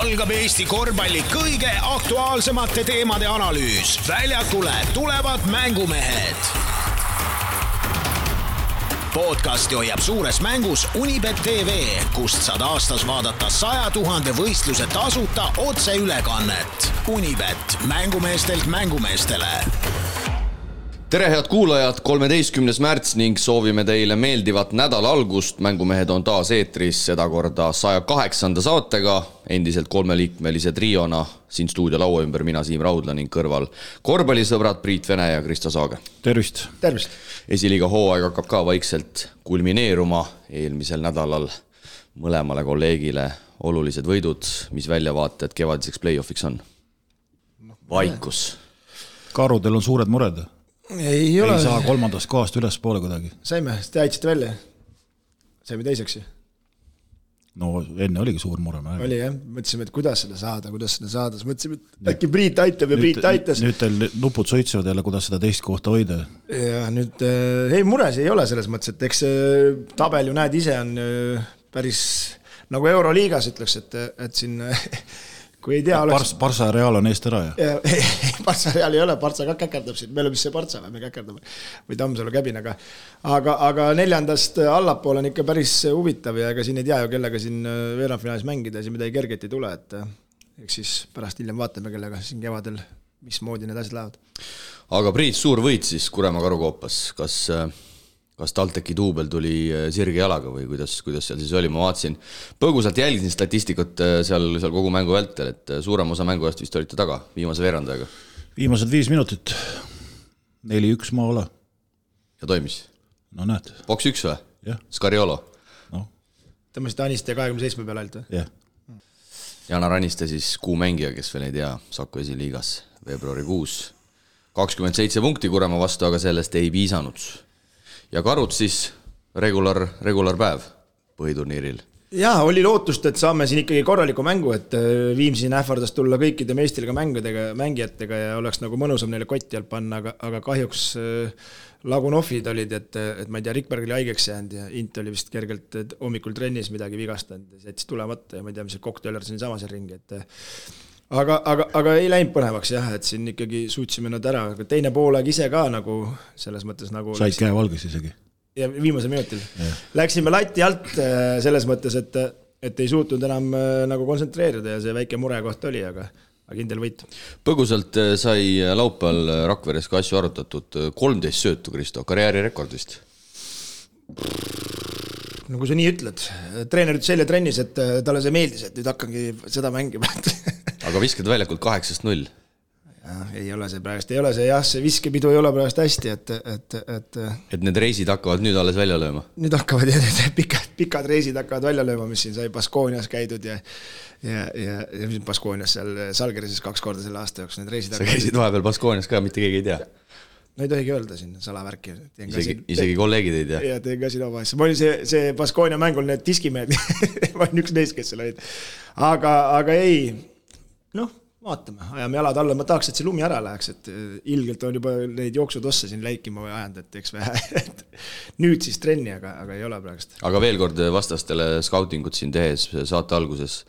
algab Eesti korvpalli kõige aktuaalsemate teemade analüüs. Väljakule tulevad mängumehed. Podcasti hoiab suures mängus Unibet TV, kust saad aastas vaadata 100 000 võistluse tasuta otseülekannet. Unibet, mängumeestelt mängumeestele. Tere head kuulajad, 13. märts ning soovime teile meeldivat nädala algust. Mängumehed on taas eetris, seda korda 108. saatega, endiselt 3-liikmelise triona. Siin stuudio laua ümber mina Siim Raudla ning kõrval korvpallisõbrad Priit Vene ja Kristo Saage. Tervist! Tervist! Esiliiga hooaeg hakkab ka vaikselt kulmineeruma. Eelmisel nädalal mõlemale kolleegile olulised võidud, mis väljavaated kevadiseks play-offiks on. Vaikus. Karudel on suured mured. Ei saa kolmandast kohast üles poole kuidagi. Saime, te aitsite välja. Saime teiseks. No enne oligi suur mure. Oli jah, mõtlesime, et kuidas seda saada. Siis mõtlesime, et äkki Priit aitab ja Priit aitas. Nüüd teil nupud soitsevad jälle, kuidas seda teist kohta hoida. Ja nüüd, mures ei ole selles mõttes, et eks tabel ju näed ise on päris nagu Euroliigas ütleks, et siin kui ei tea oleks... Barca Real on eest ära, ja? Barca Real ei ole, Barca ka käkerdab siin. Me oleme see Barca, me käkerdame. Või Tammsalu käbinaga. Aga 4. allapool on ikka päris huvitav ja ega siin ei tea ju, kellega siin veerandfinaalis mängida ja siin midagi kerget ei tule. Eks siis pärast hiljem vaatame, kellega siin kevadel, mismoodi need asjad lähevad. Aga Priit, suur võit siis Kuremaa Karukoopas. Kas TalTechi duubel tuli sirge jalaga või kuidas seal siis oli? Ma vaatasin, põgusalt jälgisin statistikut seal kogu mängu vältel, et suurem osa mängu eest vist olite taga viimase veerandajaga. Viimased 5 minutit. 4-1 maala. Ja toimis? No näed. Boks 1 või? Jah. Scariolo? No. Tõmmasid Aniste 27 peale alt või? Jah. Janar Aniste siis kuumängija, kes veel ei tea, Saku esiliigas veebruarikuus. 27 punkti Kuremaa vastu, aga sellest ei piisanud. Ja Karud siis regular päev põhiturniiril. Jaa, oli lootust, et saame siin ikkagi korraliku mängu, et Viimsin ähvardas tulla kõikide meestilga mängijatega ja oleks nagu mõnusam neile kotti alt panna, aga kahjuks Lagunoffid olid, et ma ei tea, Rikberg oli haigeks jäänud ja Int oli vist kergelt hommikul trennis midagi vigastanud ja jättis tulemata ja ma ei tea, mis see kokteeler siin sama seal ringi, Aga ei läinud põnevaks jah, et siin ikkagi suutsime nad ära, aga teine poolaeg ise ka nagu selles mõttes nagu... Said käe valges isegi. Ja viimasel minutil. Läksime lati alt selles mõttes, et ei suutnud enam nagu kontsentreerida ja see väike mure koht oli, aga kindel võit. Põgusalt sai laupäeval Rakveres ka asju arutatud 13 söötu, Kristo, karjäärirekord vist. No kui sa nii ütled, treener ütles selle trennis, et talle see meeldis, et nüüd hakkangi seda mängima. Aga viskad väljakult 8-0. Ja, ei ole see praegust, ei ole see jah, see viskepidu ei ole praegust hästi, et need reisid hakkavad nüüd alles välja lööma. Nüüd hakkavad ja pikad reisid hakkavad välja lööma, mis siin sai Baskoonias käidud ja Baskoonias seal Salgerises 2 korda selle aasta jooksul need reisid. Sa käisid vahepeal Baskoonias ka, mitte keegi ei tea. No ei tohigi öelda siin salavärki. Isegi kolleegid ei tea. Ja teen ka siin oma asja. Ma olin see Baskoonia mängul need diskimehed. Ma olin üks neist, kes seal olid. Aga ei, vaatame, ajame jalad alla. Ma tahaks, et see lumi ära läheks, et ilgelt on juba neid jooksutosse siin läikima või ajanud, et eks vähe. Nüüd siis trenni, aga ei ole praegust. Aga veel kord vastastele skautingut siin tehes saate alguses.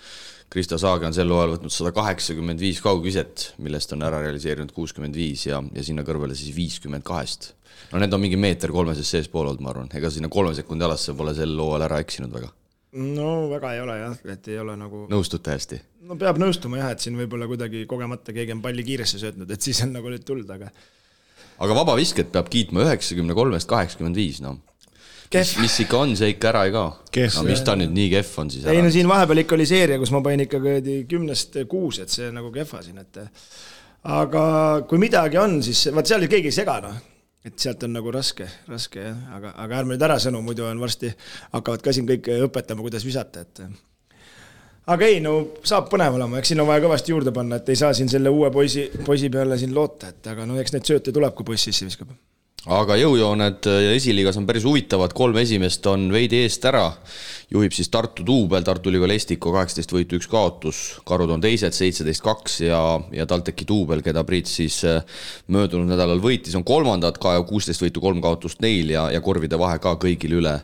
Kristo Saage on sel loal võtnud 185 kaugviset, millest on ära realiseerinud 65 ja sinna kõrvale siis 52. No need on mingi meeter 3 sees pool olnud, ma arvan. Ega sinna 3 sekundi alasse pole sel loal ära eksinud väga. No väga ei ole jah, et ei ole nagu... Nõustute hästi? No peab nõustuma jah, et siin võib-olla kuidagi kogemata keegi on palli kiiresse söötnud, et siis on nagu nüüd tuld, aga... Aga vaba visket peab kiitma 93-85, no. Mis ikka on, see ikka ära ei kao. No mis ta nüüd nii kehv on siis ära? Ei, no siin vahepeal ikka oli seeria, kus ma pain ikka 10-6, et see nagu kehva siin, et... Aga kui midagi on, siis... Vaat seal keegi ei sega, no. Et sealt on nagu raske jah. Aga ärme nüüd ära sõnu, muidu on varsti hakkavad ka siin kõik õpetama, kuidas visata, et... Aga ei, no saab põnev olema, eks siin on vaja kõvasti juurde panna, et ei saa siin selle uue poisi peale siin loota, et aga no eks need sööte tuleb, kui poiss sisse viskab. aga jõujooned ja esiliigas on päris huvitavad, 3 esimest on veidi eest ära, juhib siis Tartu duubel, Tartu Ülikool Estiko 18 võitu 1 kaotus, Karud on teised 17-2 ja TalTechi duubel, keda Priit siis möödunud nädalal võitis, on kolmandad, ka 16 võitu 3 kaotust neil ja korvide vahe ka kõigil üle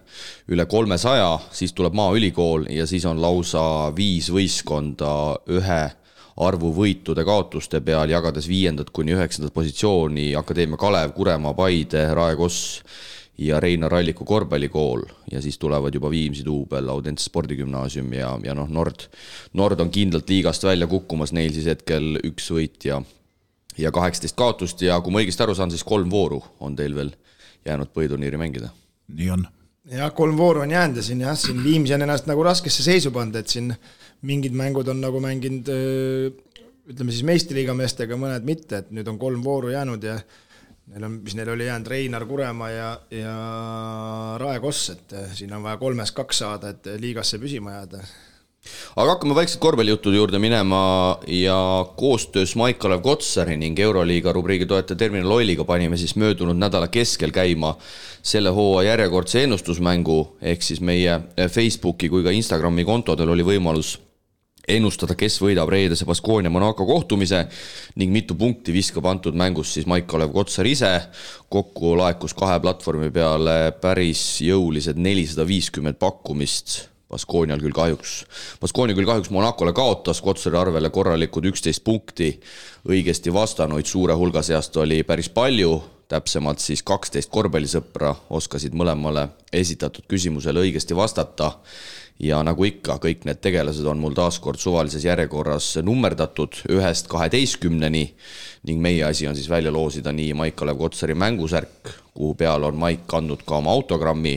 300, siis tuleb Maaülikool ja siis on lausa 5 võistkonda ühe arvu võitude kaotuste peal, jagades 5. kuni 9. positsiooni Akadeemia Kalev, Kuremaa, Paide, Rae Koss ja Reinar Alliku korvpallikool ja siis tulevad juba Viimsi duubel, Audentse spordigümnaasium ja Nord on kindlalt liigast välja kukkumas, neil siis hetkel 1 võit ja 18 kaotust ja kui ma õigesti aru saan, siis 3 vooru on teil veel jäänud põhiturniiri mängida. Nii on. Ja 3 vooru on jäänud ja siin Viimsi on ennast nagu raskesse seisu pand, et siin mingid mängud on nagu mänginud, ütleme siis meistriliiga meestega, mõned mitte, et nüüd on 3 vooru jäänud ja neil oli jäänud Reinar, Kuremaa ja Rae Koss, et siin on vaja 3-2 saada, et liigasse püsima jääda. Aga hakkame vaikselt korvpallijuttude juurde minema ja koostöös Maik-Kalev Kotsari ning Euroliiga rubriigi toetaja Terminal Oiliga panime siis möödunud nädala keskel käima selle hooaja järjekordse ennustusmängu, ehk siis meie Facebooki kui ka Instagrami kontodel oli võimalus ennustada, kes võidab reedese Baskonia Monaco kohtumise ning mitu punkti viskab antud mängus siis Maik-Kalev Kotsar ise. Kokku laekus 2 platvormi peale päris jõulised 450 pakkumist. Baskonia küll kahjuks Monacole kaotas, Kotsari arvele korralikud 11 punkti, õigesti vastanuid suure hulga seast oli päris palju, täpsemalt siis 12 korvpallisõpra oskasid mõlemale esitatud küsimusele õigesti vastata ja nagu ikka, kõik need tegelased on mul taaskord suvalises järjekorras nummerdatud 1-12-ni ning meie asi on siis välja loosida nii Maik-Kalev Kotsari mängusärk, kuhu peal on Maik kandnud ka oma autogrammi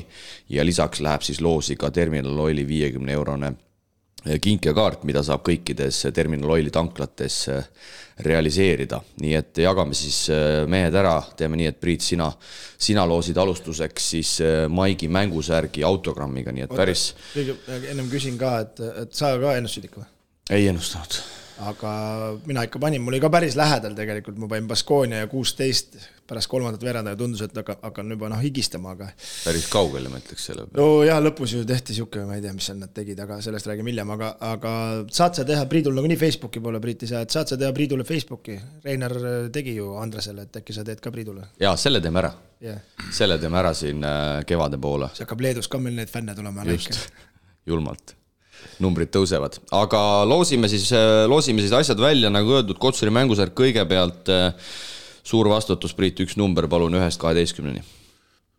ja lisaks läheb siis loosi ka Terminal Oili 50-eurone kinkekaart, mida saab kõikides Terminal Oili tanklates realiseerida. Nii et jagame siis mehed ära, teeme nii, et Priit, sina loosid alustuseks siis Maigi mängusärgi autogrammiga, nii et päris... Ennem küsin ka, et sa ka ennustasid ikka või? Ei ennustanud. Aga mina ikka panin, mul oli ka päris lähedal tegelikult, ma panin Baskonia ja 16 pärast 3. veeranda ja tundus, et hakkan juba higistama, aga... Päris kaugele, ma ütleks selle peale. No jah, lõpus ju tehti siuke, ma ei tea, mis seal nad tegid, aga sellest räägime hiljem, aga saad sa teha Priidul nagu nii Facebooki poole, Priit ei saa, et saad sa teha Priidule Facebooki. Reinar tegi ju Andresele, et äkki sa teed ka Priidule. Jaa, selle teeme ära. Yeah. Selle teeme ära siin kevade poole. See hakkab Leedus ka meil need fänne tulema. Just, julmalt. Numbrid tõusevad, aga loosime siis asjad välja, nagu öeldud, Kotsari mängusärk kõigepealt suur vastutus, Priit, 1 number, palun 1-12-ni.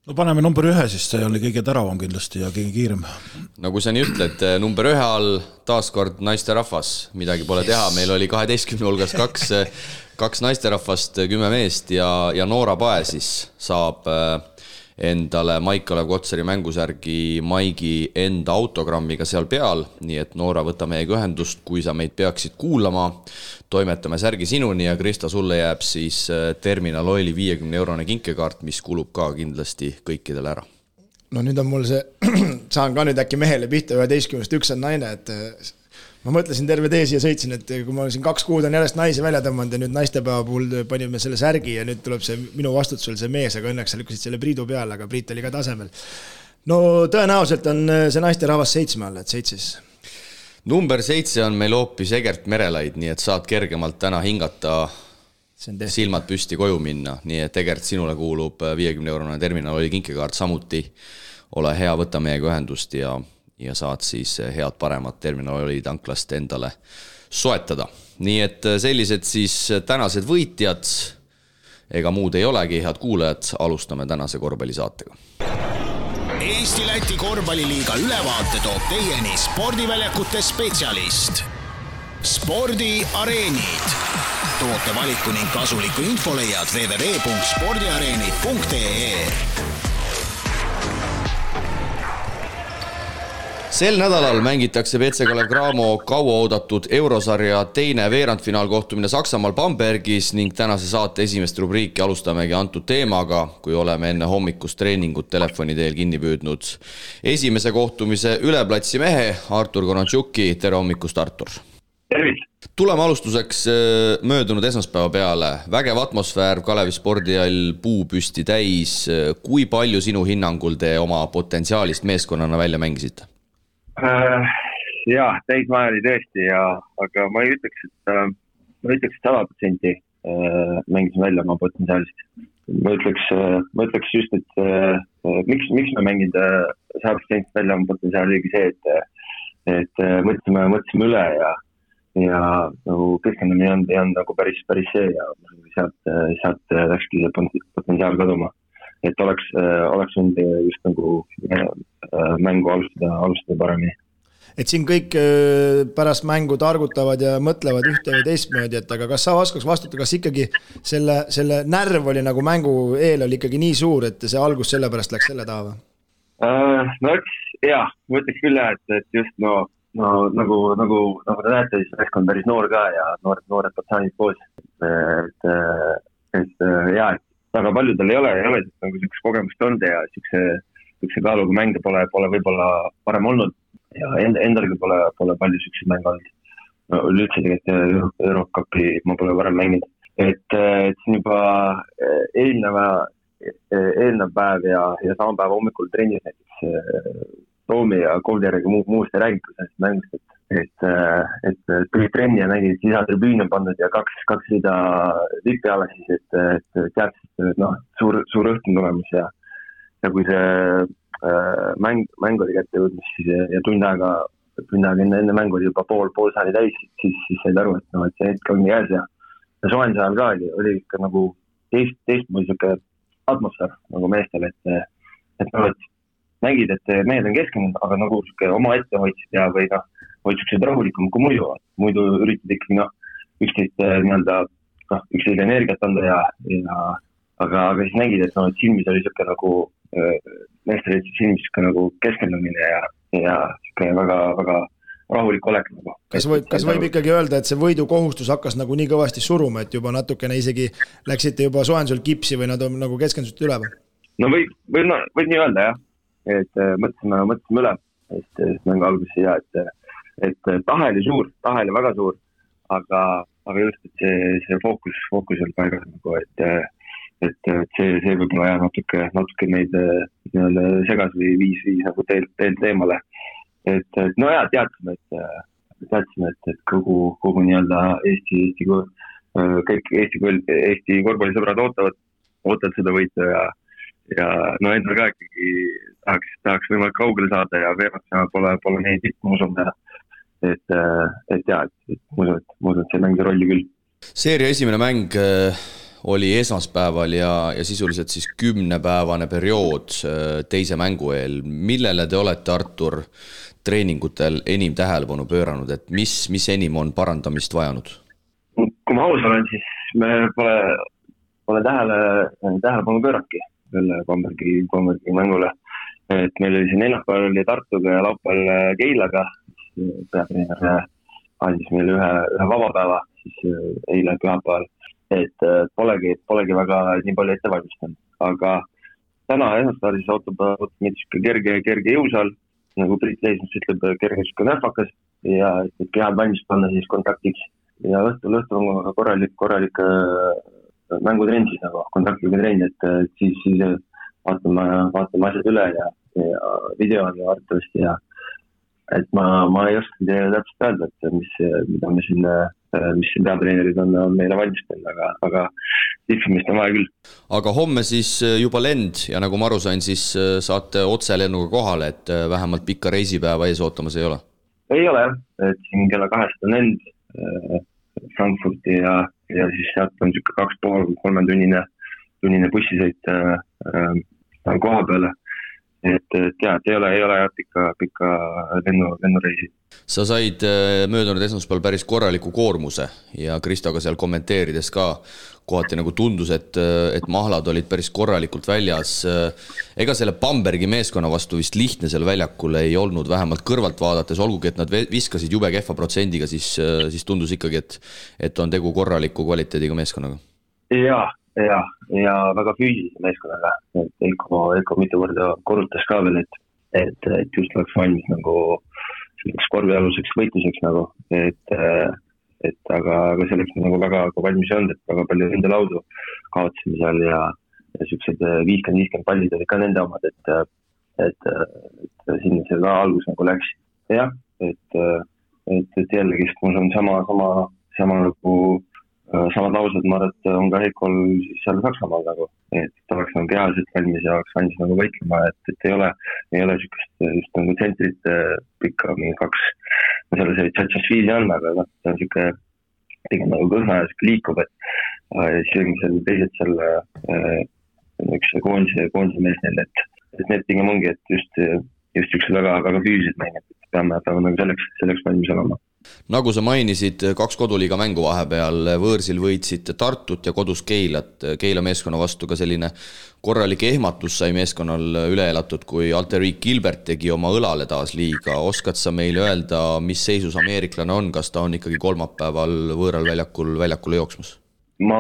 No paneme number 1, siis see oli kõige teravam kindlasti ja kõige kiirem. Nagu sa nii ütled, number 1 all taaskord naisterahvas, midagi pole teha, meil oli 12 hulgas 2 naisterahvast, 10 meest ja Noora Pae siis saab endale Maik-Kalev Kotsari mängusärgi Maigi enda autogrammiga seal peal, nii et Noora, võta meiega ühendust, kui sa meid peaksid kuulama, toimetame särgi sinuni ja Krista, sulle jääb siis Terminal Oili 50-eurone kinkekaart, mis kulub ka kindlasti kõikidele ära. No nüüd on mul see, saan ka nüüd äkki mehele pihta 11-st, 1 on naine, et ma mõtlesin terve tee siia sõitsin, et kui ma siin 2 kuud on järjest naisi välja tõmmanud ja nüüd naistepäeva puhul panime selle särgi ja nüüd tuleb see minu vastutusel see mees, aga õnneks sa lükkasid selle Priidu peale, aga Priit oli ka tasemel. No tõenäoliselt on see naisterahvas 7 all, et 7. Number 7 on meil hoopis Egert Merelaid, nii et saad kergemalt täna hingata, silmad püsti koju minna, nii et Egert, sinule kuulub 50-eurone Terminal Oili kinkekaart samuti. Ole hea, võta meiega ühendust ja saad siis head paremat Terminal Oili tanklast endale soetada. Nii et sellised siis tänased võitjad, ega muud ei olegi, head kuulajad, alustame tänase korvpallisaatega. Eesti-Läti korvpalliliiga ülevaate toob teieni spordiväljakute spetsialist. Spordiareenid. Toote valiku ning kasuliku info leiad www.spordiareenid.ee. Sel nädalal mängitakse BC Kalev Cramo kauaoodatud eurosarja teine veerandfinaal kohtumine Saksamaal Bambergis ning tänase saate esimest rubriiki alustamegi antud teemaga, kui oleme enne hommikust treeningut telefoni teel kinni püüdnud esimese kohtumise üleplatsi mehe Artur Konatšuki. Tere hommikust, Artur! Tuleme alustuseks möödunud esmaspäeva peale. Vägev atmosfäär, Kalevi spordihall puupüsti täis. Kui palju sinu hinnangul te oma potentsiaalist meeskonnana välja mängisite? Jah, täismaja oli tõesti, aga ma ei ütleks, et 100% mängisin välja oma potentsiaalist. Ma ütleks just, et miks me mängid 100% välja oma potentsiaali oligi see, et mõtlesime üle ja nagu keskendamine ei olnud nagu päris see ja sealt läkski see potentsiaal kaduma. Et oleks võinud just nagu mängu alustada paremini. Et siin kõik pärast mängu targutavad ja mõtlevad ühte või teistmoodi, et aga kas sa oskaks vastuta, kas ikkagi selle närv oli nagu mängu eel oli ikkagi nii suur, et see algus selle pärast läks selle taha või? No jah, mõtleks küll et just nagu te näete, siis meeskond päris noor ka ja noored patsaanid koos. Et väga paljudel ei ole nagu selleks kogemust olnud ja sellise kaaluga mänge pole võib-olla parem olnud ja endalgi pole palju selliseid mänge olnud. No, üldse tegelikult Eurocupi ma pole varem mänginud. Et siin juba eelnev päev ja sama päev hommikul trennis näiteks Toomi ja Kovlerega muust ei räägitud sellest mängust, et tuli trenni ja nägid, et lisatribüün on pandud ja kaks rida vipi alla siis, et teadsid, suur õhtun tulemus ja kui see mäng oli kätte jõudnud siis ja tund aega enne mängu oli juba pool saali täis, siis said aru, et see hetk ongi käes ja soojenduse ajal ka oli ikka nagu teistmoodi siuke atmosfäär nagu meestel, et nägid, et mehed on keskendunud, aga nagu oma ette hoidsid ja või hoidsid rahulikum kui muidu üritad ikkagi üksteist energiat anda aga siis nägid, et silmis oli siuke nagu meestel silmis siuke nagu keskendumine ja siuke väga, väga rahulik olek nagu. Kas võib ikkagi öelda, et see võidukohustus hakkas nagu nii kõvasti suruma, et juba natukene isegi läksite juba soojendusel kipsi või nad on nagu keskendusite üle või? No võib nii öelda jah. Et mõtlesime üle, et mängu alguses ja et tahe oli väga suur, aga just, et see fookus oli paigas nagu, et see võib-olla jah natuke meid segas või viis nagu teelt eemale. Et no ja teadsime, et kogu nii-öelda kõik Eesti korvpallisõbrad ootavad seda võitu ja endal ka ikkagi tahaks võimalik kaugele saada ja veeraks pole neid tippu usumda. Et ma usun, et see mängis rolli küll. Seeria esimene mäng oli esmaspäeval ja sisuliselt siis 10-päevane periood teise mängu eel. Millele te olete, Artur, treeningutel enim tähelepanu pööranud, et mis enim on parandamist vajanud? Kui ma aus olen, siis me pole tähelepanu pööranudki selle Bambergi mängule. Et meil oli siin neljapäeval oli Tartuga ja laupäeval Keilaga, siis peatreener andis meile ühe vabapäeva, siis eile pühapäeval. Et polegi väga nii palju ette valmistanud. Aga täna esmaspäeval siis ootab meid kerge jõusaal, nagu Priit Leismus ütleb, kerge nähvakas ja et kehad valmis panna siis kontaktiks. Ja õhtul on korralik mängutrenn siis nagu kontaktiga trenn, et siis vaatame asjad üle ja video on arvatavasti ja et ma ei oska täpselt öelda, et mis siin peatreenerid on meile valmistanud, aga tippimist on vaja küll. Aga homme siis juba lend ja nagu ma aru sain, siis saate otselennuga kohale, et vähemalt pikka reisipäeva ees ootamas ei ole? Ei ole jah, et siin kella 2 on lend Frankfurti ja siis sealt on 2,5-3 tunnine bussisõit koha peale. Et ei ole pikka lennureisi. Sa said möödunud esmaspäeval päris korraliku koormuse ja Kristoga seal kommenteerides ka kohati nagu tundus, et mahlad olid päris korralikult väljas. Ega selle Bambergi meeskonna vastu vist lihtne seal väljakul ei olnud, vähemalt kõrvalt vaadates, olgugi et nad viskasid jube kehva protsendiga, siis tundus ikkagi, et on tegu korraliku kvaliteediga meeskonnaga. Ja väga füüsilise meeskonnaga, et Eiko mitu korda korrutas ka veel, et just oleks valmis nagu selleks korvialuseks võitluseks nagu, et aga selleks me nagu väga valmis ei olnud, et väga palju nende laudu kaotasime seal ja siuksed 50-50 pallid olid ka nende omad, et sinna see ka algus nagu läks. Jah, et jällegi, mul on sama nagu samad laused, ma arvan, et on ka Heikol seal Saksamaal nagu, et ta oleks nagu kehaliselt valmis ja oleks valmis nagu võitlema, et ei ole just nagu tsentrit pikka, mingi 2, selle see Tšatšasviili on, aga ta on siuke pigem nagu kõhna ja siuke liikub, et siis seal teised seal üks koondise mees neil, et need pigem ongi, et just siuksed väga füüsilised mängid, et peame nagu selleks valmis olema. Nagu sa mainisid, 2 koduliiga mängu vahepeal, võõrsil võitsid Tartut ja kodus Keilat. Keila meeskonna vastu ka selline korralik ehmatus sai meeskonnal üle elatud, kui Alteric Gilbert tegi oma õlale taas liiga. Oskad sa meile öelda, mis seisus ameeriklane on, kas ta on ikkagi kolmapäeval võõral väljakule jooksmas? Ma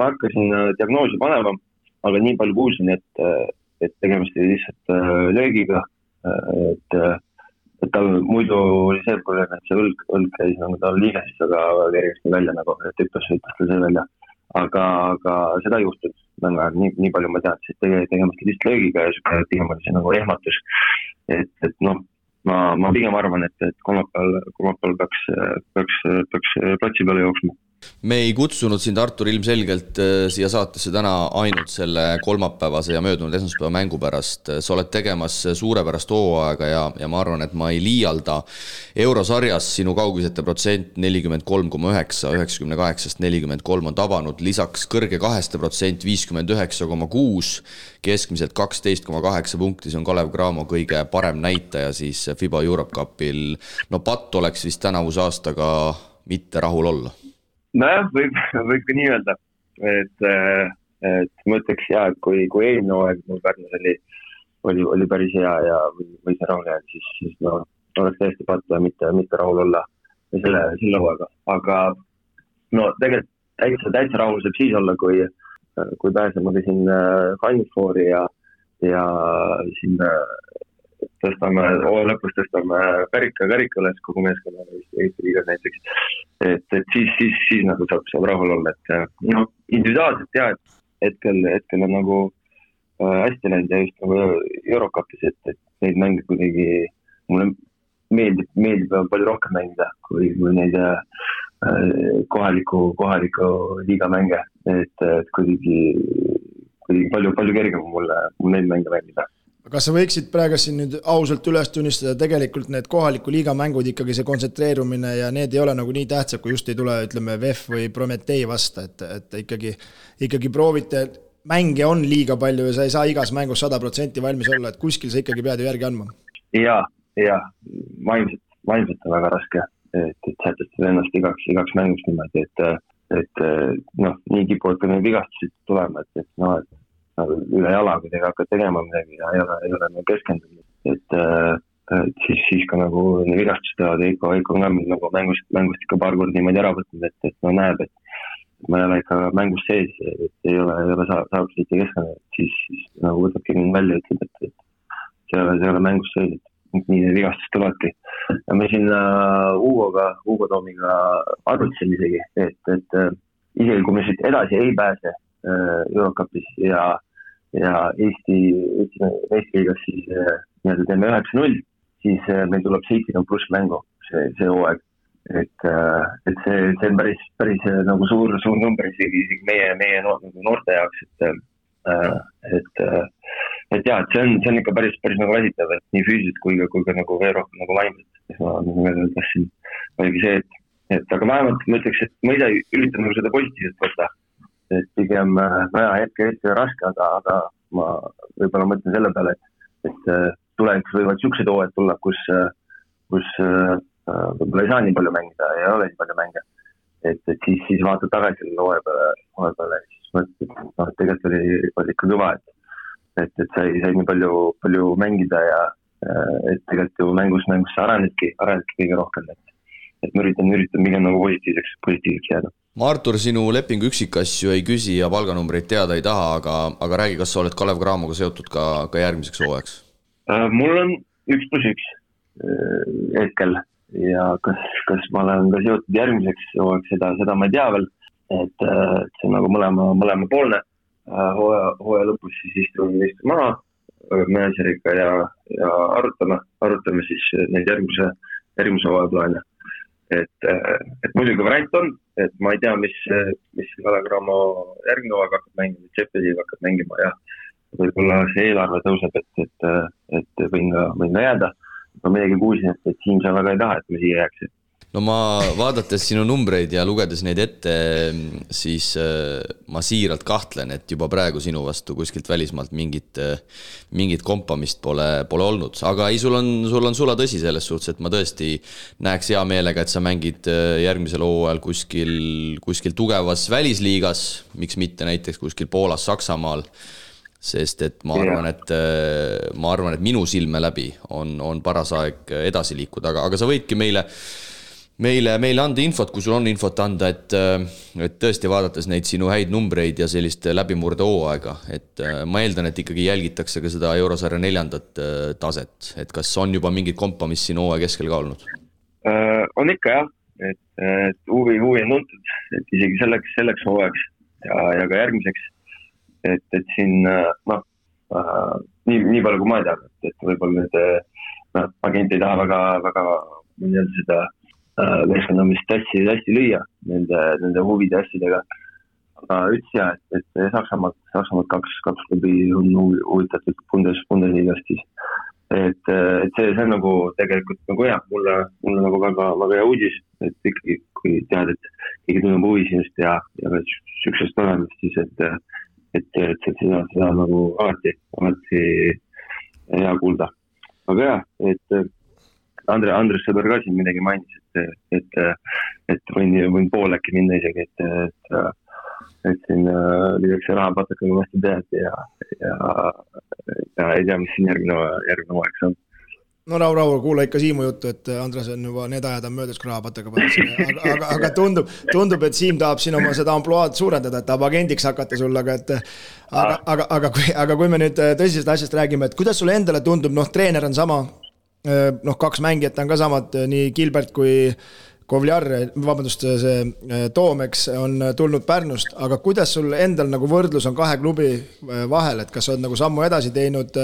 hakkasin diagnoosi panema, aga nii palju kuulsin, et tegemist oli lihtsalt löögiga, et tal muidu oli see probleem, et see õlg käis nagu tal liiges, aga kergesti välja nagu, et ütles tal see välja. Aga seda ei juhtunud väga, nii palju ma tean, et tegemist lihtsalt löögiga ja pigem oli see nagu ehmatus. Et noh, ma pigem arvan, et kolmapäeval peaks platsi peale jooksma. Me ei kutsunud sind, Artur, ilmselgelt siia saatesse täna ainult selle kolmapäevase ja möödunud esmaspäeva mängu pärast. Sa oled tegemas suurepärast hooaega ja ma arvan, et ma ei liialda. Eurosarjas sinu kaugisete protsent 43,9, 98-st 43 on tabanud, lisaks kõrge 2% 59,6, keskmiselt 12,8 punkti, see on Kalev Cramo kõige parem näitaja siis FIBA Europe Cupil. No patt oleks vist tänavuse aastaga mitte rahul olla. Nojah, võib ka nii öelda, et ma ütleks et kui eelmine hooaeg mul Pärnus oli päris hea ja või see rahul jääd, siis no, oleks täiesti pattu ja mitte rahul olla selle hooaega. Aga no tegelikult täitsa rahul saab siis olla, kui pääsema ka siin Final Fouri ja siin lõpus tõstame karika üles kogu meeskonna Eesti liigas näiteks, et siis nagu saab rahul olla, et no, individuaalselt et hetkel on nagu hästi läinud ja just nagu Eurocupis, et neid mänge kuidagi mulle meeldib palju rohkem mängida kui neid kohaliku liiga mänge, et kuidagi palju kergem mulle neid mänge mängida. Kas sa võiksid praegu siin nüüd ausalt üles tunnistada, tegelikult need kohaliku liiga mängud ikkagi see kontsentreerumine ja need ei ole nagu nii tähtsad, kui just ei tule, ütleme, VEF või Prometee vasta, et ikkagi proovite, mänge on liiga palju ja sa ei saa igas mängus 100% valmis olla, et kuskil sa ikkagi pead ju järgi andma. Ja, vaimselt on väga raske, et sätestada ennast igaks mängust niimoodi, et noh, nii kipuvad ka need vigastused tulema, et üle jala, kui tega hakkad tegema midagi ja ei ole nagu keskendunud, et siis ka nagu vigastus teevad Eiko on nagu mängust ikka paar korda niimoodi ära võtnud, et no näeb, et ma ei ole ikka mängust sees, et ei ole saab siit keskendunud, siis nagu võtabki mind välja, ütleb, et see ei ole mängust sees, et nii need vigastus tulevadki. Ja me siin Hugo Toomiga arvutasime isegi, et isegi kui me siit edasi ei pääse Eurocupis ja Eesti liigas siis teeme 9-0, siis meil tuleb 70 pluss mängu see hooaeg, et see on päris nagu suur number isegi meie noorte jaoks, et see on ikka päris nagu väsitav, et nii füüsiliselt kui ka nagu veel rohkem nagu vaimselt. Ma tahtsin oligi see, et aga vähemalt ma ütleks, et ma ise üritan nagu seda positiivselt võtta. Et pigem hetke raske, aga ma võib-olla mõtlen selle peale, et tulevikus võivad siuksed hooajad tulla, kus võib-olla ei saa nii palju mängida ja ei ole nii palju mänge. Et siis vaatad tagasi selle hooaja peale, siis mõtled, et tegelikult oli ikka kõva, et sai nii palju mängida ja et tegelikult ju mängus sa arenedki kõige rohkem, et ma üritan pigem nagu positiivseks jääda. Ma Artur, sinu lepingu üksikasju ei küsi ja palganumbreid teada ei taha, aga räägi, kas sa oled Kalev Cramoga seotud ka järgmiseks hooajaks? Mul on 1+1 hetkel, ja kas ma olen ka seotud järgmiseks hooajaks, seda ma ei tea veel, et see on nagu mõlema poolne. Hooaja lõpus siis istume maha menedžeriga ja arutame siis neid järgmise hooaja plaane. Et muidugi variant on, et ma ei tea, mis Kalev/Cramo järgmine hooaeg hakkab mängima, Tšepeliga hakkab mängima ja võib-olla see eelarve tõuseb, et võin ka jääda. Ma midagi kuulsin, et Siim sa väga ei taha, et me siia jääks. No ma vaadates sinu numbreid ja lugedes neid ette, siis ma siiralt kahtlen, et juba praegu sinu vastu kuskilt välismaalt mingit kompamist pole olnud. Aga ei, sul on sula tõsi selles suhtes, et ma tõesti näeks hea meelega, et sa mängid järgmisel hooajal kuskil tugevas välisliigas, miks mitte näiteks kuskil Poolas, Saksamaal, sest et ma arvan, et minu silme läbi on paras aeg edasi liikuda, aga sa võidki meile anda infot, kui sul on infot anda, et tõesti vaadates neid sinu häid numbreid ja sellist läbimurde hooaega, et ma eeldan, et ikkagi jälgitakse ka seda Eurosarja 4. taset, et kas on juba mingid kompamist siin hooaja keskel ka olnud? On ikka jah, et huvi on tuntud, et isegi selleks hooajaks ja ka järgmiseks, et siin nii palju kui ma ei tea, et võib-olla need agent ei taha väga seda meeskonnamist hästi lüüa nende huvide asjadega. Aga ütles et Saksamaalt kaks klubi on huvitatud Bundesliigast siis. Et see on nagu tegelikult nagu hea, mulle nagu väga hea uudis, et ikkagi kui tead, et keegi tunneb huvi sinust ja süksest olemist siis, et seda nagu alati hea kuulda. Aga jah, et Andres Sõber ka siin midagi mainis, et võin pool äkki minna isegi, et siin lüüakse rahapatakaga vastu tead ja ei tea, mis siin järgmine hooaeg on. No Raul, kuula ikka Siimu juttu, et Andres on juba need ajad on möödas, kui rahapataka pannud. Aga tundub, et Siim tahab siin oma seda ampluaad suurendada, et tahab agendiks hakata sul, aga kui me nüüd tõsisest asjast räägime, et kuidas sulle endale tundub, treener on sama, kaks mängijat on ka samad, nii Gilbert kui Kovliar, see Toomeks on tulnud Pärnust, aga kuidas sul endal nagu võrdlus on kahe klubi vahel, et kas on nagu sammu edasi teinud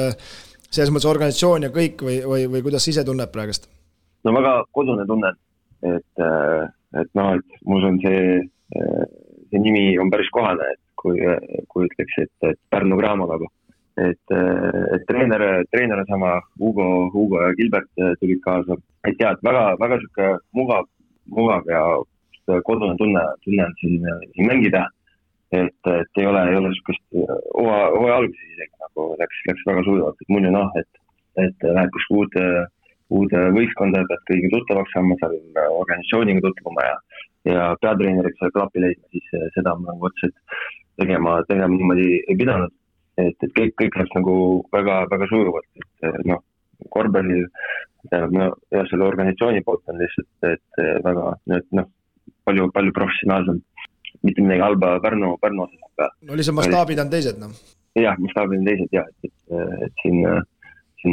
selles mõttes organisatsioon ja kõik või kuidas ise tunneb praegust? No väga kodune tunnen, et mul on see nimi on päris kohane, et kui ütleks, et Pärnu Cramo nagu. Et treener on sama, Hugo ja Gilbert tulid kaasa. Et jah, et väga siuke mugav ja kodune tunne on siin mängida. Et ei ole sukust hooaja alguses isegi nagu läks väga sujuvalt, et muidu et läheb kus uude võistkonda, pead kõigi tuttavaks saama, seal organisatsiooniga tutvuma ja peatreeneriks seal klapi leidma, siis seda ma nagu otseselt tegema niimoodi ei pidanud, et kõik läks nagu väga sujuvalt, et korvpallil ja selle organisatsiooni poolt on lihtsalt, et väga palju professionaalsem. Mitte midagi halba Pärnu osas. No lihtsalt mastaabid on teised, Jah, mastaabid on teised, jah, et siin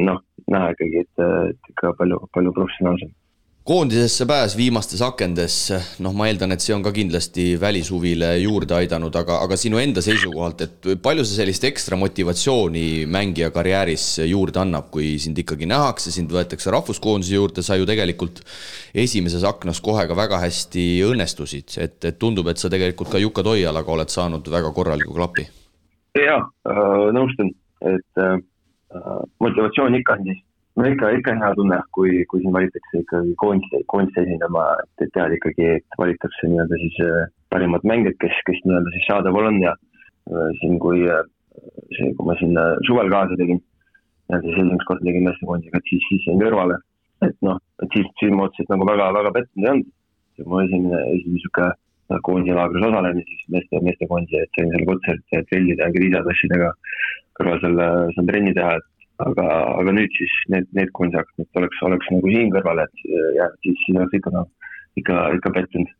näha ikkagi, et ikka palju professionaalsem. Koondisesse pääs viimastes akendes, ma eeldan, et see on ka kindlasti välishuvile juurde aidanud, aga sinu enda seisukohalt, et palju see sellist ekstra motivatsiooni mängija karjääris juurde annab, kui sind ikkagi nähakse, sind võetakse rahvuskoondise juurde, sa ju tegelikult esimeses aknas kohe ka väga hästi õnnestusid, et tundub, et sa tegelikult ka Jukka Toialaga oled saanud väga korraliku klapi. Jaa, nõustun, et motivatsioon ikka on siis. No ikka hea tunne, kui siin valitakse ikkagi koondiste esindama, et tead ikkagi, et valitakse nii-öelda siis parimad mängijad, kes nii-öelda siis saadaval on ja siin kui ma siin suvel kaasa tegin, siis esimest korda tegin meestekoondiga, et siis jäin kõrvale, et siis ma otseselt nagu väga pettunud ei olnud. Mu esimene koondiselaagris osalemin, siis meestekoondise, et sain selle kutselt trellida ja kriisatassidega kõrval seal trenni teha, aga nüüd siis need koondisakad, et oleks nagu siin kõrval, et siis oleks ikka pettunud.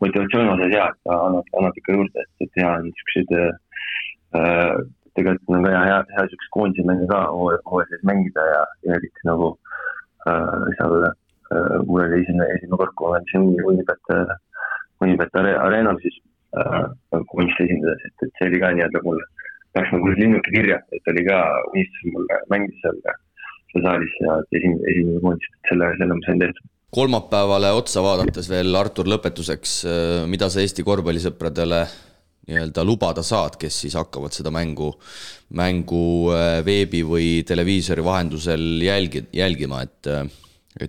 Motivatsioon osas hea, et annab ikka juurde, et hea on niisugused, tegelikult on ka hea niisugused koondise mänge ka hooajas mängida ja eriti nagu seal mul oli esimene kord, kui ma andsin Unibet Areenal, siis kunst esindades, et see oli ka nii-öelda mul läks nagu linnuke kirja, et oli ka unistus mulle mängida seal saalis ja esimene kunst, et selle ma sain tehtud. Kolmapäevale otsa vaadates veel, Artur, lõpetuseks, mida sa Eesti korvpallisõpradele nii-öelda lubada saad, kes siis hakkavad seda mängu veebi või televiisori vahendusel jälgima, et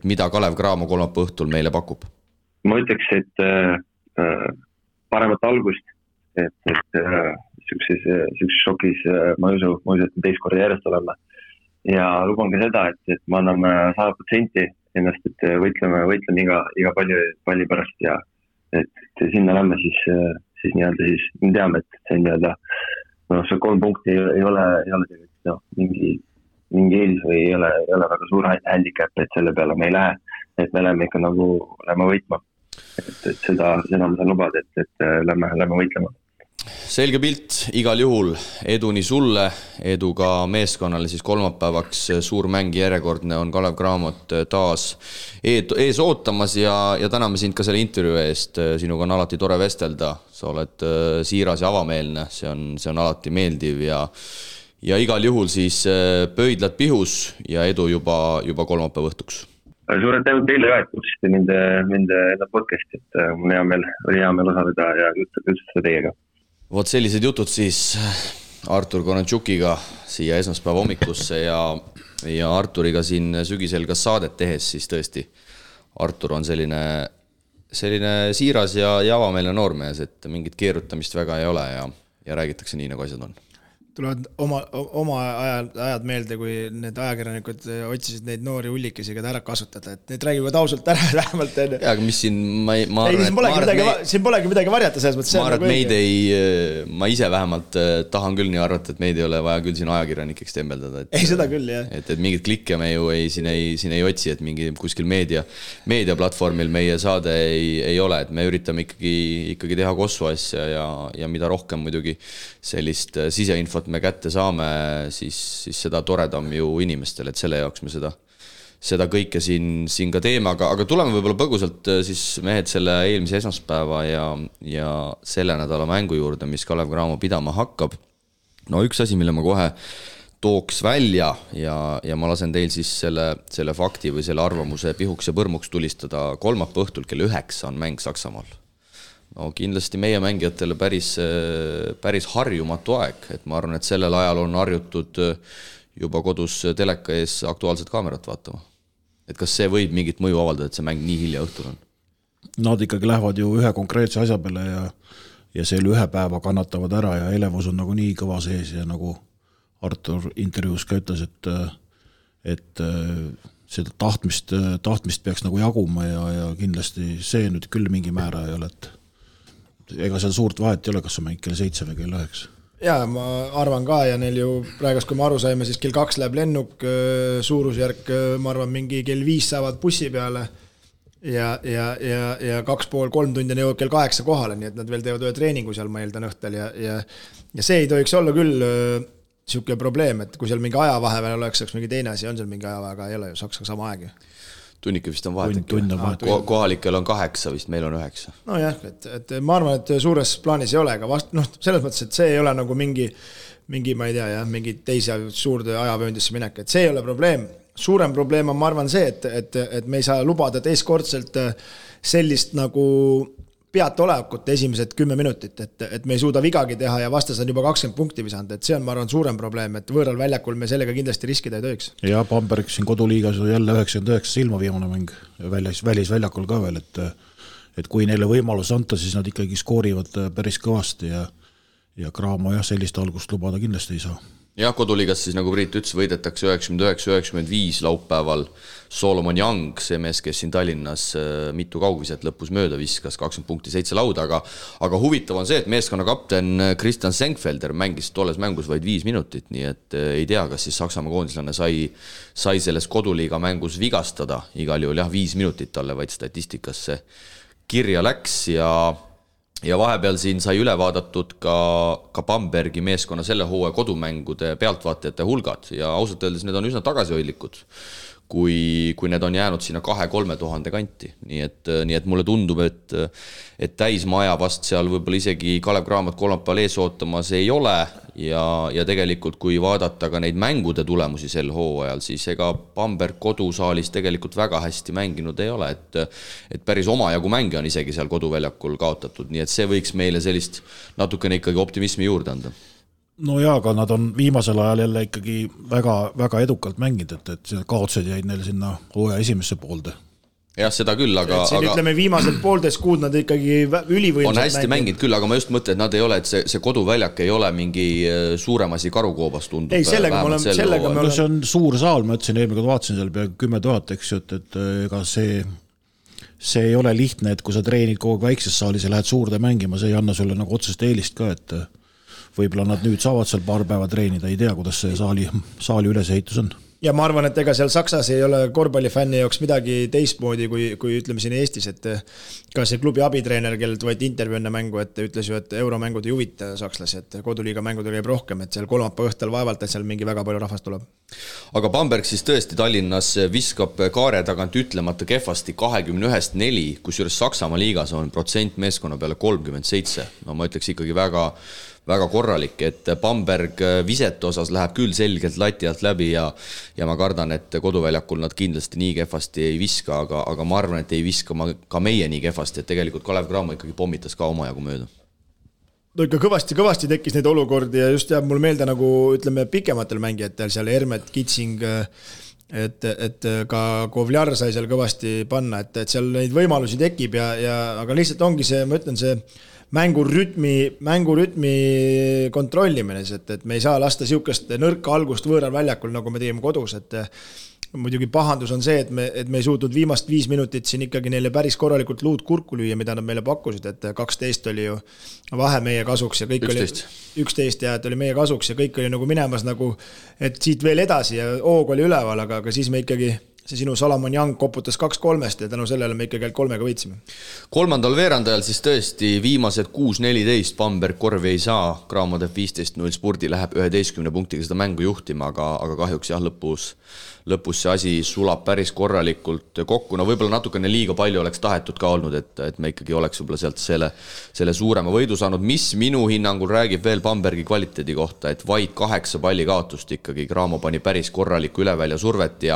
mida Kalev Cramo kolmapäeva õhtul meile pakub? Ma ütleks, et paremat algust, et sellises šokis ma ei usu, et teist korda järjest olema. Ja luban ka seda, et me anname 100% ennast, et võitleme iga palli pärast ja et sinna lämme siis nii-öelda siis me teame, et see nii-öelda see 3 punkti ei ole tegelikult mingi eelis või ei ole väga suur handicap, et selle peale me ei lähe, et me lähme ikka nagu lähme võitma. Et seda ma saan lubada, et lähme võitlema. Selge pilt, igal juhul edu nii sulle, edu ka meeskonnale siis kolmapäevaks, suur mäng järjekordne on Kalev Cramot taas ees ootamas ja täname sind ka selle intervjuu eest, sinuga on alati tore vestelda, sa oled siiras ja avameelne, see on alati meeldiv ja igal juhul siis pöidlad pihus ja edu juba kolmapäeva õhtuks. Suured tänud teile ka, et kutsusite mind podcasti, et mul oli hea meel osaleda ja juttustada teiega. Vot sellised jutud siis Artur Konanciukiga siia esmaspäeva hommikusse ja Arturiga siin sügisel ka saadet tehes, siis tõesti Artur on selline siiras ja avameelne noormees, et mingit keerutamist väga ei ole ja räägitakse nii, nagu asjad on. Tulevad oma ajad meelde, kui need ajakirjanikud otsisid neid noori hullikesi ka ära kasutada, et need räägivad ausalt ära vähemalt enne. Ja, aga mis siin, siin polegi midagi varjata selles mõttes. Ma arvan, et ma ise vähemalt tahan küll nii arvata, et meid ei ole vaja küll siin ajakirjanikeks tembeldada. Ei, seda küll, jah. Et mingid klikke me ju siin ei otsi, et mingi kuskil meediaplatvormil meie saade ei ole, et me üritame ikkagi teha kossu asja ja mida rohkem muidugi sellist siseinfot me kätte saame, siis seda toredam ju inimestele, et selle jaoks me seda kõike siin ka teeme, aga tuleme võib-olla põgusalt siis mehed selle eelmise esmaspäeva ja selle nädala mängu juurde, mis Kalev Cramo pidama hakkab. No üks asi, mille ma kohe tooks välja ja ma lasen teil siis selle fakti või selle arvamuse pihuks ja põrmuks tulistada kolmapäeva õhtul kell 9 on mäng Saksamaal. No kindlasti meie mängijatele päris harjumatu aeg, et ma arvan, et sellel ajal on harjutud juba kodus teleka ees aktuaalset kaamerat vaatama. Et kas see võib mingit mõju avaldada, et see mäng nii hilja õhtul on? Nad ikkagi lähevad ju ühe konkreetse asja peale ja selle ühe päeva kannatavad ära ja elevus on nagu nii kõva sees ja nagu Artur intervjuus ka ütles, et seda tahtmist peaks nagu jaguma ja kindlasti see nüüd küll mingi määra ei ole, et ega seal suurt vahet ei ole, kas on mäng kell 7 või kell 9. Jaa, ma arvan ka ja neil ju praegust, kui me aru saime, siis kell 2 läheb lennuk, suurusjärk, ma arvan, mingi kell 5 saavad bussi peale ja 2,5-3 tundi jõuab kell 8 kohale, nii et nad veel teevad ühe treeningu seal, ma eeldan õhtel ja see ei tohiks olla küll siuke probleem, et kui seal mingi aja vahepeal oleks mingi teine asi, on seal mingi aja, aga ei ole ju Saksaga sama aeg. Tunnike vist on vahet. Kohalikel on 8, vist meil on 9. No jah, et ma arvan, et suures plaanis ei ole, aga selles mõttes, et see ei ole nagu mingi ma ei tea, mingi teise suurde ajavööndisse minek, et see ei ole probleem. Suurem probleem on, ma arvan, see, et me ei saa lubada teistkordselt sellist nagu peatolekut esimesed 10 minutit, et me ei suuda vigagi teha ja vastas on juba 20 punkti visanud, et see on, ma arvan, suurem probleem, et võõral väljakul me sellega kindlasti riskida ei tohiks. Ja Bamberg siin koduliigas jälle 99 silma viimane mäng välisväljakul ka veel, et kui neile võimalus anta, siis nad ikkagi skoorivad päris kõvasti ja Cramo sellist algust lubada kindlasti ei saa. Jah, koduliigas siis nagu Priit ütles, võidetakse 99-95 laupäeval Solomon Young, see mees, kes siin Tallinnas mitu kaugviset lõpus mööda viskas, 20 punkti 7 lauda, aga huvitav on see, et meeskonna kapten Christian Senkfelder mängis tolles mängus vaid 5 minutit, nii et ei tea, kas siis Saksamaa koondislane sai selles koduliiga mängus vigastada, igal juhul 5 minutit talle vaid statistikasse kirja läks ja vahepeal siin sai üle vaadatud ka Bambergi meeskonna selle hooaja kodumängude pealtvaatajate hulgad ja ausalt öeldes need on üsna tagasihoidlikud. kui need on jäänud sinna 2-3 tuhande kanti. Nii et mulle tundub, et täismaja vast seal võib-olla isegi Kalev Cramo't kolmapäeval ees ootamas ei ole ja tegelikult kui vaadata ka neid mängude tulemusi sel hooajal, siis ega Bamberg kodusaalis tegelikult väga hästi mänginud ei ole, et päris omajagu mänge on isegi seal koduväljakul kaotatud, nii et see võiks meile sellist natukene ikkagi optimismi juurde anda. No jaa, aga nad on viimasel ajal jälle ikkagi väga, väga edukalt mängid, et kaotused jäid neil sinna hooaja esimesse poolde. Jah, seda küll, aga... ütleme viimased poolteist kuud nad ikkagi ülivõimsad on hästi mängid küll, aga ma just mõtlen, et nad ei ole, et see koduväljak ei ole mingi suurem asi Karukoobas tundub. Ei, sellega me oleme... See on suur saal, ma ütlesin eelmine, kui vaatasin seal peaaegu 10 000, eks ju, et ega see ei ole lihtne, et kui sa treenid kogu väikses saalis ja lähed suurde mängima, see ei anna sulle nagu otsest eelist ka, et võib-olla nad nüüd saavad seal paar päeva treenida, ei tea, kuidas see saali ülesehitus on. Ja ma arvan, et ega seal Saksas ei ole korvpallifänni jaoks midagi teistmoodi kui ütleme siin Eestis, et ka see klubi abitreener, kellelt võeti intervjuu enne mängu, et ütles ju, et euromängud ei huvita sakslasi, et koduliiga mängudel käib rohkem, et seal kolmapäeva õhtul vaevalt, et seal mingi väga palju rahvast tuleb. Aga Bamberg siis tõesti Tallinnas viskab kaare tagant ütlemata kehvasti 21-4, kusjuures Saksamaa liigas on protsent meeskonna peale 37. No ma ütleks ikkagi väga korralik, et Bamberg visete osas läheb küll selgelt lati alt läbi ja ma kardan, et koduväljakul nad kindlasti nii kehvasti ei viska, aga ma arvan, et ei viska ka meie nii kehvasti, et tegelikult Kalev Cramo ikkagi pommitas ka omajagu mööda. No ikka kõvasti tekkis neid olukordi ja just jääb mul meelde nagu ütleme pikematel mängijatel seal Hermet, Kitsing, et ka Kovljar sai seal kõvasti panna, et seal neid võimalusi tekib aga lihtsalt ongi see, ma ütlen, see mängurütmi kontrollimine, et me ei saa lasta siukest nõrka algust võõral väljakul, nagu me tegime kodus, et muidugi pahandus on see, et me ei suutnud viimast 5 minutit siin ikkagi neile päris korralikult luud kurku lüüa, mida nad meile pakkusid, et 12 oli ju vahe meie kasuks ja kõik 11. oli 11 ja et oli meie kasuks ja kõik oli nagu minemas nagu, et siit veel edasi ja hoog oli üleval, aga siis me ikkagi see sinu Salamon Young koputas 2-3 ja tänu sellele me ikkagi 3 võitsime. Kolmandal veerandajal siis tõesti viimased 6-14 Bamberg korvi ei saa, Cramo teeb 15-0 spurdi, läheb 11 punktiga seda mängu juhtima, aga kahjuks jah, lõpus see asi sulab päris korralikult kokku. No võib-olla natukene liiga palju oleks tahetud ka olnud, et me ikkagi oleks võib-olla sealt selle suurema võidu saanud, mis minu hinnangul räägib veel Bambergi kvaliteedi kohta, et vaid 8 palli kaotust ikkagi Cramo pani päris korralikku ülevälja survet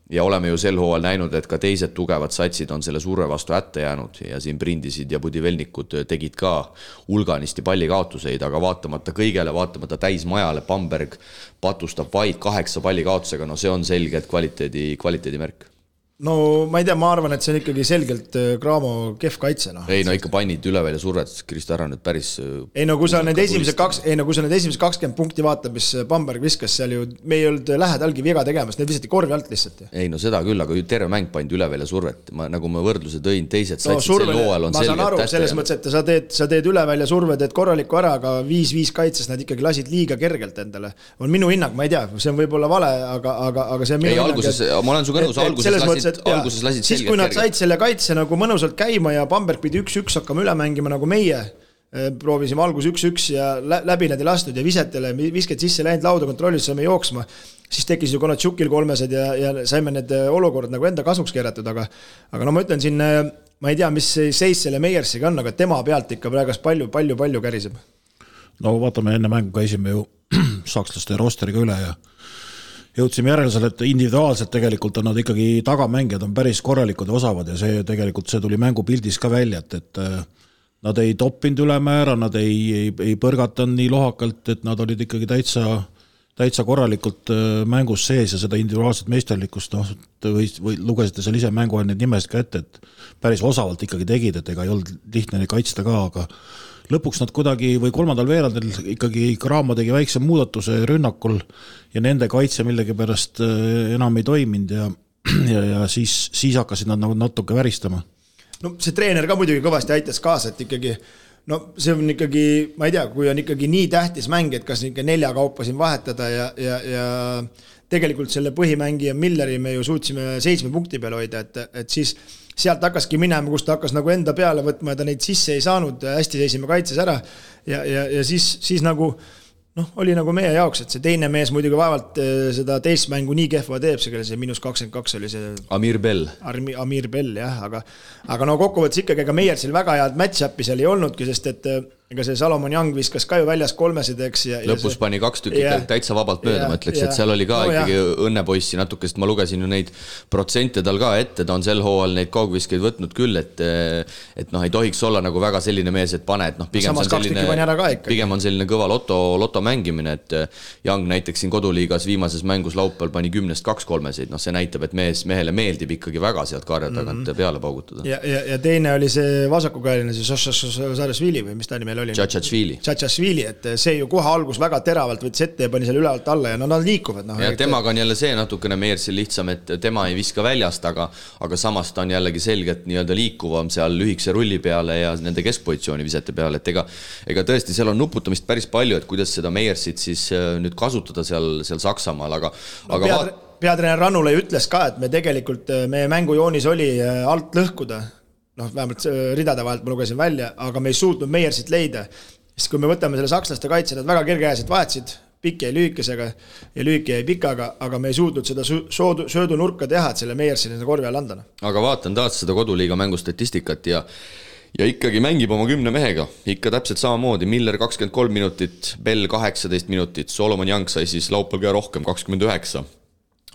ja oleme ju sel hooajal näinud, et ka teised tugevad satsid on selle surve vastu hätta jäänud ja siin Brindisid ja Budivelnikud tegid ka hulganisti pallikaotuseid, aga vaatamata kõigele, vaatamata täismajale Bamberg patustab vaid 8 pallikaotusega, no see on selgelt kvaliteedi märk. No ma ei tea, ma arvan, et see on ikkagi selgelt Cramo kehv kaitse. No. Ei, no ikka pannid üle välja survet, Kristo ära nüüd päris... Ei, no kui sa need esimesed 20 punkti vaatab, mis Bamberg viskas seal ju, me ei olnud lähedalgi viga tegemas, need visati korvi alt lihtsalt. Ei, no seda küll, aga terve mäng pandi üle välja survet. Nagu ma võrdluse tõin, teised satsid sel hooajal on selgelt tähte. Ma saan aru, selles mõttes, et sa teed üle välja surve, teed korralikku ära, aga 5-5 kaitses nad ikkagi lasid liiga kergelt endale. On minu hinnang, ma ei tea, see on võib-olla vale, aga see on minu hinnang. Ma olen su kõnus, alguses lasid siis kui nad said selle kaitse nagu mõnusalt käima ja Bamberg pidi 1-1 hakkama üle mängima nagu meie proovisime algus 1-1 ja läbi nad ei lastud ja visked sisse läinud lauda kontrollis saime jooksma, siis tekkis ju Konatšukil 3 ja saime need olukorrad nagu enda kasuks keeratud, aga no ma ütlen siin, ma ei tea, mis seis selle Meiersiga on, aga tema pealt ikka praegas palju käriseb. No vaatame, enne mängu käisime ju sakslaste rosteriga üle ja jõudsime järeldusele, et individuaalselt tegelikult on nad ikkagi tagamängijad on päris korralikud ja osavad ja see tegelikult see tuli mängupildis ka välja, et nad ei toppinud ülemäära, nad ei põrgatanud nii lohakalt, et nad olid ikkagi täitsa korralikult mängus sees ja seda individuaalset meisterlikkust või lugesite seal ise mängu need nimesid ka ette, et päris osavalt ikkagi tegid, et ega ei olnud lihtne neid kaitsta ka, aga lõpuks nad kuidagi või kolmandal veerandil ikkagi Cramo tegi väikse muudatuse rünnakul ja nende kaitse millegi pärast enam ei toiminud ja siis hakkasid nad nagu natuke väristama. No see treener ka muidugi kõvasti aitas kaasa, et ikkagi, no see on ikkagi, ma ei tea, kui on ikkagi nii tähtis mäng, et kas ikka 4 kaupa siin vahetada ja tegelikult selle põhimängija Milleri me ju suutsime 7 punkti peale hoida, et siis sealt hakkaski minema, kus ta hakkas nagu enda peale võtma ja ta neid sisse ei saanud, hästi seisime kaitses ära ja siis nagu oli nagu meie jaoks, et see teine mees muidugi vaevalt seda teist mängu nii kehva teeb, see -22 oli see Amir Bell, jah, aga no kokkuvõttes ikkagi ega Meiersil väga head match-up'i seal ei olnudki, sest et ega see Salomon Young viskas ka ju väljas 3-sid, eks. Lõpus pani 2 tükki täitsa vabalt mööda, ma ütleks, et seal oli ka ikkagi õnnepoissi natuke, sest ma lugesin ju neid protsente tal ka ette, ta on sel hooajal neid kaugviskeid võtnud küll, et ei tohiks olla nagu väga selline mees, et pane, et pigem on selline kõva loto mängimine, et Young näiteks siin koduliigas viimases mängus laupäeval pani 10-st 2 3-sid, see näitab, et mehele meeldib ikkagi väga sealt karja tagant peale paugutada. Ja teine oli see vasakukäeline, see Šašašvili või mis ta nimi oli? Tšatšašvili, et see ju kohe algus väga teravalt võttis ette ja pani selle ülevalt alla ja nad liikuvad. Ja temaga on jälle see natukene Meiersil lihtsam, et tema ei viska väljast, aga samas ta on jällegi selgelt nii-öelda liikuvam seal lühikese rulli peale ja nende keskpositsiooni visete peale, et ega tõesti seal on nuputamist päris palju, et kuidas seda Meiersit siis nüüd kasutada seal Saksamaal, aga peatreener Rannula ütles ka, et me tegelikult, meie mängujoonis oli alt lõhkuda, vähemalt ridade vahelt ma lugesin välja, aga me ei suutnud Meiersit leida. Sest kui me võtame selle sakslaste kaitse, nad väga kergekäiselt vahetasid, pikk jäi lühikesega ja lühike jäi pikaga, aga me ei suutnud seda söödunurka teha, et selle Meiersi korvi all anda. Aga vaatan taas seda koduliiga mängustatistikat ja ikkagi mängib oma 10 mehega, ikka täpselt samamoodi, Miller 23 minutit, Bell 18 minutit, Solomon Young sai siis laupäeval ka rohkem 29,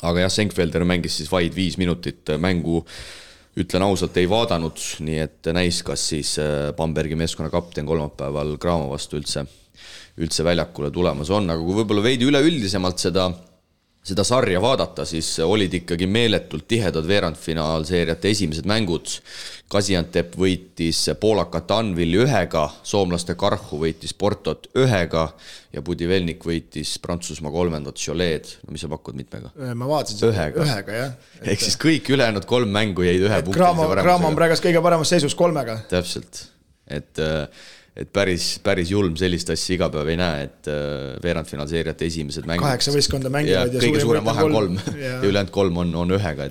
aga jah, Senkfelder mängis siis vaid 5 minutit mängu, ütlen ausalt, ei vaadanud, nii et näis, kas siis Bambergi meeskonna kapten kolmapäeval Graamo vastu üldse väljakule tulemas on, aga kui võib-olla veidi üleüldisemalt seda sarja vaadata, siis olid ikkagi meeletult tihedad veerandfinaalseeriate esimesed mängud. Gaziantep võitis poolakat Anvilli 1, soomlaste Karhu võitis Portot 1 ja Budivelnik võitis Prantsusmaa 3. Cholet. No mis sa pakud mitmega? Ma vaatasin ühega, jah. Ehk siis kõik ülejäänud 3 mängu jäid 1 punkti. Graamo on praegast kõige paremas seisus 3. Täpselt, et päris julm sellist asja iga päev ei näe, et veerandfinaalseeriate esimesed mängud 8 võistkonda mängivad ja kõige suurem vahe on 3 ja ülejäänud 3 on 1,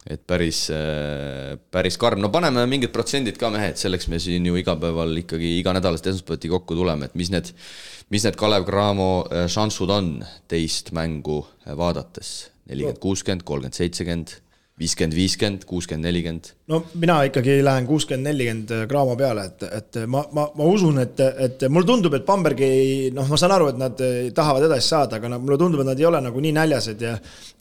et päris karm. No paneme mingid protsendid ka mehed, selleks me siin ju igapäeval ikkagi iganädalast esmaspäevati kokku tuleme, et mis need Kalev Cramo šansud on teist mängu vaadates? 40-60, 30-70, 50-50, 60-40. No mina ikkagi lähen 60-40 Graamo peale, et ma usun, et mulle tundub, et Bambergi, ma saan aru, et nad tahavad edasi saada, aga mulle tundub, et nad ei ole nagu nii näljased ja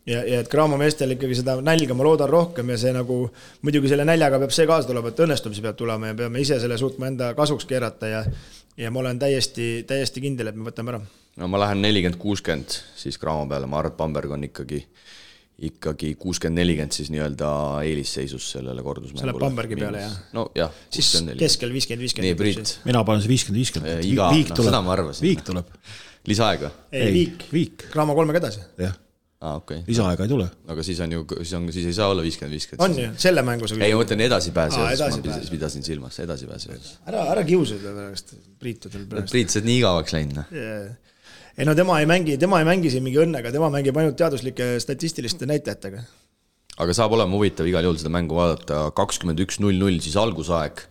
et Graamo meestel ikkagi seda nälga ma loodan rohkem ja see nagu, muidugi selle näljaga peab see kaasa tulema, et õnnestumisi peab tulema ja peame ise selle suutma enda kasuks keerata ja ma olen täiesti kindel, et me võtame ära. No ma lähen 40-60 siis Graamo peale, ma arvan, et Bamberg on ikkagi 60-40 siis nii-öelda eelisseisus sellele kordusmängule. Selle Bambergi peale, jah? No jah, 60-40. Siis keskel 50-50. Nii, Priit. Mina panen see 50-50. Viik tuleb. Seda ma arvasin. Viik tuleb. Lisaaega? Ei, viik. Graamo 3 edasi. Jah. Okay. Lisaaega ei tule. Aga siis ei saa olla 50-50. On ju, selle mängus. Ei, ma mõtlen edasipääse. Ma pidasin silmas, edasipääse. Ära kiusada pärast Priitudel pärast. Priit, see nii igavaks läinud. Ei no tema ei mängi siin mingi õnnega, tema mängib ainult teaduslike statistiliste näitajatega. Aga saab olema huvitav igal juhul seda mängu vaadata 21-0-0 siis algusaeg.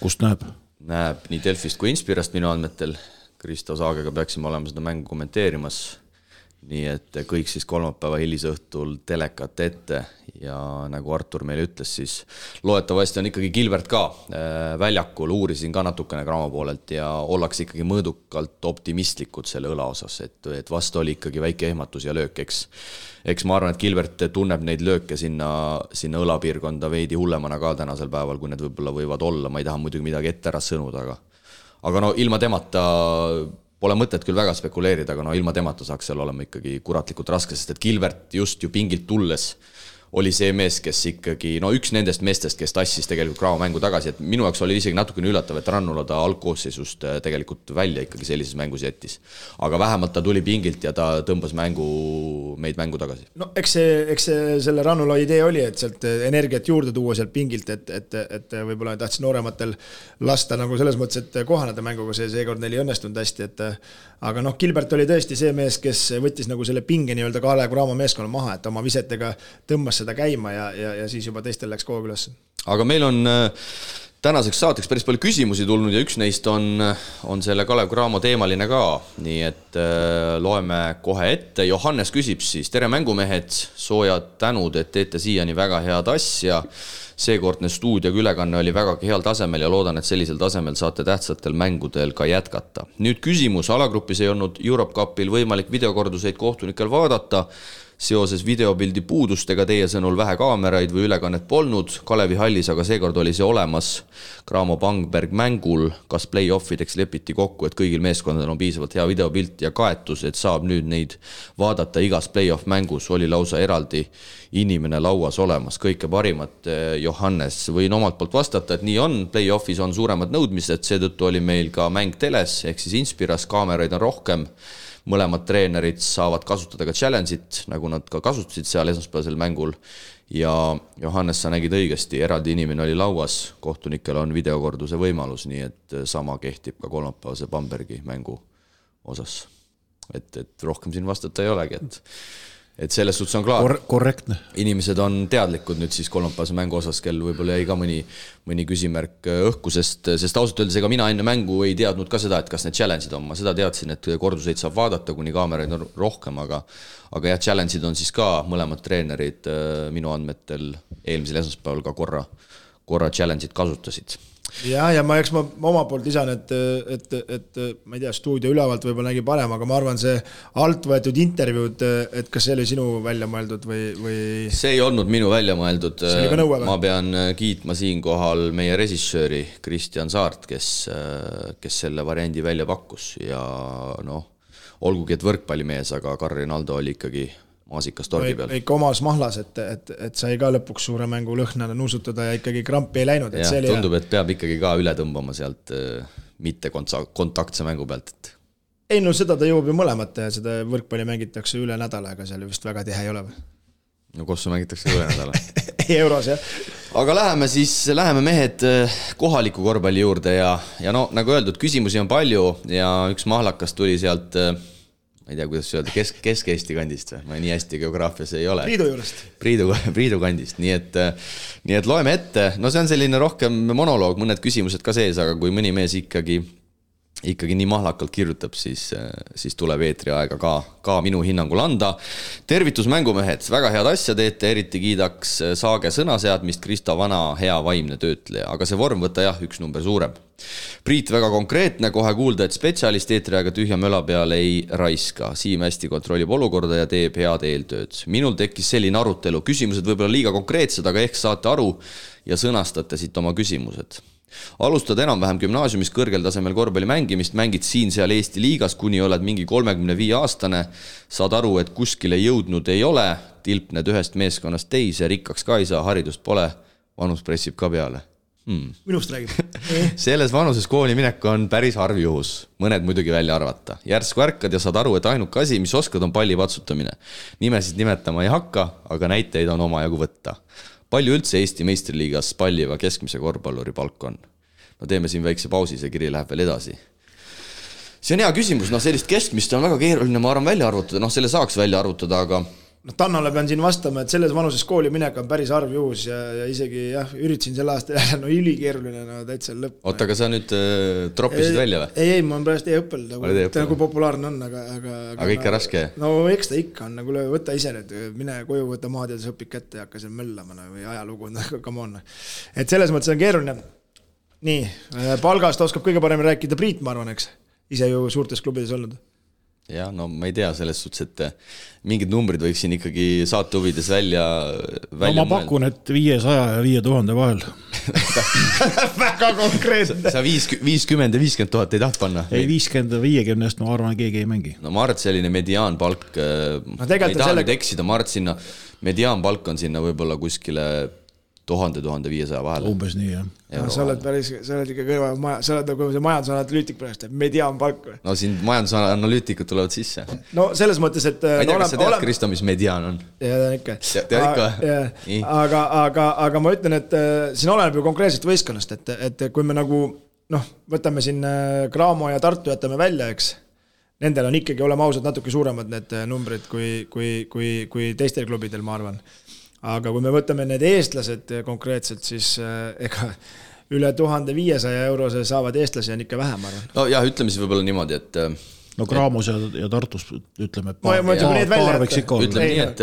Kust näeb? Näeb nii Delfist kui Inspirast minu andmetel. Kristo Saagega peaksime olema seda mängu kommenteerimas. Nii et kõik siis kolmapäeva hilisõhtul telekat ette ja nagu Artur meile ütles, siis loetavasti on ikkagi Gilbert ka väljakul, uurisin ka natukene Graamo poolelt ja ollakse ikkagi mõõdukalt optimistlikud selle õla osas, et vastu oli ikkagi väike ehmatus ja löök, eks ma arvan, et Gilbert tunneb neid lööke sinna õlapiirkonda veidi hullemana ka tänasel päeval, kui need võib-olla võivad olla, ma ei taha muidugi midagi ette ära sõnuda, aga no ilma temata pole mõtet küll väga spekuleerida, aga ilma temata saaks seal olema ikkagi kuratlikult raske, sest et Gilbert just ju pingilt tulles oli see mees, kes ikkagi, üks nendest meestest, kes tassis tegelikult Graamo mängu tagasi, et minu jaoks oli isegi natukene üllatav, et Rannula ta algkoosseisust tegelikult välja ikkagi sellises mängus jättis. Aga vähemalt ta tuli pingilt ja ta tõmbas meid mängu tagasi. No eks see selle Rannula idee oli, et sealt energiat juurde tuua sealt pingilt, et võib-olla tahtis noorematel lasta nagu selles mõttes, et kohaneda mänguga seekord neil ei õnnestunud hästi, aga Gilbert oli tõesti see mees, kes võttis nagu selle pinge nii-öelda Kalev Cramo meeskonna maha, et oma visetega tõmbas seda käima ja siis juba teistel läks koog üles. Aga meil on tänaseks saateks päris palju küsimusi tulnud ja üks neist on selle Kalev Cramo teemaline ka, nii et loeme kohe ette. Johannes küsib siis, tere mängumehed, soojad tänud, et teete siiani väga head asja. Seekordne stuudioga ülekanne oli väga heal tasemel ja loodan, et sellisel tasemel saate tähtsatel mängudel ka jätkata. Nüüd küsimus, alagrupis ei olnud Europe Cupil võimalik videokorduseid kohtunikel vaadata. Seoses videopildi puudustega teie sõnul vähe kaameraid või ülekannet polnud. Kalevi hallis, aga seekord oli see olemas Cramo Bamberg mängul. Kas play-offideks lepiti kokku, et kõigil meeskondadel on piisavalt hea videopilt ja kaetus, et saab nüüd neid vaadata igas play-off mängus? Oli lausa eraldi inimene lauas olemas. Kõike parimat, Johannes. Võin omalt poolt vastata, et nii on. Play-offis on suuremad nõudmised, seetõttu oli meil ka mäng teles, ehk siis Inspiras, kaameraid on rohkem. Mõlemad treenerid saavad kasutada ka challenge'it, nagu nad ka kasutasid seal esmaspäevasel mängul. Ja Johannes, sa nägid õigesti, eraldi inimene oli lauas, kohtunikel on videokorduse võimalus, nii et sama kehtib ka kolmapäevase Bambergi mängu osas. Et rohkem siin vastata ei olegi, et selles suhtes on klaar. Korrektne. Inimesed on teadlikud nüüd siis kolmapäevase mängu osas, kel võib-olla jäi ka mõni küsimärk õhku, sest ausalt öeldes ega mina enne mängu ei teadnud ka seda, et kas need challenge'id on. Ma seda teadsin, et korduseid saab vaadata, kuni kaameraid on rohkem, aga jah, challenge'id on siis ka mõlemad treenerid minu andmetel eelmisel esmaspäeval ka korra challenge'id kasutasid. Ja ma oma poolt lisan, et ma ei tea, stuudio ülevalt võib-olla nägi parem, aga ma arvan, see alt võetud intervjuud, et kas see oli sinu välja mõeldud või... See ei olnud minu välja mõeldud. Ma pean kiitma siinkohal meie režissööri Kristjan Saart, kes selle variandi välja pakkus ja olgugi, et võrkpallimees, aga Karri Naldo oli ikkagi maasikas torgi peal. Ikka omas mahlas, et sai ka lõpuks suure mängu lõhnana nuusutada ja ikkagi krampi ei läinud. Ja, tundub, et peab ikkagi ka üle tõmbama sealt mitte kontaktse mängu pealt. Ei, seda ta jõuab ju mõlemat ja seda võrkpalli mängitakse üle nädala, aga seal vist väga tihe ei ole. No kossu mängitakse üle nädala. Euros, jah. Aga läheme mehed kohaliku korvpalli juurde ja nagu öeldud, küsimusi on palju ja üks mahlakas tuli sealt... ma ei tea, kuidas öelda, Kesk-Eesti kandist või? Ma nii hästi geograafias ei ole. Priidu juurest. Priidu kandist, nii et loeme ette. See on selline rohkem monoloog, mõned küsimused ka sees, aga kui mõni mees ikkagi nii mahlakalt kirjutab, siis tuleb eetri aega ka minu hinnangul anda. Tervitus mängumehed, väga head asja teete, eriti kiidaks Saage sõnaseadmist, Krista Vana hea vaimne töötleja, aga see vorm võtta üks number suurem. Priit väga konkreetne, kohe kuulda, et spetsialist eetriaega tühja möla peal ei raiska. Siim hästi kontrollib olukorda ja teeb head eeltööd. Minul tekkis selline arutelu, küsimused võib-olla liiga konkreetsed, aga ehk saate aru ja sõnastate siit oma küsimused. Alustad enam-vähem gümnaasiumis kõrgel tasemel korvpalli mängimist, mängid siin-seal Eesti liigas, kuni oled mingi 35 aastane, saad aru, et kuskile jõudnud ei ole, tilpned ühest meeskonnast teise, rikkaks ka ei saa, haridust pole, vanus pressib ka peale. Minust räägib. Selles vanuses kooli minek on päris harv juhus, mõned muidugi välja arvata. Järsku ärkad ja saad aru, et ainuke asi, mis oskad, on palli patsutamine. Nimesid nimetama ei hakka, aga näiteid on omajagu võtta. Palju üldse Eesti meistriliigas palliva keskmise korvpalluri palk on? Teeme siin väikse pausi, see kiri läheb veel edasi. See on hea küsimus, sellist keskmist on väga keeruline, ma arvan välja arvutada, selle saaks välja arvutada, aga... Tannale pean siin vastama, et selles vanuses kooli minek on päris harv juhus ja isegi üritasin selle aasta jälle, ülikeeruline, täitsa lõpp. Oota, aga sa nüüd troppisid välja või? Ei, ma olen praegu e-õppel, nagu populaarne on, aga ikka raske? No eks ta ikka on, nagu võta ise nüüd, mine koju, võta maad ja õpid kätte ja hakka seal möllama või ajalugu, come on. Et selles mõttes on keeruline. Nii, palgast oskab kõige parem rääkida Priit, ma arvan, eks? Ise ju suurtes klubides olnud. Ja, ma ei tea selles suhtes, et mingid numbrid võiks siin ikkagi saate huvides välja ma pakun, et 500 ja 5000 vahel. Väga konkreetne. Sa 50 ja 50 000 ei taht panna? Ei, 50 ja 50, ma arvan, keegi ei mängi. Ma arvan, et selline mediaanpalk, ei taha nüüd eksida, ma arvan, sinna mediaanpalk on sinna võib-olla kuskile 1000-1500 vahel. Umbes nii, jah. Sa oled ikka kõrva, sa oled nagu see majandusanalüütik praegu, mediaanpalk või? No siin majandusanalüütikud tulevad sisse. No selles mõttes, et... Ma ei tea, kas sa tead, Kristo, mis mediaan on? Ja, ikka. Tead ikka? Aga ma ütlen, et siin oleneb ju konkreetselt võistkonnast, et kui me nagu, võtame siin Cramo ja Tartu jätame välja, eks, nendel on ikkagi olema ausad natuke suuremad need numbrid kui teistel klubidel, ma arvan. Aga kui me võtame need eestlased konkreetselt, siis ega üle 1500 eurose saavad eestlasi on ikka vähem, arvan. No jah, ütleme siis võib-olla niimoodi, et no Graamos ja Tartus ütleme, et paar võiks ikka olla. Ütleme nii, et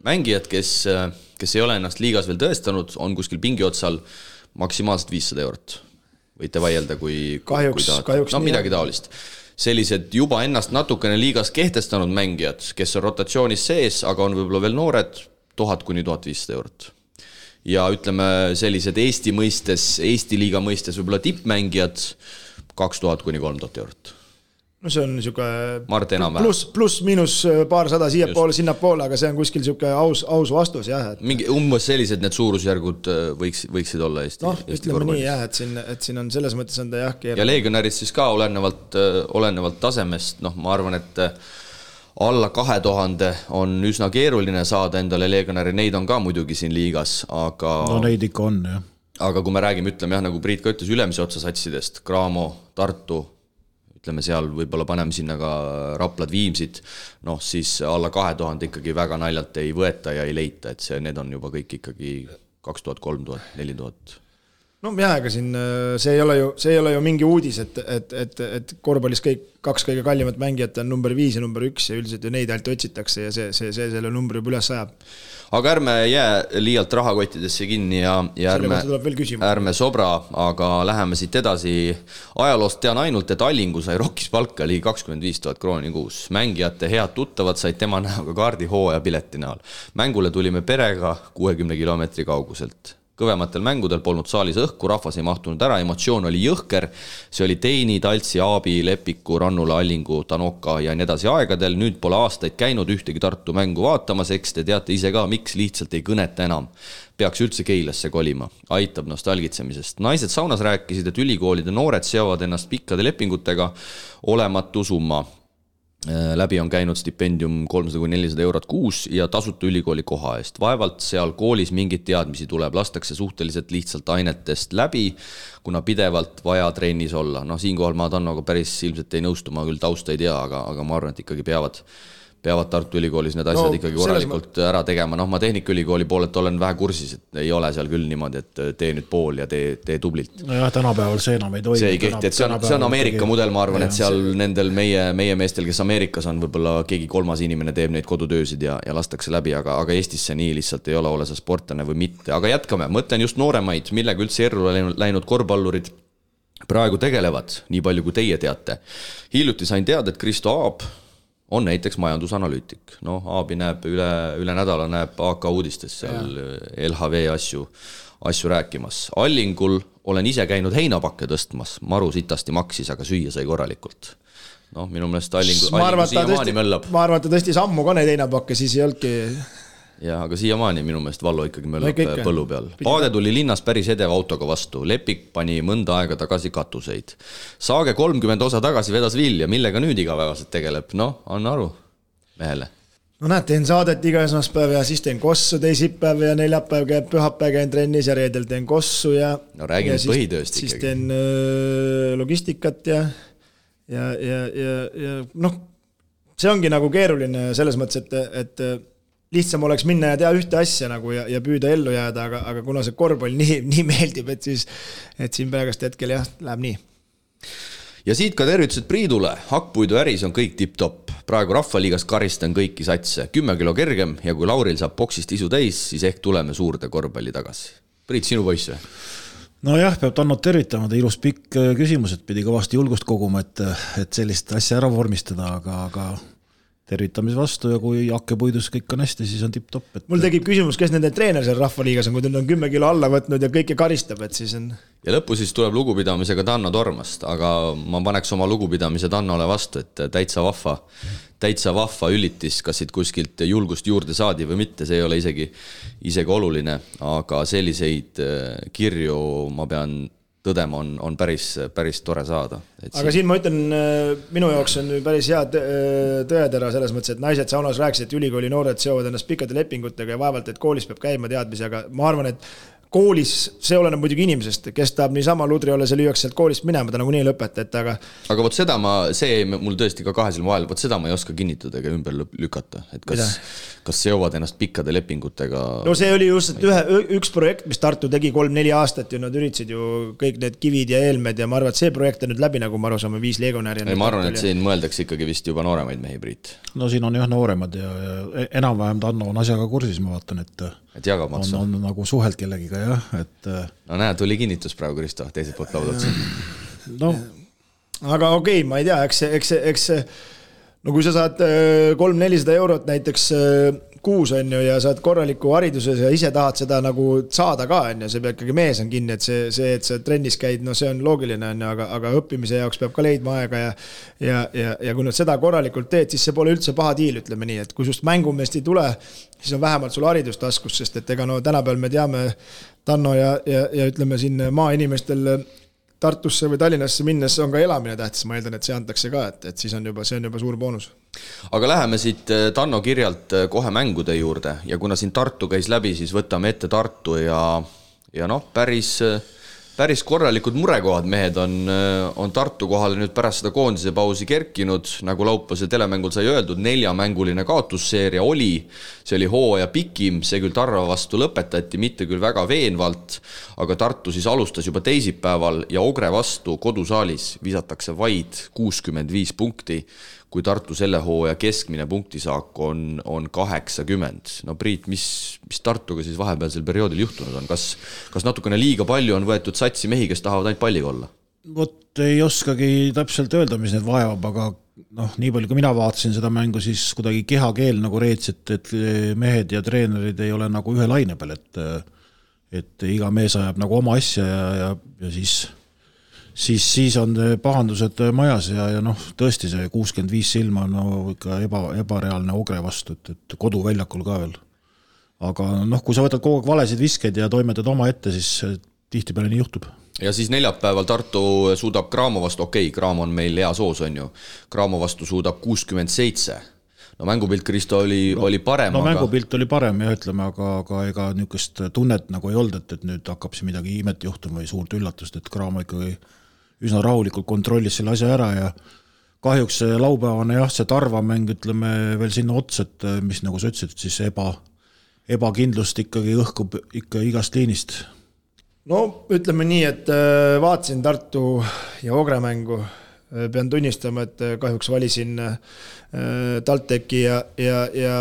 mängijad, kes ei ole ennast liigas veel tõestanud, on kuskil pingi otsal maksimaalselt 500 eurot. Võite vaielda, kui kahjuks no midagi taolist. Sellised juba ennast natukene liigas kehtestanud mängijad, kes on rotatsioonis sees, aga on võib-olla veel noored, 1000 kuni 1500 eurot. Ja ütleme sellised Eesti liiga mõistes võib-olla tippmängijad 2000 kuni 3000 eurot. No see on niisugune pluss miinus paarsada siia poole, sinna poole, aga see on kuskil niisugune aus vastus, jah. Mingi umbes sellised need suurusjärgud võiksid olla Eesti ütleme nii, jah, et siin on selles mõttes on ta jah keeruline. Ja legionärid siis ka olenevalt tasemest, ma arvan, et alla 2000 on üsna keeruline saada endale legionäri, neid on ka muidugi siin liigas, aga no neid ikka on, jah. Aga kui me räägime, ütleme jah, nagu Priit ka ütles, ülemise otsa satsidest, Graamo, Tartu, ütleme seal võib-olla paneme sinna ka Raplad, Viimsid, siis alla 2000 ikkagi väga naljalt ei võeta ja ei leita, et need on juba kõik ikkagi 2000, 3000, 4000. No jah, aga siin see ei ole ju mingi uudis, et korvpallis kaks kõige kallimat mängijat on number 5 ja number 1 ja üldiselt ju neid ainult otsitakse ja see selle numbri juba üles ajab. Aga ärme jää liialt rahakottidesse kinni ja ärme sobra, aga läheme siit edasi. Ajaloost tean ainult, et Allingu sai Rokkis palka ligi 25 000 krooni kuus. Mängijate head tuttavad said tema näoga kaardi hooaja pileti näol. Mängule tulime perega 60 kilomeetri kauguselt. Kõvematel mängudel polnud saalis õhku, rahvas ei mahtunud ära, emotsioon oli jõhker. See oli Teini, Taltsi, Aabi, Lepiku, Rannula, Allingu, Tanoka ja nii edasi aegadel. Nüüd pole aastaid käinud ühtegi Tartu mängu vaatamas, eks te teate ise ka, miks lihtsalt ei kõneta enam. Peaks üldse Keilasse kolima. Aitab nostalgitsemisest. Naised saunas rääkisid, et ülikoolide noored seovad ennast pikkade lepingutega olematu summa. Läbi on käinud stipendium 300–400 eurot kuus ja tasuta ülikooli koha eest. Vaevalt seal koolis mingit teadmisi tuleb, lastakse suhteliselt lihtsalt ainetest läbi, kuna pidevalt vaja trennis olla. Siinkohal ma Tannoga päris ilmselt ei nõustu, ma küll tausta ei tea, aga ma arvan, et ikkagi peavad Tartu Ülikoolis need asjad ikkagi korralikult ära tegema. Ma Tehnikaülikooli poolelt olen vähe kursis, et ei ole seal küll niimoodi, et tee nüüd pool ja tee tublilt. No jah, tänapäeval see enam ei toimi. See ei kehti, et see on Ameerika mudel, ma arvan, et seal nendel meie meestel, kes Ameerikas on, võib-olla keegi kolmas inimene teeb neid kodutöösid ja lastakse läbi, aga Eestis see nii lihtsalt ei ole sa sportlane või mitte. Aga jätkame, mõtlen just nooremaid, millega üldse erru läinud korvpallurid praegu tegelevad, nii palju kui teie teate. Hiljuti sain teada, et Kristo Aab on näiteks majandusanalüütik. Aabi näeb üle nädala näeb AK uudistes seal LHV asju rääkimas. Allingul olen ise käinud heinapakke tõstmas. Maru sitasti maksis, aga süüa sai korralikult. Minu meelest Allingu siiamaani möllab. Ma arvan, et ta tõstis ammu ka neid heinapakke, siis ei olnudki. Ja, aga siiamaani minu meelest Vallo ikkagi möllab põllu peal. Paade tuli linnas päris edeva autoga vastu. Lepik pani mõnda aega tagasi katuseid. Saage 30 osa tagasi vedas vilja, millega nüüd igapäevaselt tegeleb. Anna aru mehele. Näed, teen saadet iga esmaspäev ja siis teen kossu teisipäev ja neljapäev käib pühapäev käin trennis ja reedel teen kossu ja räägi nüüd põhitööst ikkagi. Siis teen logistikat ja see ongi nagu keeruline selles mõttes, et lihtsam oleks minna ja teha ühte asja nagu ja püüda ellu jääda, aga kuna see korvpall nii meeldib, et siin praegust hetkel jah, läheb nii. Ja siit ka tervitused Priidule. Hakkpuidu äris on kõik tipp-top. Praegu Rahvaliigas karistan kõiki satse. 10 kilo kergem ja kui Lauril saab boksist isu täis, siis ehk tuleme suurde korvpalli tagasi. Priit, sinu poiss või? No jah, peab Tannot tervitama. Ta ilus pikk küsimus, et pidi kõvasti julgust koguma, et sellist asja ära vormistada, aga tervitamis vastu ja kui hakkepuidus kõik on hästi, siis on tipp-top. Mul tekib küsimus, kes nende treener seal Rahvaliigas on, kui ta on 10 kilo alla võtnud ja kõike karistab, et siis on... Ja lõppu siis tuleb lugupidamisega Tanno Tormast, aga ma paneks oma lugupidamise Tannole vastu, et täitsa vahva ülitis, kas siit kuskilt julgust juurde saadi või mitte, see ei ole isegi oluline, aga selliseid kirju ma pean tõdema on päris tore saada. Aga siin ma ütlen, minu jaoks on päris hea tõetera selles mõttes, et naised saunas rääkisid, et ülikooli noored seovad ennast pikkade lepingutega ja vaevalt, et koolis peab käima teadmisi, aga ma arvan, et koolis see oleneb muidugi inimesest, kes tahab niisama ludri olla, see lüüaks sealt koolist minema, ta nagu nii ei lõpeta, et aga võt seda mul tõesti ka kahe silma vahel, võt seda ma ei oska kinnitada ega ümber lükata, et kas seovad ennast pikkade lepingutega? No see oli just üks projekt, mis Tartu tegi 3-4 aastat ja nad üritasid ju kõik need kivid ja eelmed ja ma arvan, et see projekt on nüüd läbi, nagu ma aru saame, 5 legionäri. Ma arvan, et siin mõeldakse ikkagi vist juba nooremaid mehi, Priit. No siin on jah nooremad ja enam-vähem Tanno on asjaga kursis, ma vaatan, et jagab maksu. On nagu suhelt kellegiga jah, et no näe, tuli kinnitus praegu, Kristo, teiselt poolt laudad. No. Aga okei, ma ei tea, eks no kui sa saad 300-400 eurot näiteks kuus on ju ja saad korraliku hariduses ja ise tahad seda nagu saada ka on ju, see peab ikkagi mees on kinni, et see, et sa trennis käid, no see on loogiline on ju, aga õppimise jaoks peab ka leidma aega ja kui nad seda korralikult teed, siis see pole üldse paha diil, ütleme nii, et kui just mängumeest ei tule, siis on vähemalt sul haridustaskus, sest et ega no tänapäeval me teame Tanno ja ütleme siin maainimestel Tartusse või Tallinnasse minnes on ka elamine tähtis, ma eeldan, et see antakse ka, et siis on see on juba suur boonus. Aga läheme siit Tanno kirjalt kohe mängude juurde ja kuna siin Tartu käis läbi, siis võtame ette Tartu ja noh, päris korralikud murekohad mehed on Tartu kohale nüüd pärast seda koondise pausi kerkinud, nagu laupäevase telemängul sai öeldud, 4-mänguline kaotusseeria oli, see oli hooaja pikim, see küll Tarva vastu lõpetati, mitte küll väga veenvalt, aga Tartu siis alustas juba teisipäeval ja Ogre vastu kodusaalis visatakse vaid 65 punkti, kui Tartu selle hooaja keskmine punktisaak on 80. No Priit, mis Tartuga siis vahepealsel perioodil juhtunud on? Kas natukene liiga palju on võetud satsi mehi, kes tahavad ainult palliga olla? Vot ei oskagi täpselt öelda, mis need vajab, aga noh, nii palju kui mina vaatasin seda mängu, siis kuidagi kehakeel nagu reets, et mehed ja treenerid ei ole nagu ühe laine peal, et iga mees ajab nagu oma asja ja siis on pahandused majas ja noh, tõesti see 65 silma on no, ikka ebareaalne Ogre vastu, et koduväljakul ka veel. Aga noh, kui sa võtad kogu aeg valesid viskeid ja toimetad oma ette, siis tihtipeale nii juhtub. Ja siis neljapäeval Tartu suudab Graamo vastu, Graamo on meil hea soos, on ju. Graamo vastu suudab 67. No mängupilt, Kristo, oli parem. No mängupilt oli parem ja ütleme, aga ega niisugust tunnet nagu ei olnud, et nüüd hakkab see midagi imet juhtuma või suurt üllatust, et Graamo ikkagi üsna rahulikult kontrollis selle asja ära ja kahjuks see laupäevane jah, see Tarva mäng, ütleme veel sinna ots, et mis nagu sa ütlesid, siis ebakindlust ikkagi õhkub ikka igast liinist. No ütleme nii, et vaatasin Tartu ja Ogre mängu, pean tunnistama, et kahjuks valisin TalTechi ja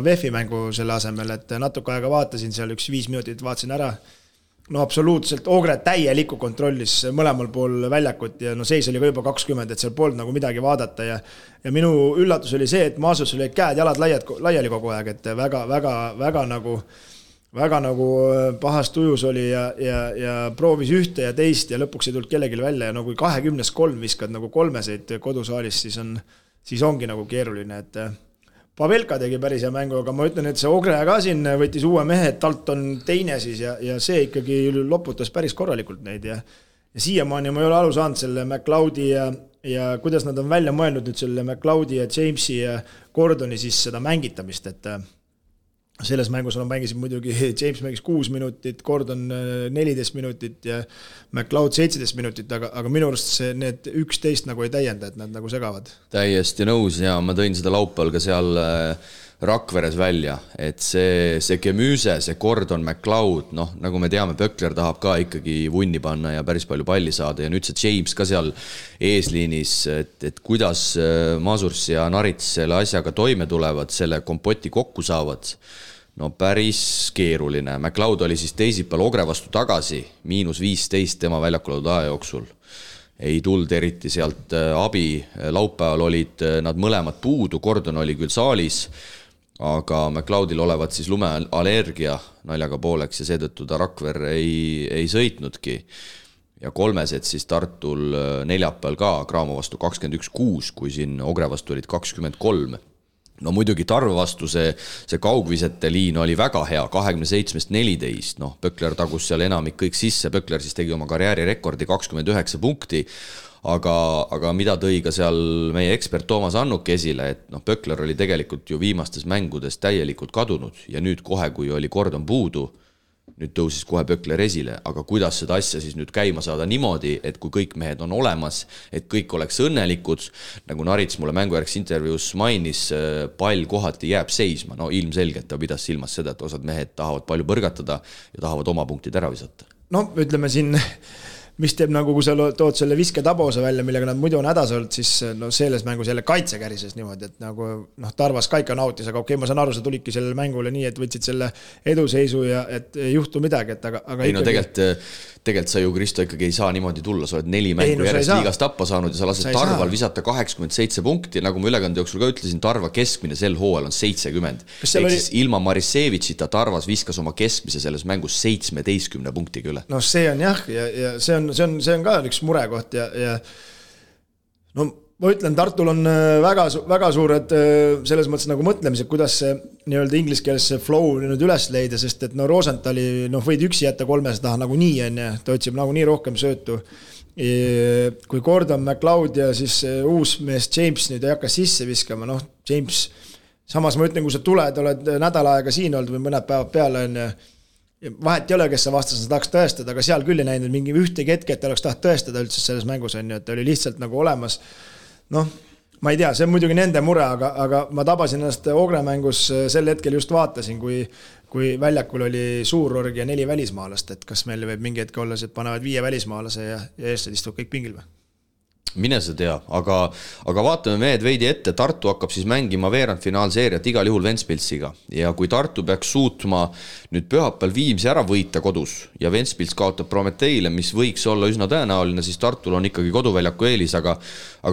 VEF-i mängu selle asemel, et natuke aega vaatasin seal 5 minutit, vaatasin ära. No absoluutselt, Ogre täieliku kontrollis mõlemal pool väljakut ja no seis oli ka juba 20, et seal polnud nagu midagi vaadata ja minu üllatus oli see, et Maasus oli käed jalad laiali kogu aeg, et väga nagu pahast ujus oli ja proovis ühte ja teist ja lõpuks ei tulnud kellelgi välja ja no kui 20-3 viskad nagu kolmeseid kodusaalis, siis ongi nagu keeruline, et Pavelka tegi päris hea mängu, aga ma ütlen, et see Ogre ka siin võttis uue mehe, et talt on teine siis ja see ikkagi loputas päris korralikult neid ja siiamaani ma ei ole aru saanud selle McLeodi ja kuidas nad on välja mõelnud nüüd selle McLeodi ja Jamesi ja Gordoni siis seda mängitamist, et selles mängus on mängisid muidugi, James mängis 6 minutit, Gordon 14 minutit ja McLeod 17 minutit, aga minu arust need 11 nagu ei täienda, et nad nagu segavad. Täiesti nõus ja ma tõin seda laupäeval ka seal Rakveres välja, et see Gemüse, see Gordon, McLeod, noh, nagu me teame, Pökler tahab ka ikkagi vunni panna ja päris palju palli saada ja nüüd see James ka seal eesliinis, et kuidas Masurs ja Narits selle asjaga toime tulevad, selle kompoti kokku saavad, no päris keeruline. McLeod oli siis teisipäeval Ogre vastu tagasi, -15 tema väljakulaud aja jooksul. Ei tulnud eriti sealt abi, laupäeval olid nad mõlemad puudu, Gordon oli küll saalis, aga McLeodil olevat siis lumeallergia naljaga pooleks ja seetõttu ta Rakver ei sõitnudki. Ja kolmesed siis Tartul neljapäeval ka Graamo vastu 21-6, kui siin Ogre vastu olid 23. No muidugi Tarva vastu see kaugvisete liin oli väga hea, 27-14, noh, Pökler tagus seal enamik kõik sisse, Pökler siis tegi oma karjääri rekordi 29 punkti, aga mida tõi ka seal meie ekspert Toomas Annuk esile, et noh, Pökler oli tegelikult ju viimastes mängudes täielikult kadunud ja nüüd kohe, kui oli Gordon puudu, nüüd tõusis kohe Pökler esile, aga kuidas seda asja siis nüüd käima saada niimoodi, et kui kõik mehed on olemas, et kõik oleks õnnelikud, nagu Narits mulle mängujärgs intervjuus mainis, pall kohati jääb seisma, no ilmselgelt ta pidas silmas seda, et osad mehed tahavad palju põrgatada ja tahavad oma punktid ära visata. No ütleme siin, mis teeb nagu, kui sa tood selle visketabose välja, millega nad muidu on hädas olnud, siis no selles mängus jälle kaitse kärises niimoodi, et nagu Tarvas ka ikka nautis, aga okei, ma saan aru, sa tulidki sellele mängule nii, et võtsid selle eduseisu ja et ei juhtu midagi, et aga ei, no tegelikult sa ju, Kristo, ikkagi ei saa niimoodi tulla, sa oled 4 mängu järjest liigas tappa saanud ja sa lased Tarval visata 87 punkti, nagu ma ülekande jooksul ka ütlesin, Tarva keskmine sel hooajal on 70. Siis ilma Marisevitšita Tarvas viskas oma keskmise selles mängus 17 punktiga üle. No see on jah, ja see on ka üks murekoht ja no ma ütlen, Tartul on väga suured selles mõttes nagu mõtlemised, kuidas see nii-öelda ingliskeelse flow nüüd üles leida, sest et no Rosenthali võid üksi jätta 300 taha nagu nii on ja ta otsib nagu nii rohkem söötu. Kui Gordon McLeod ja siis uus mees James nüüd ei hakka sisse viskama, James, samas ma ütlen, kui sa tuled, oled nädal aega siin olnud või mõned päevad peale on ja vahet ei ole, kes sa vastas, tahaks tõestada, aga seal küll ei näinud mingi ühtegi hetke, et oleks taht tõestada üldse selles mängus on ju, et oli lihtsalt nagu olemas. Ma ei tea, see on muidugi nende mure, aga ma tabasin ennast Ogre mängus sel hetkel just vaatasin, kui väljakul oli suur org ja 4 välismaalast, et kas meil võib mingi hetke olla, et panevad 5 välismaalase ja eestlased istuvad kõik pingil või? Mine sa tea, aga vaatame mehed veidi ette, Tartu hakkab siis mängima veerandfinaalseeriat igal juhul Ventspilsiga ja kui Tartu peaks suutma nüüd pühapäeval Viimsi ära võita kodus ja Ventspils kaotab Prometeile, mis võiks olla üsna tõenäoline, siis Tartul on ikkagi koduväljaku eelis, aga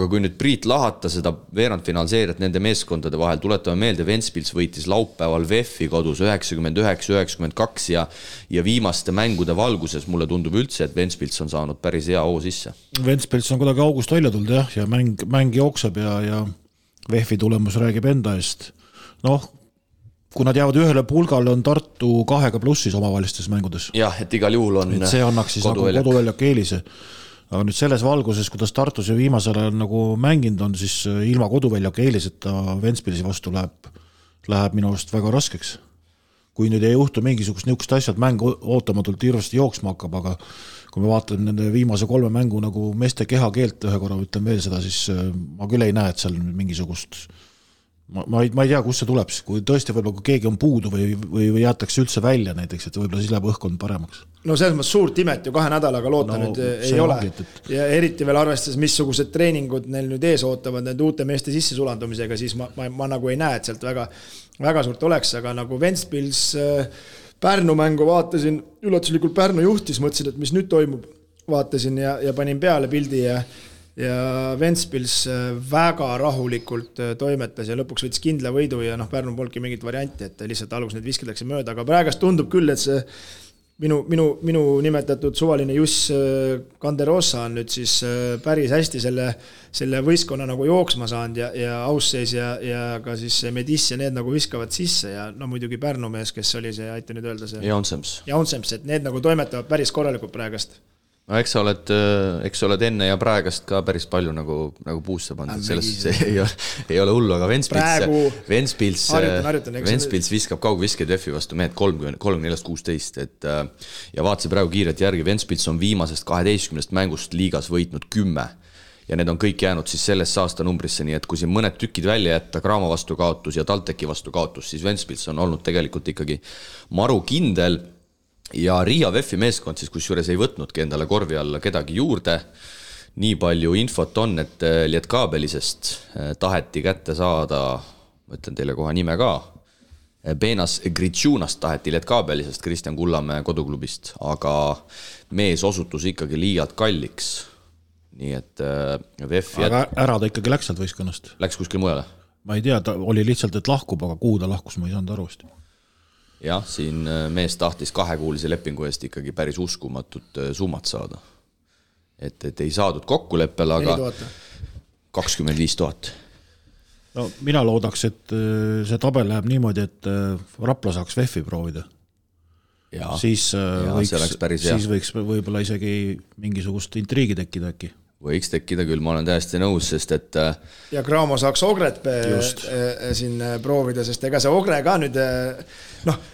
kui nüüd Priit lahata seda veerandfinaalseeriat nende meeskondade vahel, tuletame meelde, Ventspils võitis laupäeval VEF-i kodus 99-92 ja viimaste mängude valguses mulle tundub üldse, et Ventspils on saanud päris hea hoo sisse. Ventspils on kuidagi august välja tulnud ja mäng jookseb ja VEF-i tulemus räägib enda eest. Kui nad jäävad ühele pulgale, on Tartu 2+ omavahelistes mängudes. Jah, et igal juhul on et see annaks siis koduväljak eelise. Aga nüüd selles valguses, kuidas Tartus ja viimasel ajal nagu mänginud on, siis ilma koduväljak eeliseta Ventspilsi vastu läheb minu arust väga raskeks. Kui nüüd ei juhtu mingisugust niisugust asjad, mäng ootamatult hirvasti jooksma hakkab, aga kui me vaatan nende viimase 3 mängu nagu meeste kehakeelt ühe korra, ütlen veel seda, siis ma küll ei näe, et seal mingisugust ma ei tea, kus see tuleb, kui tõesti võib-olla kui keegi on puudu või jätakse üldse välja näiteks, et võib-olla siis läheb õhkkond paremaks. No selles mõttes suurt imet ju 2 nädalaga loota nüüd ei ole. Ja eriti veel arvestades, missugused treeningud neil nüüd ees ootavad need uute meeste sisse sulandumisega, siis ma nagu ei näe, et sealt väga suurt oleks, aga nagu Ventspils Pärnu mängu vaatasin, üllatuslikult Pärnu juhtis, mõtlesin, et mis nüüd toimub, vaatasin ja panin peale pildi ja Ventspils väga rahulikult toimetas ja lõpuks võttis kindla võidu ja Pärnu polnudki mingit varianti, et lihtsalt alguses need visketakse mööda, aga praegast tundub küll, et see minu nimetatud suvaline Juss Kanderosa on nüüd siis päris hästi selle võistkonna nagu jooksma saanud ja Ausseis ja ka siis Medis ja need nagu viskavad sisse ja muidugi Pärnu mees, kes oli see, aita nüüd öelda see Jaunsems, et need nagu toimetavad päris korralikult praegast. No eks sa oled enne ja praegast ka päris palju nagu puusse pandud, selles ei ole hullu, aga Ventspils viskab kaugviskeid VEF-i vastu mehed 34-16, ja vaatasin praegu kiiret järgi, Ventspils on viimasest 12 mängust liigas võitnud 10 ja need on kõik jäänud siis sellest aasta numbrisse, nii et kui siin mõned tükid välja jätta, Graamo vastu kaotus ja Talteki vastu kaotus, siis Ventspils on olnud tegelikult ikkagi maru kindel. Ja Riia VEF-i meeskond siis kusjuures ei võtnudki endale korvi alla kedagi juurde. Nii palju infot on, et Lietkaabelisest taheti kätte saada, ma ütlen teile kohe nime ka, Benas Gritšunast taheti Lietkaabelisest, Kristjan Kullamäe koduklubist, aga mees osutus ikkagi liialt kalliks. Nii et VEF-i... Aga ära ta ikkagi läks sealt võistkonnast? Läks kuskil mujale? Ma ei tea, ta oli lihtsalt, et lahkub, aga kuhu ta lahkus, ma ei saanud arvasti. Jah, siin mees tahtis 2-kuulise lepingu eest ikkagi päris uskumatut summat saada. Et ei saadud kokkuleppel, aga 25 000. No, mina loodaks, et see tabel läheb niimoodi, et Rapla saaks VEF-i proovida. Siis võiks võib-olla isegi mingisugust intriigi tekkida äkki. võiks tekkida küll, ma olen täiesti nõus, sest et ja Cramo saaks Ogret siin proovida, sest ega see Ogre ka nüüd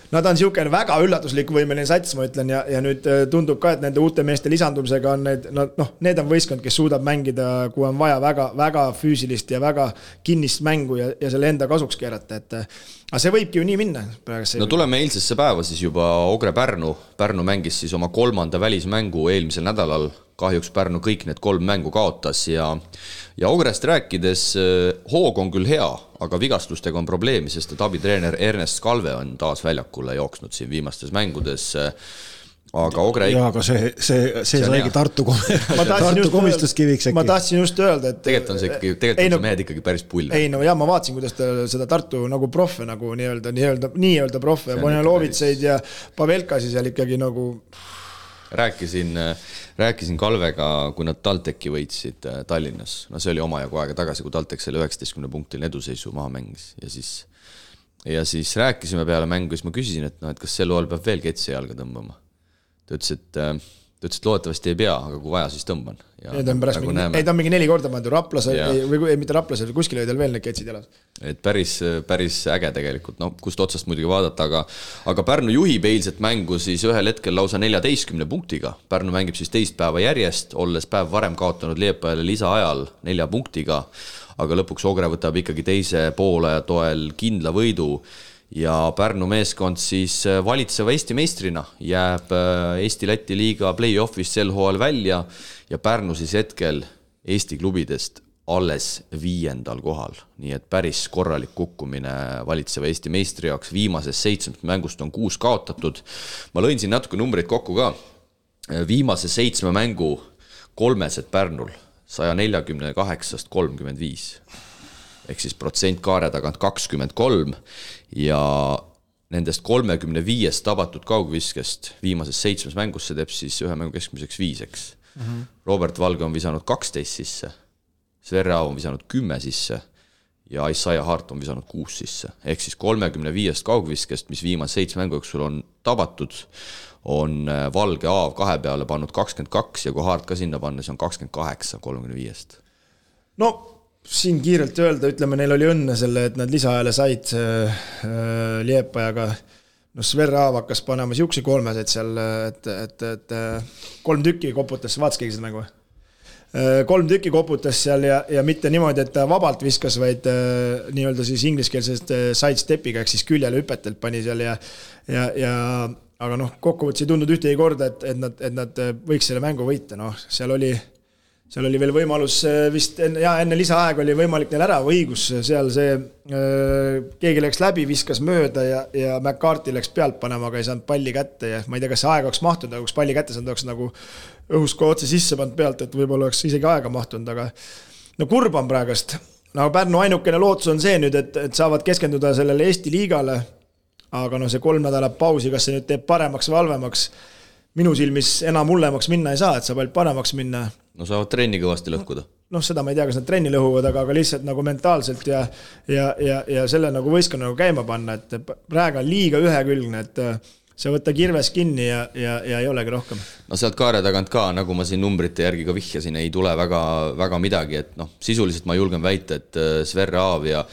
nad on niisugune väga üllatuslik võimeline sats, ma ütlen, ja nüüd tundub ka, et nende uute meeste lisandumisega on need on võistkond, kes suudab mängida, kui on vaja väga, väga füüsilist ja väga kinnist mängu ja selle enda kasuks keerata, aga see võibki ju nii minna. No tuleme eilsesse päeva siis juba Ogre Pärnu mängis siis oma 3. välismängu eelmisel nädalal, kahjuks Pärnu kõik need 3 mängu kaotas ja Ogrest rääkides hoog on küll hea, aga vigastustega on probleemi, sest et abitreener Ernest Kalve on taas väljakule jooksnud siin viimastes mängudes, aga Ogre... Jaa, aga see saigi Tartu komistuskiviks äkki. Ma tahtsin just öelda, et... Tegelikult on see mehed ikkagi päris pull. Ei, no jah, ma vaatasin, kuidas ta seda Tartu nagu proffe nagu nii-öelda proffe, Bonjalovitseid ja Pavelkasi seal ikkagi nagu... Rääkisin Kalvega, kui nad TalTechi võitsid Tallinnas. No see oli omajagu aega tagasi, kui TalTech selle 19 punktil eduseisu maha mängis. Ja siis rääkisime peale mängu, siis ma küsisin, et kas sel loal peab veel ketsi jalga tõmbama. Ta ütles, et loodetavasti ei pea, aga kui vaja, siis tõmban. Ta on mingi 4 korda pannud Raplas, või mitte Raplas, kuskil olid veel need ketsid jalas. Et päris äge tegelikult, kust otsast muidugi vaadata, aga Pärnu juhib eilset mängu siis ühel hetkel lausa 14 punktiga. Pärnu mängib siis teist päeva järjest, olles päev varem kaotanud Liepajale lisaajal 4 punktiga, aga lõpuks Ogre võtab ikkagi teise poole toel kindla võidu ja Pärnu meeskond siis valitseva Eesti meistrina jääb Eesti-Läti liiga play-offis sel hooajal välja ja Pärnu siis hetkel Eesti klubidest alles 5. kohal, nii et päris korralik kukkumine valitseva Eesti meistri jaoks. Viimasest 7 mängust on 6 kaotatud. Ma lõin siin natuke numbreid kokku ka. Viimase 7 mängu 3 Pärnul 148-st 35. Ehk siis protsent kaare tagant 23 ja nendest 35 tabatud kaugviskest viimases 7 mängus see teeb siis ühe mängu keskmiseks 5. Robert Valge on visanud 12 sisse, Sverre Aav on visanud 10 sisse ja Isaiah Hart on visanud 6 sisse. Ehk siis 35 kaugviskest, mis viimase 7 mängu jooksul on tabatud, on Valge Aav 2 peale pannud 22 ja kui Hart ka sinna panna, see on 28 35. No siin kiirelt öelda, ütleme, neil oli õnne selle, et nad lisaajale said Liepajaga. No Sverre Aav hakkas panema siuksi 3 seal, et 3 tükki koputas, vaatas keegi seda mängu? 3 tükki koputas seal ja mitte niimoodi, et ta vabalt viskas, vaid nii-öelda siis ingliskeelsest sidestepiga, ehk siis küljele hüpetelt pani seal aga kokkuvõttes ei tundnud ühtegi korda, et nad võiks selle mängu võita. Seal oli veel võimalus vist enne lisaaeg oli võimalik neil ära õigus, seal see keegi läks läbi, viskas mööda ja McCarthy läks pealt panema, aga ei saanud palli kätte ja ma ei tea, kas see aeg oleks mahtunud, aga kui palli kätte saanud, oleks nagu õhus kui otse sisse pannud pealt, et võib-olla oleks isegi aega mahtunud, aga kurb on praegust. Pärnu ainukene lootus on see nüüd, et saavad keskenduda sellele Eesti liigale, aga see 3 nädalat pausi, kas see nüüd teeb paremaks või halvemaks, minu silmis enam hullemaks minna ei saa, et saab ainult paremaks minna. No saavad trenni kõvasti lõhkuda. Seda ma ei tea, kas nad trenni lõhuvad, aga lihtsalt nagu mentaalselt ja selle nagu võistkonna nagu käima panna, et praegu on liiga ühekülgne, et see võtta kirves kinni ja ei olegi rohkem. No sealt kaare tagant ka, nagu ma siin numbrite järgi ka vihjasin, ei tule väga midagi, et sisuliselt ma julgen väita, et Sverre Aav ja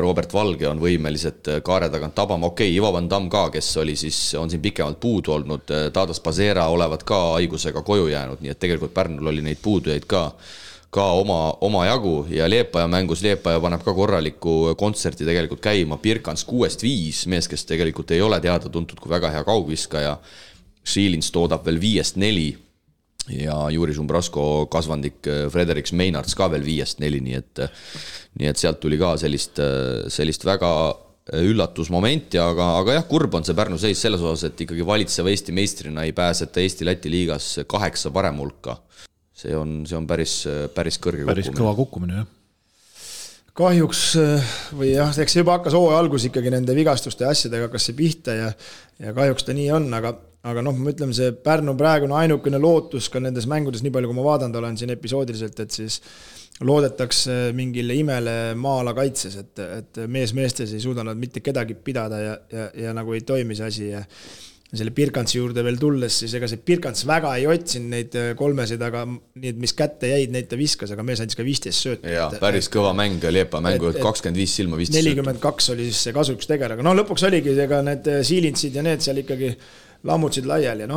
Robert Valge on võimelised kaare tagant tabama. Okei, Ivo Van Damm ka, kes on siin pikemalt puudu olnud, Tadas Pasera olevat ka haigusega koju jäänud, nii et tegelikult Pärnul oli neid puudujaid ka oma jagu ja Liepaja mängus Liepaja paneb ka korraliku kontserti tegelikult käima. Pirkans 6-5, mees, kes tegelikult ei ole teada tuntud kui väga hea kaugviskaja. Šiilins toodab veel 5-4 ja Juri Šumbrasko kasvandik Frederiks Meinards ka veel 5-4, nii et sealt tuli ka sellist väga üllatusmomenti, aga jah, kurb on see Pärnu seis selles osas, et ikkagi valitseva Eesti meistrina ei pääseta Eesti-Läti liigas 8 parem hulka. See on päris kõrge kukkumine. Päris kõva kukkumine, jah. Kahjuks või jah, eks see juba hakkas hooaja algus ikkagi nende vigastuste asjadega hakkas see pihta ja kahjuks ta nii on, aga ma ütleme, see Pärnu praegune ainukene lootus ka nendes mängudes, nii palju kui ma vaadanud olen siin episoodiliselt, et siis loodetakse mingile imele maala kaitses, et meestes ei suuda nad mitte kedagi pidada ja nagu ei toimi see asi selle Birkantsi juurde veel tulles, siis ega see Birkants väga ei otsinud neid kolmesid, aga need, mis kätte jäid, neid ta viskas, aga mees andis ka 15 sööta. Jaa, päris kõva mäng oli Epa mängu, 25 silma 15 sööta. 42 oli siis see kasuks tegel, aga lõpuks oligi ega need Siilintsid ja need seal ikkagi lammutsid laiali ja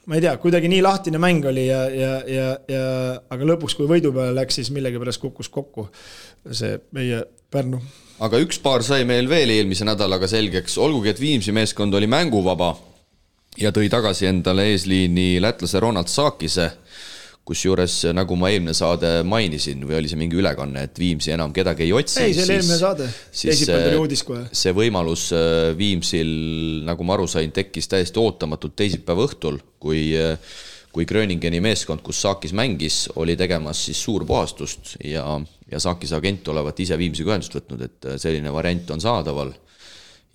ma ei tea, kuidagi nii lahtine mäng oli aga lõpuks, kui võidu peale läks, siis millegi pärast kukkus kokku see meie Pärnu. Aga üks paar sai meil veel eelmise nädalaga selgeks, olgugi, et Viimsi meeskond oli mänguvaba ja tõi tagasi endale eesliini lätlase Ronald Saakise, kus juures, nagu ma eelmine saade mainisin, või oli see mingi ülekanne, et Viimsi enam kedagi ei otsi. Ei, see oli eelmine saade. Teisipäev tuli uudis kohe. See võimalus Viimsil, nagu ma aru sain, tekkis täiesti ootamatult teisipäeva õhtul, kui Gröningeni meeskond, kus Saakis mängis, oli tegemas siis suurpuhastust ja Saakise agent olevat ise Viimsiga ühendust võtnud, et selline variant on saadaval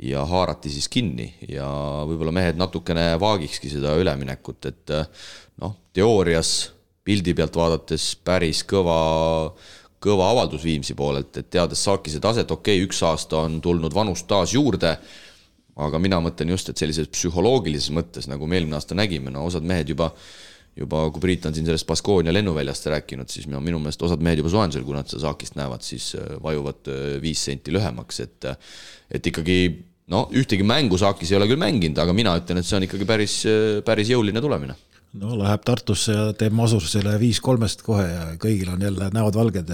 ja haarati siis kinni ja võib-olla mehed natukene vaagikski seda üleminekut, et teoorias pildi pealt vaadates päris kõva avaldus Viimsi poolelt, et teades Saakise taset, üks aasta on tulnud vanust taas juurde, aga mina mõtlen just, et sellises psühholoogilises mõttes, nagu me eelmine aasta nägime, osad mehed juba, kui Priit on siin sellest Baskoonia lennuväljast rääkinud, siis minu meelest osad mehed juba soojendusel, kui nad seda Saakist näevad, siis vajuvad 5 senti lühemaks, et ikkagi, ühtegi mängu Saakis ei ole küll mänginud, aga mina ütlen, et see on ikkagi päris jõuline tulemine. Läheb Tartusse ja teeb Masurusele 5-3 kohe ja kõigil on jälle näod valged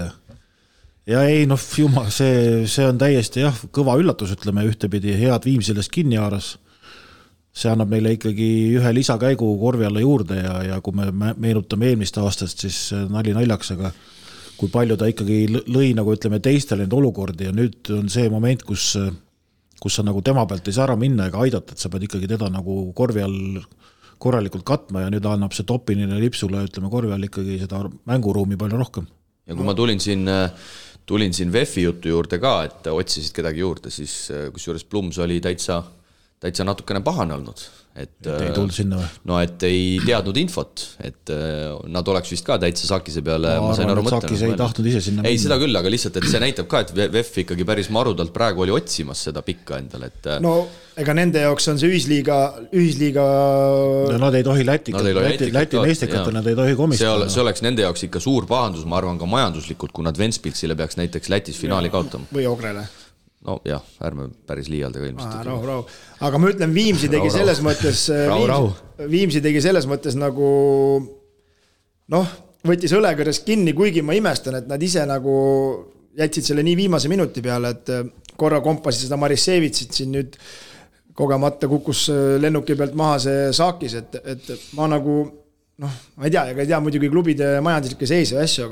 ja ei, jumal, see on täiesti kõva üllatus, ütleme ühtepidi, head Viimsilest kinni haaras. See annab meile ikkagi ühe lisakäigu korvi alla juurde ja kui me meenutame eelmist aastast, siis nali naljaks, aga kui palju ta ikkagi lõi, nagu ütleme, teistele need olukordi ja nüüd on see moment, kus sa nagu tema pealt ei saa ära minna ega aidata, et sa pead ikkagi teda nagu korvi all korralikult katma ja nüüd annab see Topinile lipsule, ütleme, korvi all ikkagi seda mänguruumi palju rohkem. Ja kui ma tulin siin VEF-i jutu juurde ka, et otsisid kedagi juurde, siis kusjuures Plums oli täitsa natukene pahane olnud. Et ei tulnud sinna või? Et ei teadnud infot, et nad oleks vist ka täitsa Saakise peale. Ma arvan, et Saakis ei tahtnud ise sinna minna. Ei, seda küll, aga lihtsalt, et see näitab ka, et VEF ikkagi päris marudalt praegu oli otsimas seda pikka endale. Ega nende jaoks on see ühisliiga... Nad ei tohi Läti meestikata, nad ei tohi komistada. See oleks nende jaoks ikka suur pahandus, ma arvan ka majanduslikult, kui nad Ventspilsile peaks näiteks Lätis finaali kaotama. Või Ogrele. Ärme päris liialdega ilmselt. Rahu. Aga ma ütlen, Viimsi tegi selles mõttes Viimsi tegi selles mõttes nagu võttis õlekõres kinni, kuigi ma imestan, et nad ise nagu jätsid selle nii viimase minuti peale, et korra kompasid seda Marissevitsit siin nüüd kogemata kukkus lennuki pealt maha see Saakis, et ma nagu ma ei tea muidugi klubide majanduslikke seise ja asju,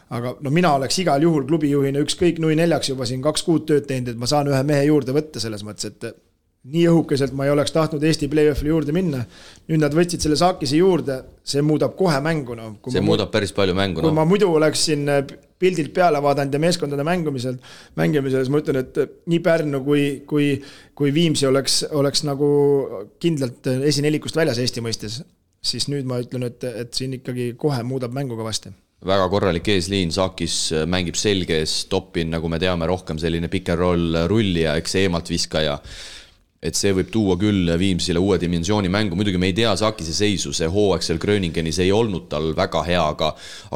aga mina oleks igal juhul klubijuhina ükskõik 0-4 juba siin 2 kuud tööd teinud, et ma saan ühe mehe juurde võtta selles mõttes, et nii õhukeselt ma ei oleks tahtnud Eesti play-offile juurde minna. Nüüd nad võtsid selle Saakise juurde, see muudab kohe mängu. See muudab päris palju mängu. Kui ma muidu oleks siin pildilt peale vaadanud ja meeskondade mängimisel, siis ma ütlen, et nii Pärnu kui Viimsi oleks nagu kindlalt esinellikust väljas Eesti mõistes, siis nüüd ma ütlen, et siin ikkagi kohe muudab mängu kõvasti. Väga korralik eesliin, Saakis mängib selges, Topin, nagu me teame, rohkem selline pick and roll rullija, eks eemalt viskaja. Et see võib tuua küll Viimsile uue dimensiooni mängu, muidugi me ei tea Saakise seisu, see hooaegsel Gröningenis ei olnud tal väga hea,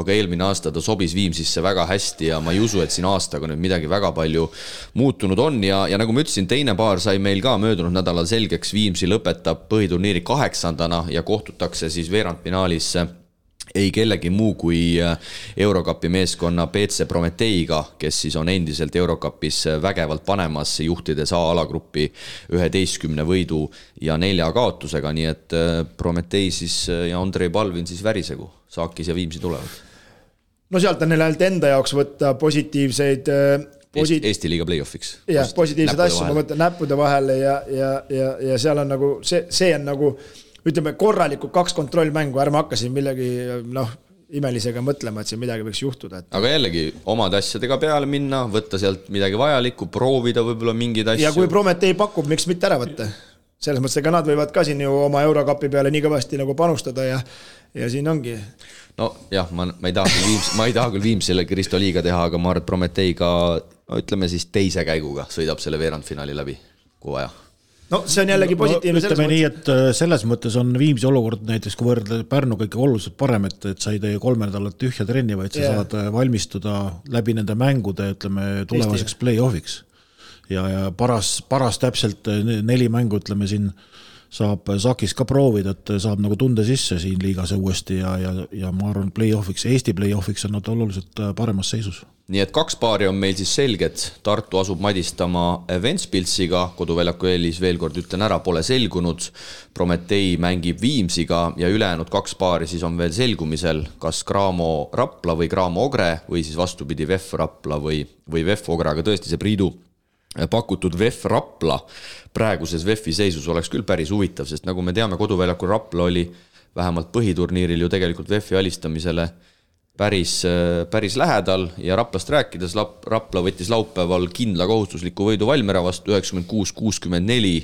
aga eelmine aasta ta sobis Viimsisse väga hästi ja ma ei usu, et siin aastaga nüüd midagi väga palju muutunud on ja nagu ma ütlesin, teine paar sai meil ka möödunud nädalal selgeks, Viimsi lõpetab põhiturniiri 8. ja kohtutakse siis veerandfinaalis ei kellegi muu kui Eurocupi meeskonna BC Prometeiga, kes siis on endiselt Eurocupis vägevalt panemas, juhtides A-alagruppi 11 võidu ja 4 kaotusega, nii et Prometei siis ja Andrei Palvin siis värisegu, Saakis ja Viimsi tulevad. Sealt on neil ainult enda jaoks võtta positiivseid Eesti liiga play-offiks. Jah, positiivseid asju, ma mõtlen näppude vahele ja seal on nagu, see on nagu ütleme korralikult 2 kontrollmängu, ärme hakkasin millegi imelisega mõtlema, et siin midagi võiks juhtuda. Aga jällegi omad asjadega peale minna, võtta sealt midagi vajalikku, proovida võib-olla mingid asju. Ja kui Prometei pakub, miks mitte ära võtta? Selles mõttes, ega nad võivad ka siin ju oma Eurocupi peale nii kõvasti nagu panustada ja siin ongi. Ma ei taha küll Viimsile Kristo liiga teha, aga ma arvan, et Prometeiga, ütleme siis teise käiguga sõidab selle veerandfinaali läbi, kui vaja. no see on jällegi positiivne ütleme nii, et selles mõttes on Viimsi olukord näiteks, kui võrdle Pärnuga ikka oluliselt parem, et sa ei tee 3 nädalat tühja trenni, vaid sa saad valmistuda läbi nende mängude, ütleme, tulevaseks play-offiks. Ja paras täpselt 4 mängu, ütleme siin, saab Sakis ka proovida, et saab nagu tunde sisse siin liigas uuesti ja ma arvan, play-offiks, Eesti play-offiks on nad oluliselt paremas seisus. Nii et 2 paari on meil siis selged. Tartu asub madistama Ventspilsiga, koduväljaku eelis veel kord ütlen ära, pole selgunud. Prometei mängib Viimsiga ja ülejäänud 2 paari siis on veel selgumisel, kas Graamo Rapla või Graamo Ogre või siis vastupidi VEF Rapla või VEF Ogre, aga tõesti see Priidu pakutud VEF Rapla praeguses VEF-i seisus oleks küll päris huvitav, sest nagu me teame, koduväljakul Rapla oli vähemalt põhiturniiril ju tegelikult VEF-i alistamisele päris lähedal ja Raplast rääkides Rapla võttis laupäeval kindla kohustusliku võidu Valmiera vastu 96-64,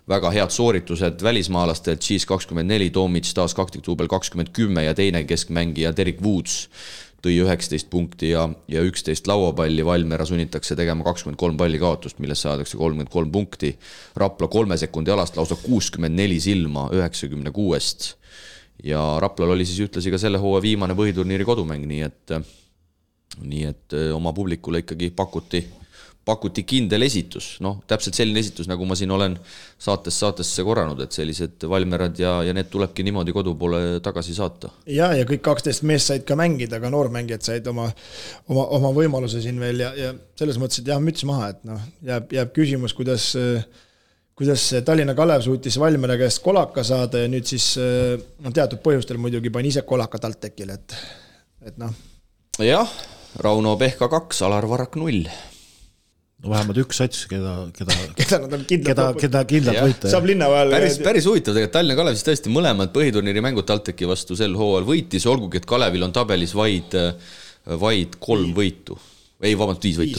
väga head sooritused välismaalastelt, Cheese 24, Tomic taas kaktiktuubel 20-10 ja teine keskmängija Derek Woods tõi 19 punkti ja 11 lauapalli, Valmiera sunnitakse tegema 23 palli kaotust, millest saadakse 33 punkti. Rapla 3 sekundi alast lausa 64 silma 96 ja Raplal oli siis ütlesi ka selle hooa viimane põhiturniiri kodumäng, nii et oma publikule ikkagi pakuti kindel esitus, täpselt selline esitus, nagu ma siin olen saatesse korranud, et sellised Valmerad ja need tulebki niimoodi kodu poole tagasi saata. Ja kõik 12 meest said ka mängida, aga noormängijad said oma võimaluse siin veel ja selles mõttes, et jah, müts maha, et jääb küsimus, kuidas Tallinna Kalev suutis Valmiera käest kolaka saada ja nüüd siis teatud põhjustel muidugi pani ise kolaka TalTechile, et Jah, Rauno Pehka 2, Alar Varrak 0. No vähemalt üks sats, keda nad on kindlalt võita. Saab linna vahel. Päris huvitav, tegelikult Tallinna Kalev siis tõesti mõlemad põhiturniiri mängud TalTechi vastu sel hooajal võitis, olgugi, et Kalevil on tabelis vaid 3 võitu. Ei, vabalt 5 võitu.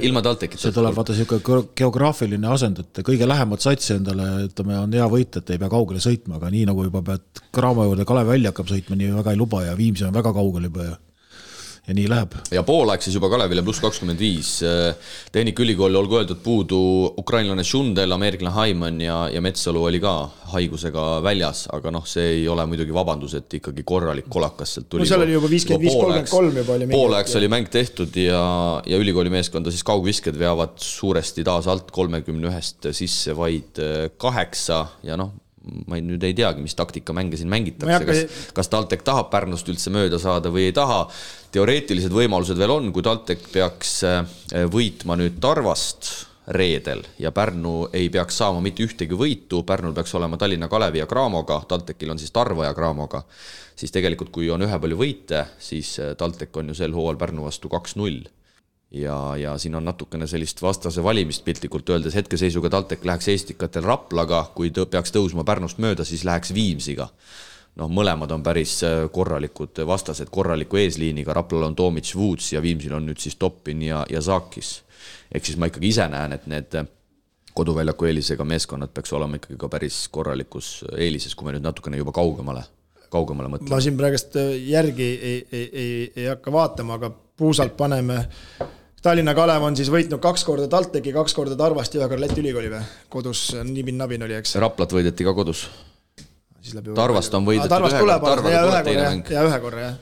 Ilma TalTechita. See tuleb vaata siuke geograafiline asend, et kõige lähemat satsi endale on hea võita, et ei pea kaugele sõitma, aga nii nagu juba pead Graamo juurde Kalev välja hakkab sõitma, nii väga ei luba ja Viimsi on väga kaugel juba ja nii läheb. Ja poolaeg siis juba Kalevile +25. Tehnikaülikooli olgu öeldud puudu ukrainlane Šundel, ameeriklane Haiman ja Metsalu oli ka haigusega väljas, aga see ei ole muidugi vabandus, et ikkagi korralik kolakas sealt tuli. No seal oli juba 55-33 juba oli. Poolaegs oli mäng tehtud ja ülikooli meeskonda siis kaugvisked veavad suuresti taas alt 31 sisse vaid 8 ja ma nüüd ei teagi, mis taktika mänge siin mängitakse, kas TalTech tahab Pärnust üldse mööda saada või ei taha. Teoreetilised võimalused veel on, kui TalTech peaks võitma nüüd Tarvast reedel ja Pärnu ei peaks saama mitte ühtegi võitu, Pärnul peaks olema Tallinna Kalevi ja Graamoga, TalTechil on siis Tarva ja Graamoga, siis tegelikult kui on ühe palju võite, siis TalTech on ju sel hooajal Pärnu vastu 2-0. Ja siin on natukene sellist vastase valimist piltlikult öeldes, hetkeseisuga TalTech läheks Eestikatel Raplaga, kui peaks tõusma Pärnust mööda, siis läheks Viimsiga. Mõlemad on päris korralikud vastased, korraliku eesliiniga, Raplal on Tomic, Woods ja Viimsil on nüüd siis Toppin ja Saakis. Ehk siis ma ikkagi ise näen, et need koduväljaku eelisega meeskonnad peaks olema ikkagi ka päris korralikus eelises, kui me nüüd natukene juba kaugemale mõtleme. Ma siin praegust järgi ei hakka vaatama, aga puusalt paneme Tallinna Kalev on siis võitnud 2 korda TalTechi, 2 korda Tarvast ja 1 korda Läti ülikooli või? Kodus nibin-nabin oli, eks? Raplat võideti ka kodus. Tarvast on võidetud Tarvast tuleb ühe korra, jah.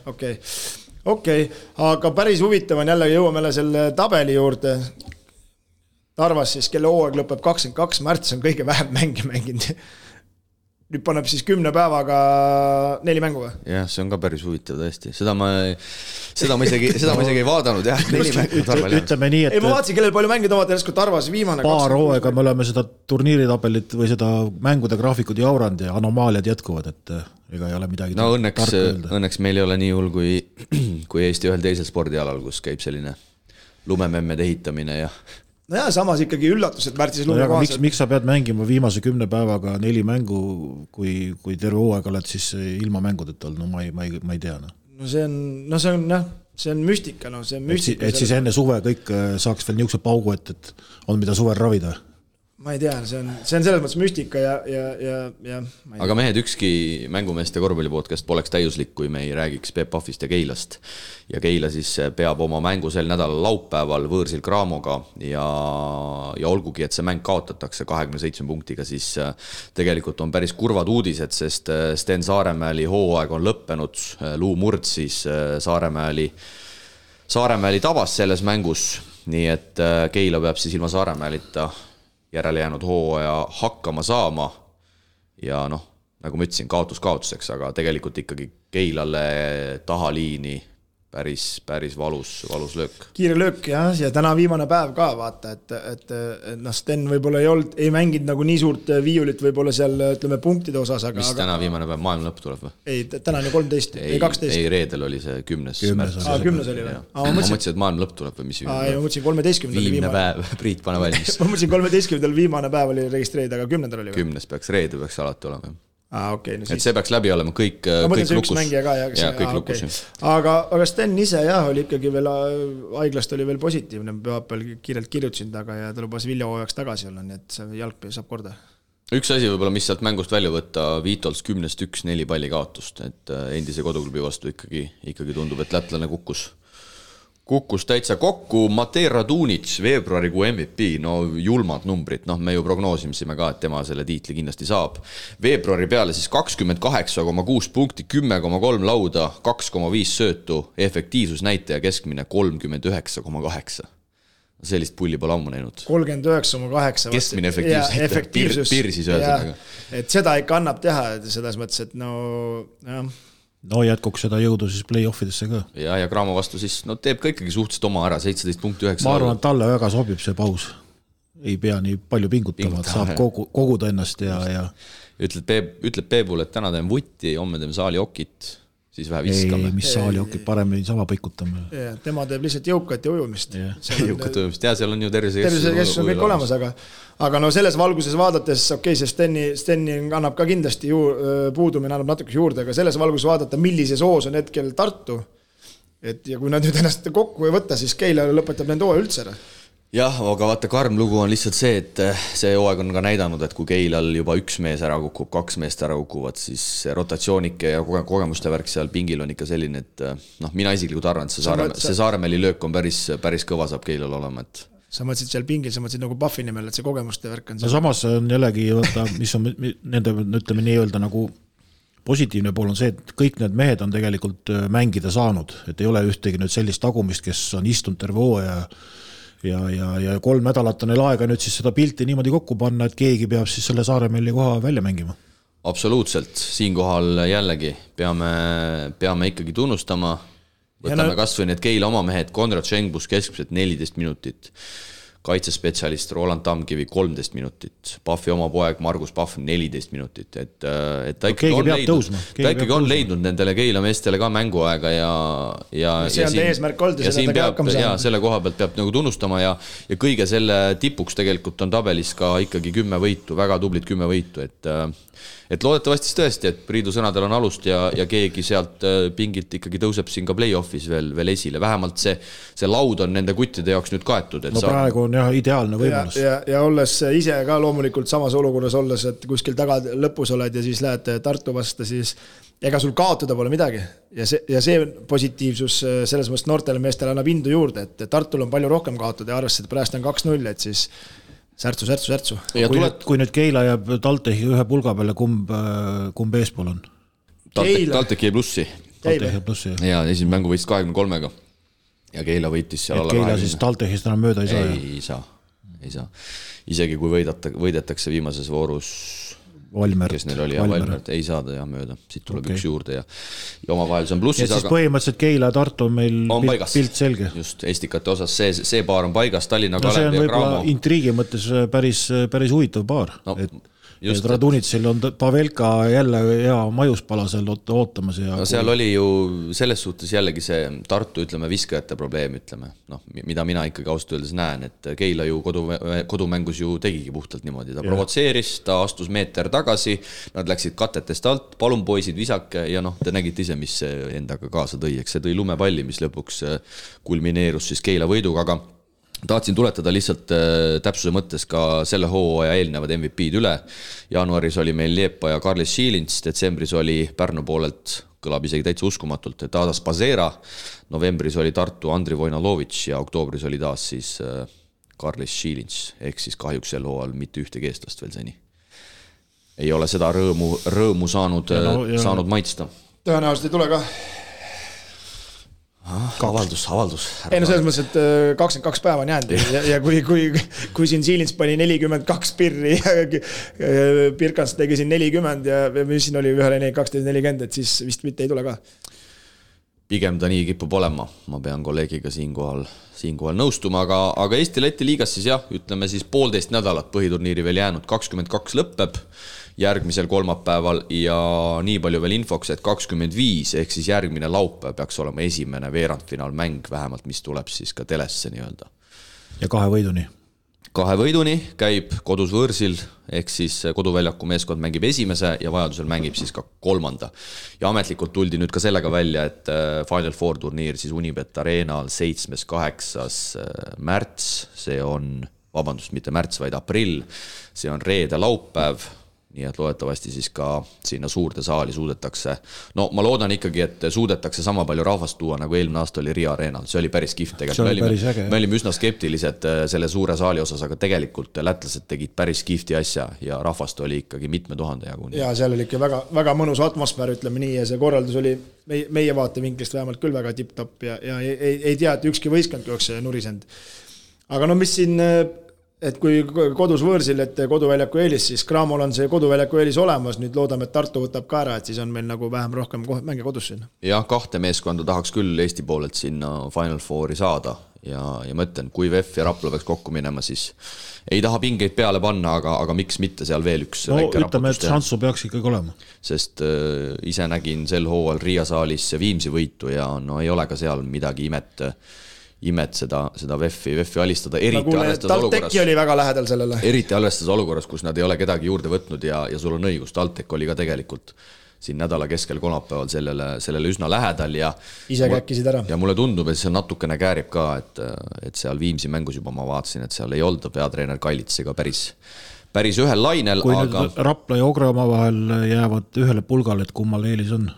Okei. Aga päris huvitav on jällegi jõuame selle tabeli juurde. Tarvas siis, kelle hooaeg lõpeb 22 märts on kõige vähem mänginud. Nüüd paneb siis 10 päevaga 4 mängu või? Jah, see on ka päris huvitav tõesti. Seda ma isegi ei vaadanud, jah. 4 mängu Tarval. Ütleme nii, et... Ei, ma vaatasin, kellel palju mängid omad järsku Tarvas viimane. Paar hooaega me oleme seda turniiritabelit või seda mängude graafikud jauranud ja anomaaliad jätkuvad, et ega ei ole midagi õnneks meil ei ole nii hull kui Eesti ühel teisel spordialal, kus käib selline lumememmed ehitamine ja... No jah, samas ikkagi üllatus, et märtsis lume kohaselt. Miks sa pead mängima viimase 10 päevaga 4 mängu, kui terve hooaeg oled siis ilma mängudeta olnud? No ma ei tea. No see on müstika. See on müstika. Et siis enne suve kõik saaks veel niisuguse paugu, et on mida suvel ravida? ma ei tea, see on selles mõttes müstika ja aga mehed, ükski mängumeeste korvpallipodcast poleks täiuslik, kui me ei räägiks Peep Pahvist ja Keilast. Ja Keila siis peab oma mängu sel nädalal laupäeval võõrsil Craamoga ja olgugi, et see mäng kaotatakse 27 punktiga, siis tegelikult on päris kurvad uudised, sest Sten Saaremäeli hooaeg on lõppenud, Luu Murd siis Saaremäeli tabas selles mängus, nii et Keila peab siis ilma Saaremäelita järele jäänud hooaja hakkama saama ja noh, nagu ma ütlesin, kaotuseks, aga tegelikult ikkagi Keilale tahaliini päris valus löök. Kiire löök ja täna viimane päev ka vaata, et Sten võib-olla ei mänginud nagu nii suurt viiulit võib-olla seal, ütleme, punktide osas, aga... Mis täna viimane päev, maailma lõpp tuleb või? Ei, täna on ju 13, ei 12. Ei, reedel oli see 10. märts. 10 oli või? Ma mõtlesin, et maailma lõpp tuleb või mis ma mõtlesin 13. Viimne päev, Priit, pane valmis. Ma mõtlesin 13. viimane päev oli registreerida, aga 10. oli või? 10. peaks, reede peaks alati olema. Okay, no et see peaks läbi olema kõik lukus. Kõik lukus. Aga Sten ise oli ikkagi veel, haiglast oli veel positiivne, pühapäeval kiirelt kirjutasin taga ja ta lubas Viljahooajaks tagasi olla, nii et see jalg saab korda. Üks asi võib-olla, mis sealt mängust välja võtta, Vitols 10-1-4 palli kaotust, et endise koduklubi vastu ikkagi tundub, et lätlane kukkus täitsa kokku. Matej Radunic, veebruarikuu MVP, no julmad numbrid, me ju prognoosimisime ka, et tema selle tiitli kindlasti saab. Veebruari peale siis 28,6 punkti, 10,3 lauda, 2,5 söötu, efektiivsusnäitaja keskmine 39,8. Sellist pulli pole ammu näinud. 39,8. Keskmine efektiivsus. Pirsis öeldega. Et seda ikka annab teha, selles mõttes, et No jätkuks seda jõudu siis play-offidesse ka. Ja Cramo vastu siis teeb ka ikkagi suhteliselt oma ära, 17.9. Ma arvan, et talle väga sobib see paus. Ei pea nii palju pingutama, saab koguda ennast ja... Ütleb Peebul, et täna teen vutti, homme teeme saali okit, siis vähe viskame. Ei, mis saali okit, paremini sama pikutame. Tema teeb lihtsalt jõukat ja ujumist. Jõukat ujumist, ja seal on ju tervisekeskus on kõik olemas, aga selles valguses vaadates, see Steni annab ka kindlasti puudumine, annab natuke juurde, aga selles valguses vaadata, millises hoos on hetkel Tartu, ja kui nad nüüd ennast kokku ei võtta, siis Keila lõpetab nende hooaja üldse ära. Jah, aga vaata, karm lugu on lihtsalt see, et see hooaeg on ka näidanud, et kui Keilal juba üks mees ära kukub, 2 meest ära kukuvad, siis rotatsioonike ja kogemuste värk seal pingil on ikka selline, et mina isiklikult arvan, et see Saaremäeli löök on päris kõva saab Keilal olema, et sa mõtlesid seal pingil, sa mõtlesid nagu Pahvi nimel, et see kogemuste värk on no samas on jällegi, mis on nende, ütleme nii öelda nagu positiivne pool on see, et kõik need mehed on tegelikult mängida saanud, et ei ole ühtegi nüüd sellist tagumist, kes on istunud terve hooaja ja 3 nädalat on neil aega nüüd siis seda pilti niimoodi kokku panna, et keegi peab siis selle Saaremäeli koha välja mängima. Absoluutselt, siinkohal jällegi peame ikkagi tunnustama, võtame kas või need Keila oma mehed, Konrad Šengbus keskmiselt 14 minutit, kaitsespetsialist Roland Tamkivi 13 minutit, Pahvi oma poeg Margus Pahv 14 minutit, et ta ikkagi on leidnud nendele Keila meestele ka mänguaega ja see on eesmärk olnud ja siin peab, selle koha pealt peab nagu tunnustama ja kõige selle tipuks tegelikult on tabelis ka ikkagi 10 võitu, väga tublid 10 võitu, et loodetavasti tõesti, et Priidu sõnadel on alust ja keegi sealt pingilt ikkagi tõuseb siin ka play-offis veel esile. Vähemalt see laud on nende kuttide jaoks nüüd kaetud. No praegu on jah ideaalne võimalus. Ja olles ise ka loomulikult samas olukorras olles, et kuskil taga lõpus oled ja siis lähed Tartu vastu, siis ega sul kaotada pole midagi. Ja see positiivsus selles mõttes noortele meestele annab indu juurde, et Tartul on palju rohkem kaotada ja arvestades, et praegu on 2-0, et siis särtsu. Kui nüüd Keila jääb Taltehi ühe pulga peale, kumb eespool on? Taltek jäi plussi. Ja esimene mängu võitis 23-ga ja Keila võitis seal alla 20. Keila siis Taltehist enam mööda ei saa? Ei saa. Isegi kui võidetakse viimases voorus Valmert. Kes neil oli, Valmert ei saada mööda. Siit tuleb üks juurde ja omavahel see on plussis. Ja siis põhimõtteliselt Keila ja Tartu on meil pilt selge. Just, estikate osas see paar on paigas, Tallinna Kalev ja Cramo. See on võib-olla intriigi mõttes päris huvitav paar. Et Radunitsil on Pavelka jälle hea majuspala seal ootamas. No seal oli ju selles suhtes jällegi see Tartu, viskajate probleem, mida mina ikkagi ausalt öeldes näen, et Keila ju kodumängus ju tegigi puhtalt niimoodi. Ta provotseeris, ta astus meeter tagasi, nad läksid katetest alt, palun poisid visake ja te nägite ise, mis see endaga kaasa tõi. See tõi lumepalli, mis lõpuks kulmineerus siis Keila võiduga, tahtsin tuletada lihtsalt täpsuse mõttes ka selle hooaja eelnevad MVP-d üle. Jaanuaris oli meil Liepa ja Karlis Šiilins, detsembris oli Pärnu poolelt, kõlab isegi täitsa uskumatult, Tadas Pazera, novembris oli Tartu Andri Vojnalovitš ja oktoobris oli taas siis Karlis Šiilins, ehk siis kahjuks sel hooajal mitte ühtegi eestlast veel seni. Ei ole seda rõõmu saanud maitsta. Tõenäoliselt ei tule ka. Avaldus. Ei no selles mõttes, et 22 päeva on jäänud ja kui siin Šiilins pani 42 pirri ja Pirkans tegi siin 40 ja mis siin oli ühele 12-40, et siis vist mitte ei tule ka. Pigem ta nii kipub olema, ma pean kolleegiga siinkohal nõustuma, aga Eesti-Läti liigas siis jah, ütleme siis 1,5 nädalat põhiturniiri veel jäänud, 22 lõppeb järgmisel kolmapäeval ja nii palju veel infoks, et 25 ehk siis järgmine laupäev peaks olema esimene veerandfinaalmäng vähemalt, mis tuleb siis ka telesse nii-öelda. Ja 2 võiduni. 2 võiduni käib kodus võõrsil, ehk siis koduväljaku meeskond mängib esimese ja vajadusel mängib siis ka 3. Ja ametlikult tuldi nüüd ka sellega välja, et Final Four turniir siis Unibet Arenal 7.–8. märts, see on, mitte märts, vaid aprill, see on reede laupäev, nii et loodetavasti siis ka sinna suurde saali suudetakse. No ma loodan ikkagi, et suudetakse sama palju rahvast tuua, nagu eelmine aasta oli Riia Arenal. See oli päris kihvt tegelikult. Me olime üsna skeptilised selle suure saali osas, aga tegelikult lätlased tegid päris kihvti asja ja rahvast oli ikkagi mitme tuhande jaguni. Ja seal oli ikka väga, väga mõnus atmosfäär, ütleme nii, ja see korraldus oli meie vaatevinklist vähemalt küll väga tipp-topp ja ei tea, et ükski võistkond oleks nurisend. Aga no mis siin... Et kui kodus võõrsil, et koduväljaku eelis, siis Cramol on see koduväljaku eelis olemas, nüüd loodame, et Tartu võtab ka ära, et siis on meil nagu vähem rohkem mänge kodus sinna. Jah, 2 meeskonda tahaks küll Eesti poolelt sinna Final Fouri saada ja mõtlen, kui VEF ja Rapla peaks kokku minema, siis ei taha pingeid peale panna, aga miks mitte seal veel üks väike ütleme, et šansu peaks ikkagi olema. Sest ise nägin sel hooajal Riia saalis Viimsi võitu ja no ei ole ka seal midagi imet seda VEF-i alistada, eriti arvestades olukorras, kus nad ei ole kedagi juurde võtnud ja sul on õigus, TalTech oli ka tegelikult siin nädala keskel kolmapäeval sellele üsna lähedal ja ise käkkisid ära. Ja mulle tundub, et see natukene käärib ka, et seal Viimsi mängus juba ma vaatasin, et seal ei olda peatreener Kallitsega päris ühel lainel. Kui nüüd Rapla ja Ogre oma vahel jäävad ühele pulgale, et kummal eelis on?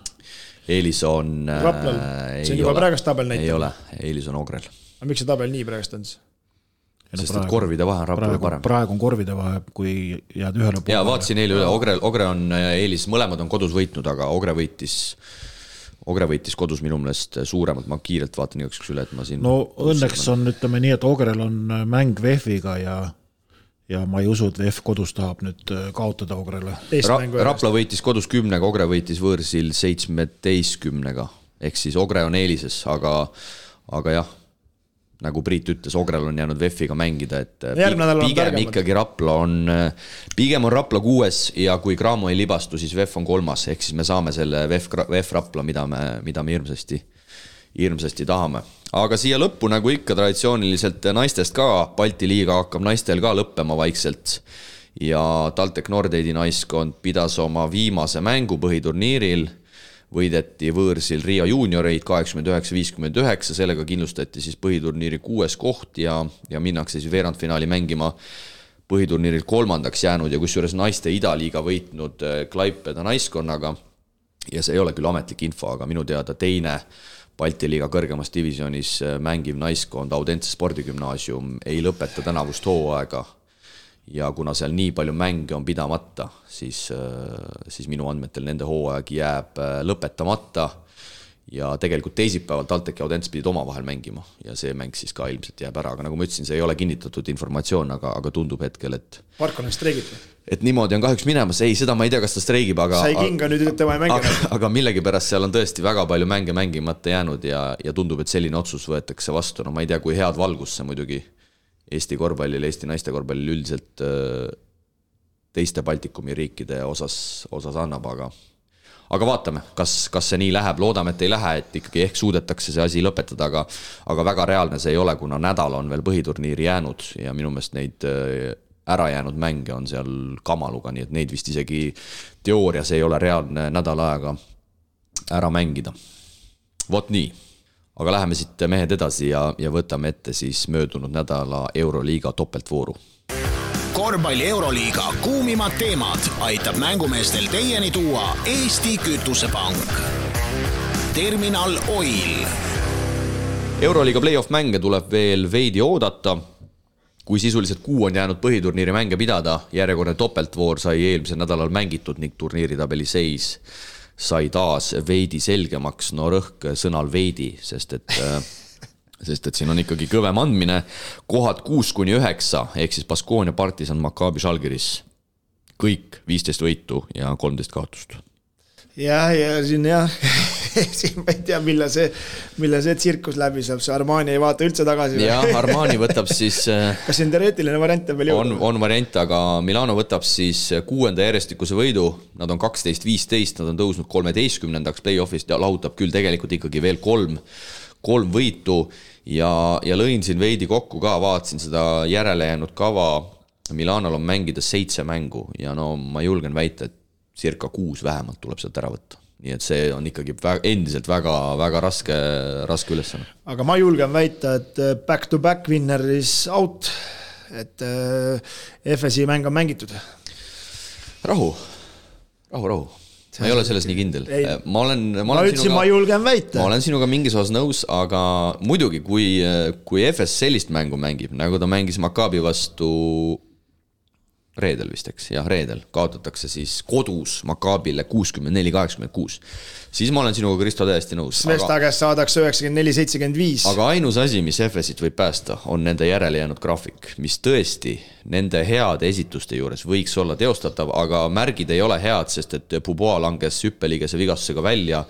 Eelis on... Raplal, see on juba praegast tabel näitab. Ei ole, Eelis on Ogrel. Aga miks see tabel nii praegast on? Sest et korvide vahe on Raplale parem. Praegu on korvide vahe, kui jääd ühele poole. Ja vaatasin eile üle, Ogre on Eelis, mõlemad on kodus võitnud, aga Ogre võitis kodus minu meelest suuremalt, ma kiirelt vaatan igaks üle, et ma siin... No õnneks on, ütleme nii, et Ogrel on mäng VEF-iga ja ma ei usu, et VEF kodus tahab nüüd kaotada Ogrele. Rapla võitis kodus 10, Ogre võitis võõrsil 17, ehk siis Ogre on eelises, aga jah, nagu Priit ütles, Ogrel on jäänud VEF-iga mängida, et pigem ikkagi pigem on Rapla 6 ja kui Cramo ei libastu, siis VEF on 3, ehk siis me saame selle VEF Rapla, mida me hirmsasti tahame. Aga siia lõppu, nagu ikka traditsiooniliselt naistest ka, Balti liiga hakkab naistel ka lõppema vaikselt ja TalTech Nordeidi naiskond pidas oma viimase mängu põhiturniiril, võideti võõrsil Riia juunioreid 89-59, sellega kindlustati siis põhiturniiri 6 koht ja minnakse siis veerandfinaali mängima põhiturniiril 3. jäänud ja kusjuures naiste idaliiga võitnud Klaipeda naiskonnaga ja see ei ole küll ametlik info, aga minu teada teine Balti liiga kõrgemas divisionis mängiv naiskond Audense spordigümnaasium ei lõpeta tänavust hooaega ja kuna seal nii palju mänge on pidamata, siis minu andmetel nende hooaeg jääb lõpetamata ja tegelikult teisipäeval TalTech ja Audense pidid omavahel mängima ja see mäng siis ka ilmselt jääb ära, aga nagu ma ütlesin, see ei ole kinnitatud informatsioon, aga tundub hetkel, et Parkon on streigib. Et niimoodi on kahjuks minemas, ei, seda ma ei tea, kas ta streigib, sai kinga nüüd, et tema ei mängi. Aga millegipärast seal on tõesti väga palju mänge mängimata jäänud ja tundub, et selline otsus võetakse vastu, no ma ei tea, kui head valgus see muidugi Eesti korvpallile, Eesti naiste korvpallile üldiselt teiste Baltikumi riikide osas annab, aga vaatame, kas see nii läheb, loodame, et ei lähe, et ikkagi ehk suudetakse see asi lõpetada, aga väga reaalne see ei ole, kuna nädal on veel põhiturniiri jäänud ja minu meelest neid ära jäänud mänge on seal kamaluga, nii et neid vist isegi teoorias ei ole reaalne nädal aega ära mängida. Vot nii. aga läheme siit mehed edasi ja võtame ette siis möödunud nädala Euroliiga topeltvooru. Korvpalli Euroliiga kuumimad teemad aitab mängumeestel teieni tuua Eesti Kütusepank. Terminal Oil. Euroliiga play-off mänge tuleb veel veidi oodata. Kui sisuliselt 6 on jäänud põhiturniiri mänge pidada, järjekordne topeltvoor sai eelmisel nädalal mängitud ning turniiritabeli seis sai taas veidi selgemaks. No rõhk sõnal veidi, sest et siin on ikkagi kõvem andmine. Kohad 6-9, ehk siis Baskonia, Partisan, Maccabi, Žalgiris. Kõik 15 võitu ja 13 kaotust. Ja siin siin ma ei tea, mille see tsirkus läbi saab, see Armani ei vaata üldse tagasi. Ja Armani võtab siis... Kas see on teoreetiline variant veel jõuda? On variant, aga Milano võtab siis 6. järjestikuse võidu, nad on 12-15, nad on tõusnud 13. play-offist ja lahutab küll tegelikult ikkagi veel 3 võitu ja lõin siin veidi kokku ka, vaatasin seda järele jäänud kava. Milanol on mängida 7 mängu ja no ma julgen väita, et circa 6 vähemalt tuleb sealt ära võtta. Nii et see on ikkagi endiselt väga raske ülesanne. Aga ma julgen väita, et back-to-back winner is out, et FSI mäng on mängitud. Rahu. Ma ei ole selles nii kindel. Ma julgen väita. Ma olen sinuga mingis osas nõus, aga muidugi, kui FS sellist mängu mängib, nagu ta mängis Maccabi vastu reedel vist, eks, jah, reedel kaotatakse siis kodus Maccabile 64-86. Siis ma olen sinuga, Kristo, täiesti nõus. Svesta käest saadakse 94-75. Aga ainus asi, mis FS-it võib päästa, on nende järele jäänud graafik, mis tõesti nende heade esituste juures võiks olla teostatav, aga märgid ei ole head, sest et Puboa langes hüppeligese vigastusega välja.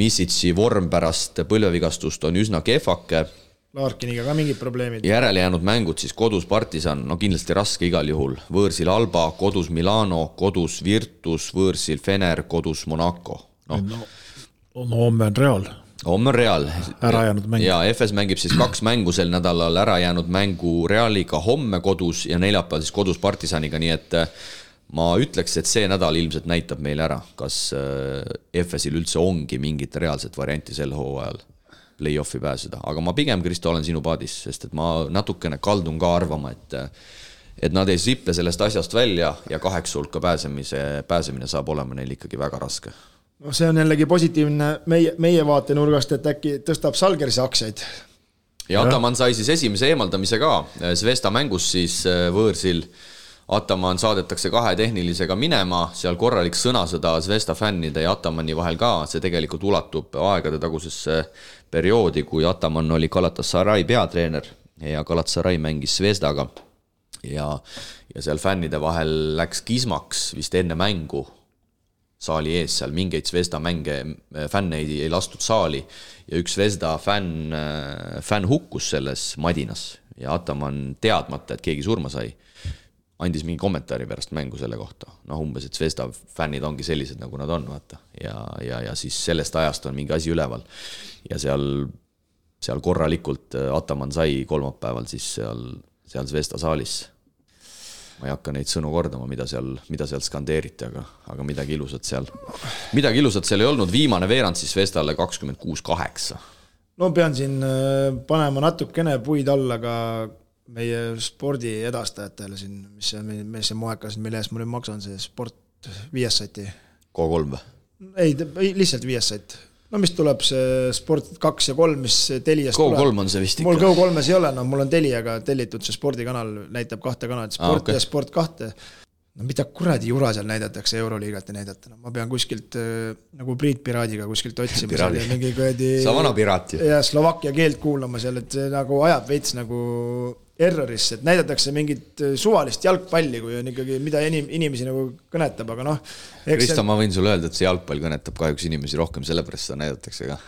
Misitsi vorm pärast põlvevigastust on üsna kehvake. Larkiniga ka mingid probleemid. Järele jäänud mängud siis kodus Partisan, no kindlasti raske igal juhul. Võõrsil Alba, kodus Milano, kodus Virtus, võõrsil Fener, kodus Monaco. No homme on Real. Homme on Real. Ära jäänud mäng. Ja FS mängib siis 2 mängu sel nädalal, ära jäänud mängu Realiga homme kodus ja neljapäeval siis kodus Partisaniga, nii et ma ütleks, et see nädal ilmselt näitab meile ära, kas FS-il üldse ongi mingit reaalset varianti sel hooajal play-offi pääseda. Aga ma pigem, Kristo, olen sinu paadis, sest et ma natukene kaldun ka arvama, et nad ei siple sellest asjast välja ja 8 hulka pääsemine saab olema neil ikkagi väga raske. No see on jällegi positiivne meie vaatenurgast, et äkki tõstab Žalgirise aktsiaid. Ja Ataman sai siis esimese eemaldamise ka. Svesta mängus siis võõrsil Ataman saadetakse 2 tehnilisega minema, seal korralik sõnasõda Svesta fännide ja Atamani vahel ka, see tegelikult ulatub aegade tagusesse perioodi, kui Ataman oli Galatasaray peatreener ja Galatasaray mängis Svestaga ja seal fännide vahel läks kismaks vist enne mängu saali ees, seal mingeid Svesta fänne ei lastud saali ja üks Svesta fänn hukkus selles madinas ja Ataman teadmata, et keegi surma sai, andis mingi kommentaari pärast mängu selle kohta. No umbes, et Svesta fännid ongi sellised, nagu nad on, vaata. Ja siis sellest ajast on mingi asi üleval. Ja seal korralikult Ataman sai kolmapäeval siis seal Svesta saalis. Ma ei hakka neid sõnu kordama, mida seal skandeeriti, aga midagi ilusat seal ei olnud. Viimane veerand siis Svestale 26-8. No pean siin panema natukene puid alla ka meie spordi edastajatele siin, mis see moekas, mille ees ma nüüd maksan, see sport 5 sati. K3 või? Ei, lihtsalt 5 sat. No mis tuleb see sport 2 ja 3, mis Teliast tuleb. K3 on see vist ikka. Mul K3-s ei ole, no mul on Teliaga tellitud see spordikanal, näitab 2 kanalit, sport okay. Ja sport 2. No mida kuradi jura seal näidatakse, Euroliigat ei näidata. No, ma pean kuskilt nagu Priit Piraadiga kuskilt otsima. Sa vana piraat ju. Ja Slovakkia keelt kuulama seal, et see nagu ajab veits nagu errorisse, et näidatakse mingit suvalist jalgpalli, kui on ikkagi mida inimesi nagu kõnetab, aga noh. Kristo, ma võin sulle öelda, et see jalgpall kõnetab kahjuks inimesi rohkem, sellepärast seda näidatakse ka.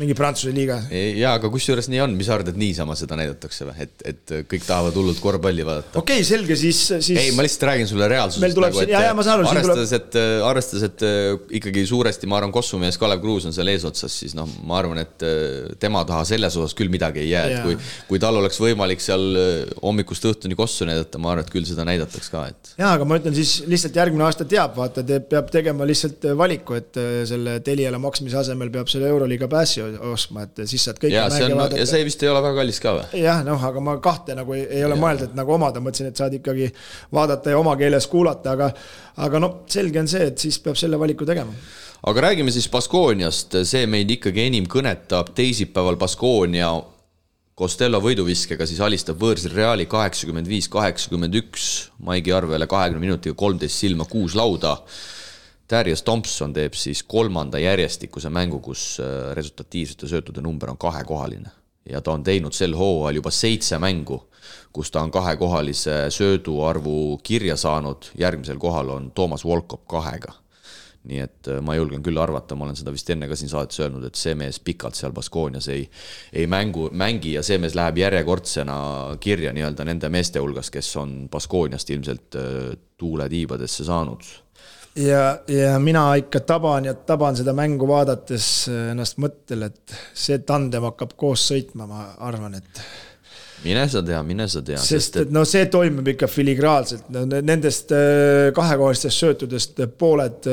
Mingi Prantsuse liiga. Jaa, aga kus juures nii on, mis arvad, et niisama seda näidatakse või? Et kõik tahavad hullult korvpalli vaadata. Okei, selge, siis... Ei, ma lihtsalt räägin sulle reaalsusest. Arvestades, et ikkagi suuresti, ma arvan, kossumees Kalev Kruus on seal eesotsas, siis noh, ma arvan, et tema taha selles osas küll midagi ei jää. Kui tal oleks võimalik seal hommikust õhtuni kossu näidata, ma arvan, et küll seda näidataks ka. Jaa, aga ma ütlen siis lihtsalt järgmine aasta teab, vaata, peab tegema lihtsalt valiku, et selle Teliale maksmise asemel peab selle Euroliiga passi ostma, et siis saad kõike mänge vaadata. Ja see vist ei ole väga kallis ka või? Jah, aga ma kahte nagu ei ole mõelda, et nagu omada, mõtlesin, et saad ikkagi vaadata ja oma keeles kuulata, aga selge on see, et siis peab selle valiku tegema. Aga räägime siis Baskoniast, see meid ikkagi enim kõnetab teisipäeval Baskonia Costello võiduviskega siis alistab võõrsil Reali 85-81, Maigi Arvele 20 minutiga 13 silma 6 lauda. Darius Thompson teeb siis 3. järjestikuse mängu, kus resultatiivsete söötude number on 2-kohaline. Ja ta on teinud sel hooajal juba 7 mängu, kus ta on 2-kohalise sööduarvu kirja saanud. Järgmisel kohal on Thomas Volkop 2-ga. Nii et ma julgen küll arvata, ma olen seda vist enne ka siin saates öelnud, et see mees pikalt seal Baskonias ei mängi ja see mees läheb järjekordsena kirja nii-öelda nende meeste hulgas, kes on Baskoniast ilmselt tuule tiibadesse saanud. Ja mina ikka taban seda mängu vaadates ennast mõttel, et see tandem hakkab koos sõitma, ma arvan, et Mine sa tea. Sest et see toimub ikka filigraalselt. Nendest kahekohalistest söötudest pooled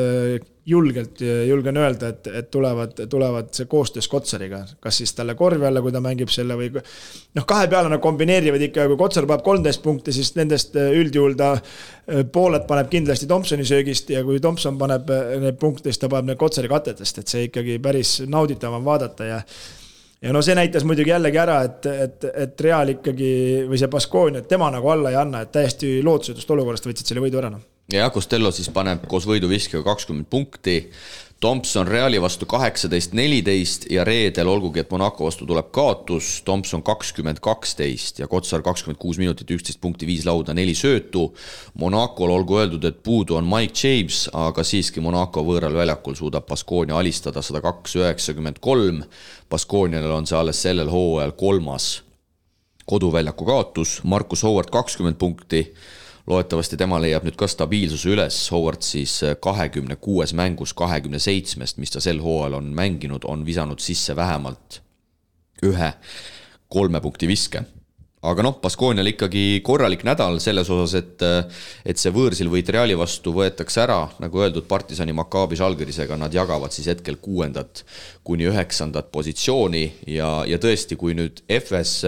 julgen öelda, et tulevad see koostöös Kotsariga. Kas siis talle korvi alla, kui ta mängib selle või... kahe peale nad kombineerivad ikka, kui Kotsar paneb 13 punkti, siis nendest üldjuhul ta pooled paneb kindlasti Thompsoni söögist ja kui Thompson paneb need punkte, siis ta paneb need Kotsari katetest, et see ikkagi päris nauditav on vaadata ja see näitas muidugi jällegi ära, et Real ikkagi, või see Baskonia, et tema nagu alla ei anna, et täiesti lootusetust olukorrast võtsid selle võidu ära. Ja Costello siis paneb koos võiduviskega 20 punkti, Thompson Reali vastu 18-14 ja reedel olgugi, et Monaco vastu tuleb kaotus, Thompson 20-12 ja Kotsar 26 minutit, 11 punkti, 5 lauda, 4 söötu. Monacol olgu öeldud, et puudu on Mike James, aga siiski Monaco võõral väljakul suudab Baskonia alistada 102-93. Baskonial on see alles sellel hooajal 3. koduväljaku kaotus, Marcus Howard 20 punkti. Loetavasti tema leiab nüüd ka stabiilsuse üles, Howard siis 26 mängus 27, mis ta sel hooajal on mänginud, on visanud sisse vähemalt 1 3 punkti viske. Aga Baskonial ikkagi korralik nädal selles osas, et see võõrsil võit Reali vastu võetakse ära, nagu öeldud Partisani Maccabi Žalgirisega, nad jagavad siis hetkel 6. kuni 9. positsiooni ja tõesti, kui nüüd FS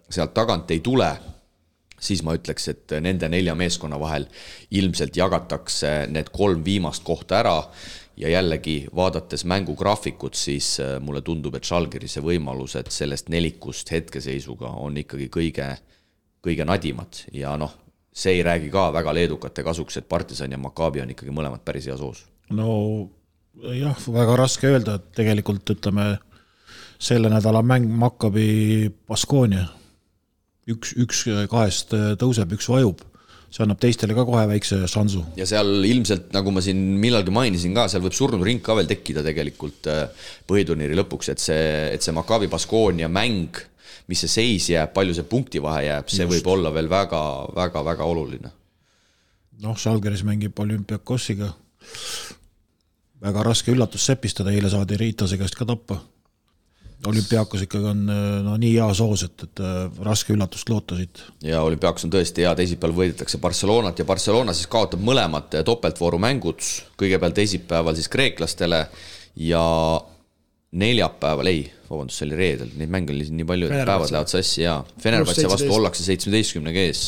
sealt tagant ei tule, siis ma ütleks, et nende 4 meeskonna vahel ilmselt jagatakse need 3 viimast kohta ära ja jällegi vaadates mängugraafikut, siis mulle tundub, et Žalgirise võimalused sellest nelikust hetkeseisuga on ikkagi kõige nadimad ja see ei räägi ka väga leedukate kasuks, et Partisan ja Maccabi on ikkagi mõlemad päris hea soos. Jah, väga raske öelda, et tegelikult ütleme selle nädala mäng Maccabi Baskonia. Üks kahest tõuseb, üks vajub. See annab teistele ka kohe väikse šansu. Ja seal ilmselt, nagu ma siin millalgi mainisin ka, seal võib surnud ring ka veel tekkida tegelikult põhiturniiri lõpuks, et see Maccabi Baskonia mäng, mis see seis jääb, palju see punkti vahe jääb, see võib olla veel väga oluline. Žalgiris mängib Olümpiakosiga. Väga raske üllatus sepistada, eile saadi Riitase käest ka tappa. Olümpiakos ikkagi on nii hea soos, et raske üllatust loota siit. Ja Olümpiakos on tõesti hea, teisipäeval võidetakse Barcelonat ja Barcelona siis kaotab mõlemad topeltvooru mängud, kõigepealt teisipäeval siis kreeklastele ja neljapäeval, see oli reedel, neid mänge oli nii palju, et päevad lähevad sassi ja Fenerbahce vastu ollakse 17 kees,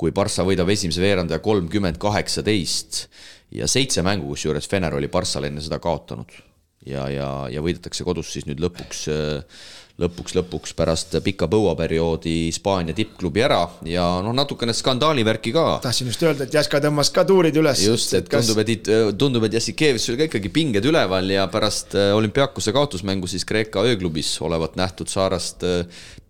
kui Barça võidab esimese veerandaja 30-18 ja 7 mängu, kus juures Fener oli Barçale enne seda kaotanud. Ja võidetakse kodus siis nüüd lõpuks pärast pika põuaperioodi Hispaania tippklubi ära ja natukene skandaalivärki ka. Tahtsin just öelda, et Jaska tõmmas ka tuurid üles. Just, et tundub, et Jassikeevis oli ka ikkagi pinged üleval ja pärast Olümpiakose kaotusmängu siis Kreeka ööklubis olevat nähtud Saarast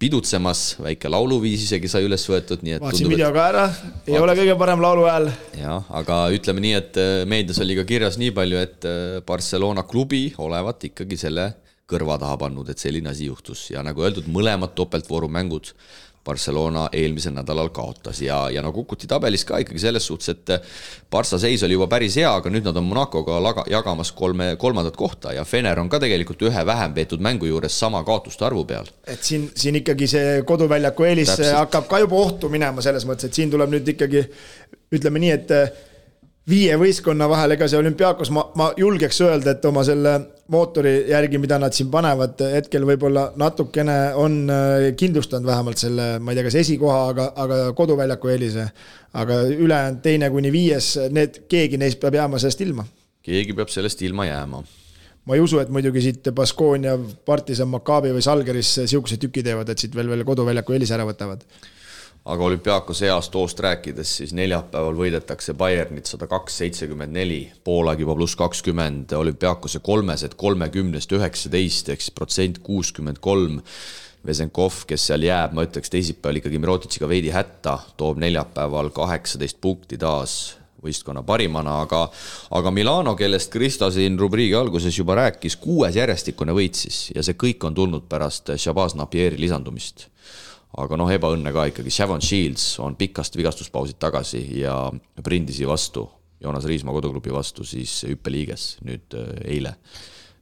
pidutsemas, väike lauluviis isegi sai üles võetud. Vaatsin video ka ära, ei ole kõige parem laulu hääl. Ja, aga ütleme nii, et meedias oli ka kirjas nii palju, et Barcelona klubi olevat ikkagi selle kõrva taha pannud, et selline asi juhtus ja nagu öeldud, mõlemad topeltvooru mängud Barcelona eelmisel nädalal kaotas ja kukuti tabelis ka ikkagi selles suhtes, et Barça seis oli juba päris hea, aga nüüd nad on Monacoga jagamas 3. kohta ja Fener on ka tegelikult ühe vähem peetud mängu juures sama kaotuste arvu peal. Et siin ikkagi see koduväljaku eelis hakkab ka juba ohtu minema selles mõttes, et siin tuleb nüüd ikkagi, ütleme nii, et 5 võistkonna vahel, ega see Olümpiakos, ma julgeks öelda, et oma selle mootori järgi, mida nad siin panevad, hetkel võib-olla natukene on kindlustanud vähemalt selle, ma ei tea, kas esikoha, aga koduväljaku eelise. Aga ülejäänud 2-5, keegi neist peab jääma sellest ilma. Keegi peab sellest ilma jääma. Ma ei usu, et muidugi siit Baskonia, Partisan, Maccabi või Salgeris siukse tüki teevad, et siit veel koduväljaku eelise ära võtavad. Aga Olümpiakos heast hoost rääkides, siis neljapäeval võidetakse Bayernit 102-74, poolaeg juba +20, Olümpiakose 3 30-19, ehk siis protsent 63. Vesenkov, kes seal jääb, ma ütleks teisipäeval ikkagi Mirotičiga veidi hätta, toob neljapäeval 18 punkti taas võistkonna parimana, aga Milano, kellest Kristo siin rubriigi alguses juba rääkis, 6 järjestikune võitsis ja see kõik on tulnud pärast Shabazz Napieri lisandumist. Aga ebaõnne ka ikkagi. Shavon Shields on pikast vigastuspausid tagasi ja Brindisi vastu, Joonas Riismaa koduklubi vastu siis hüppeliiges nüüd eile.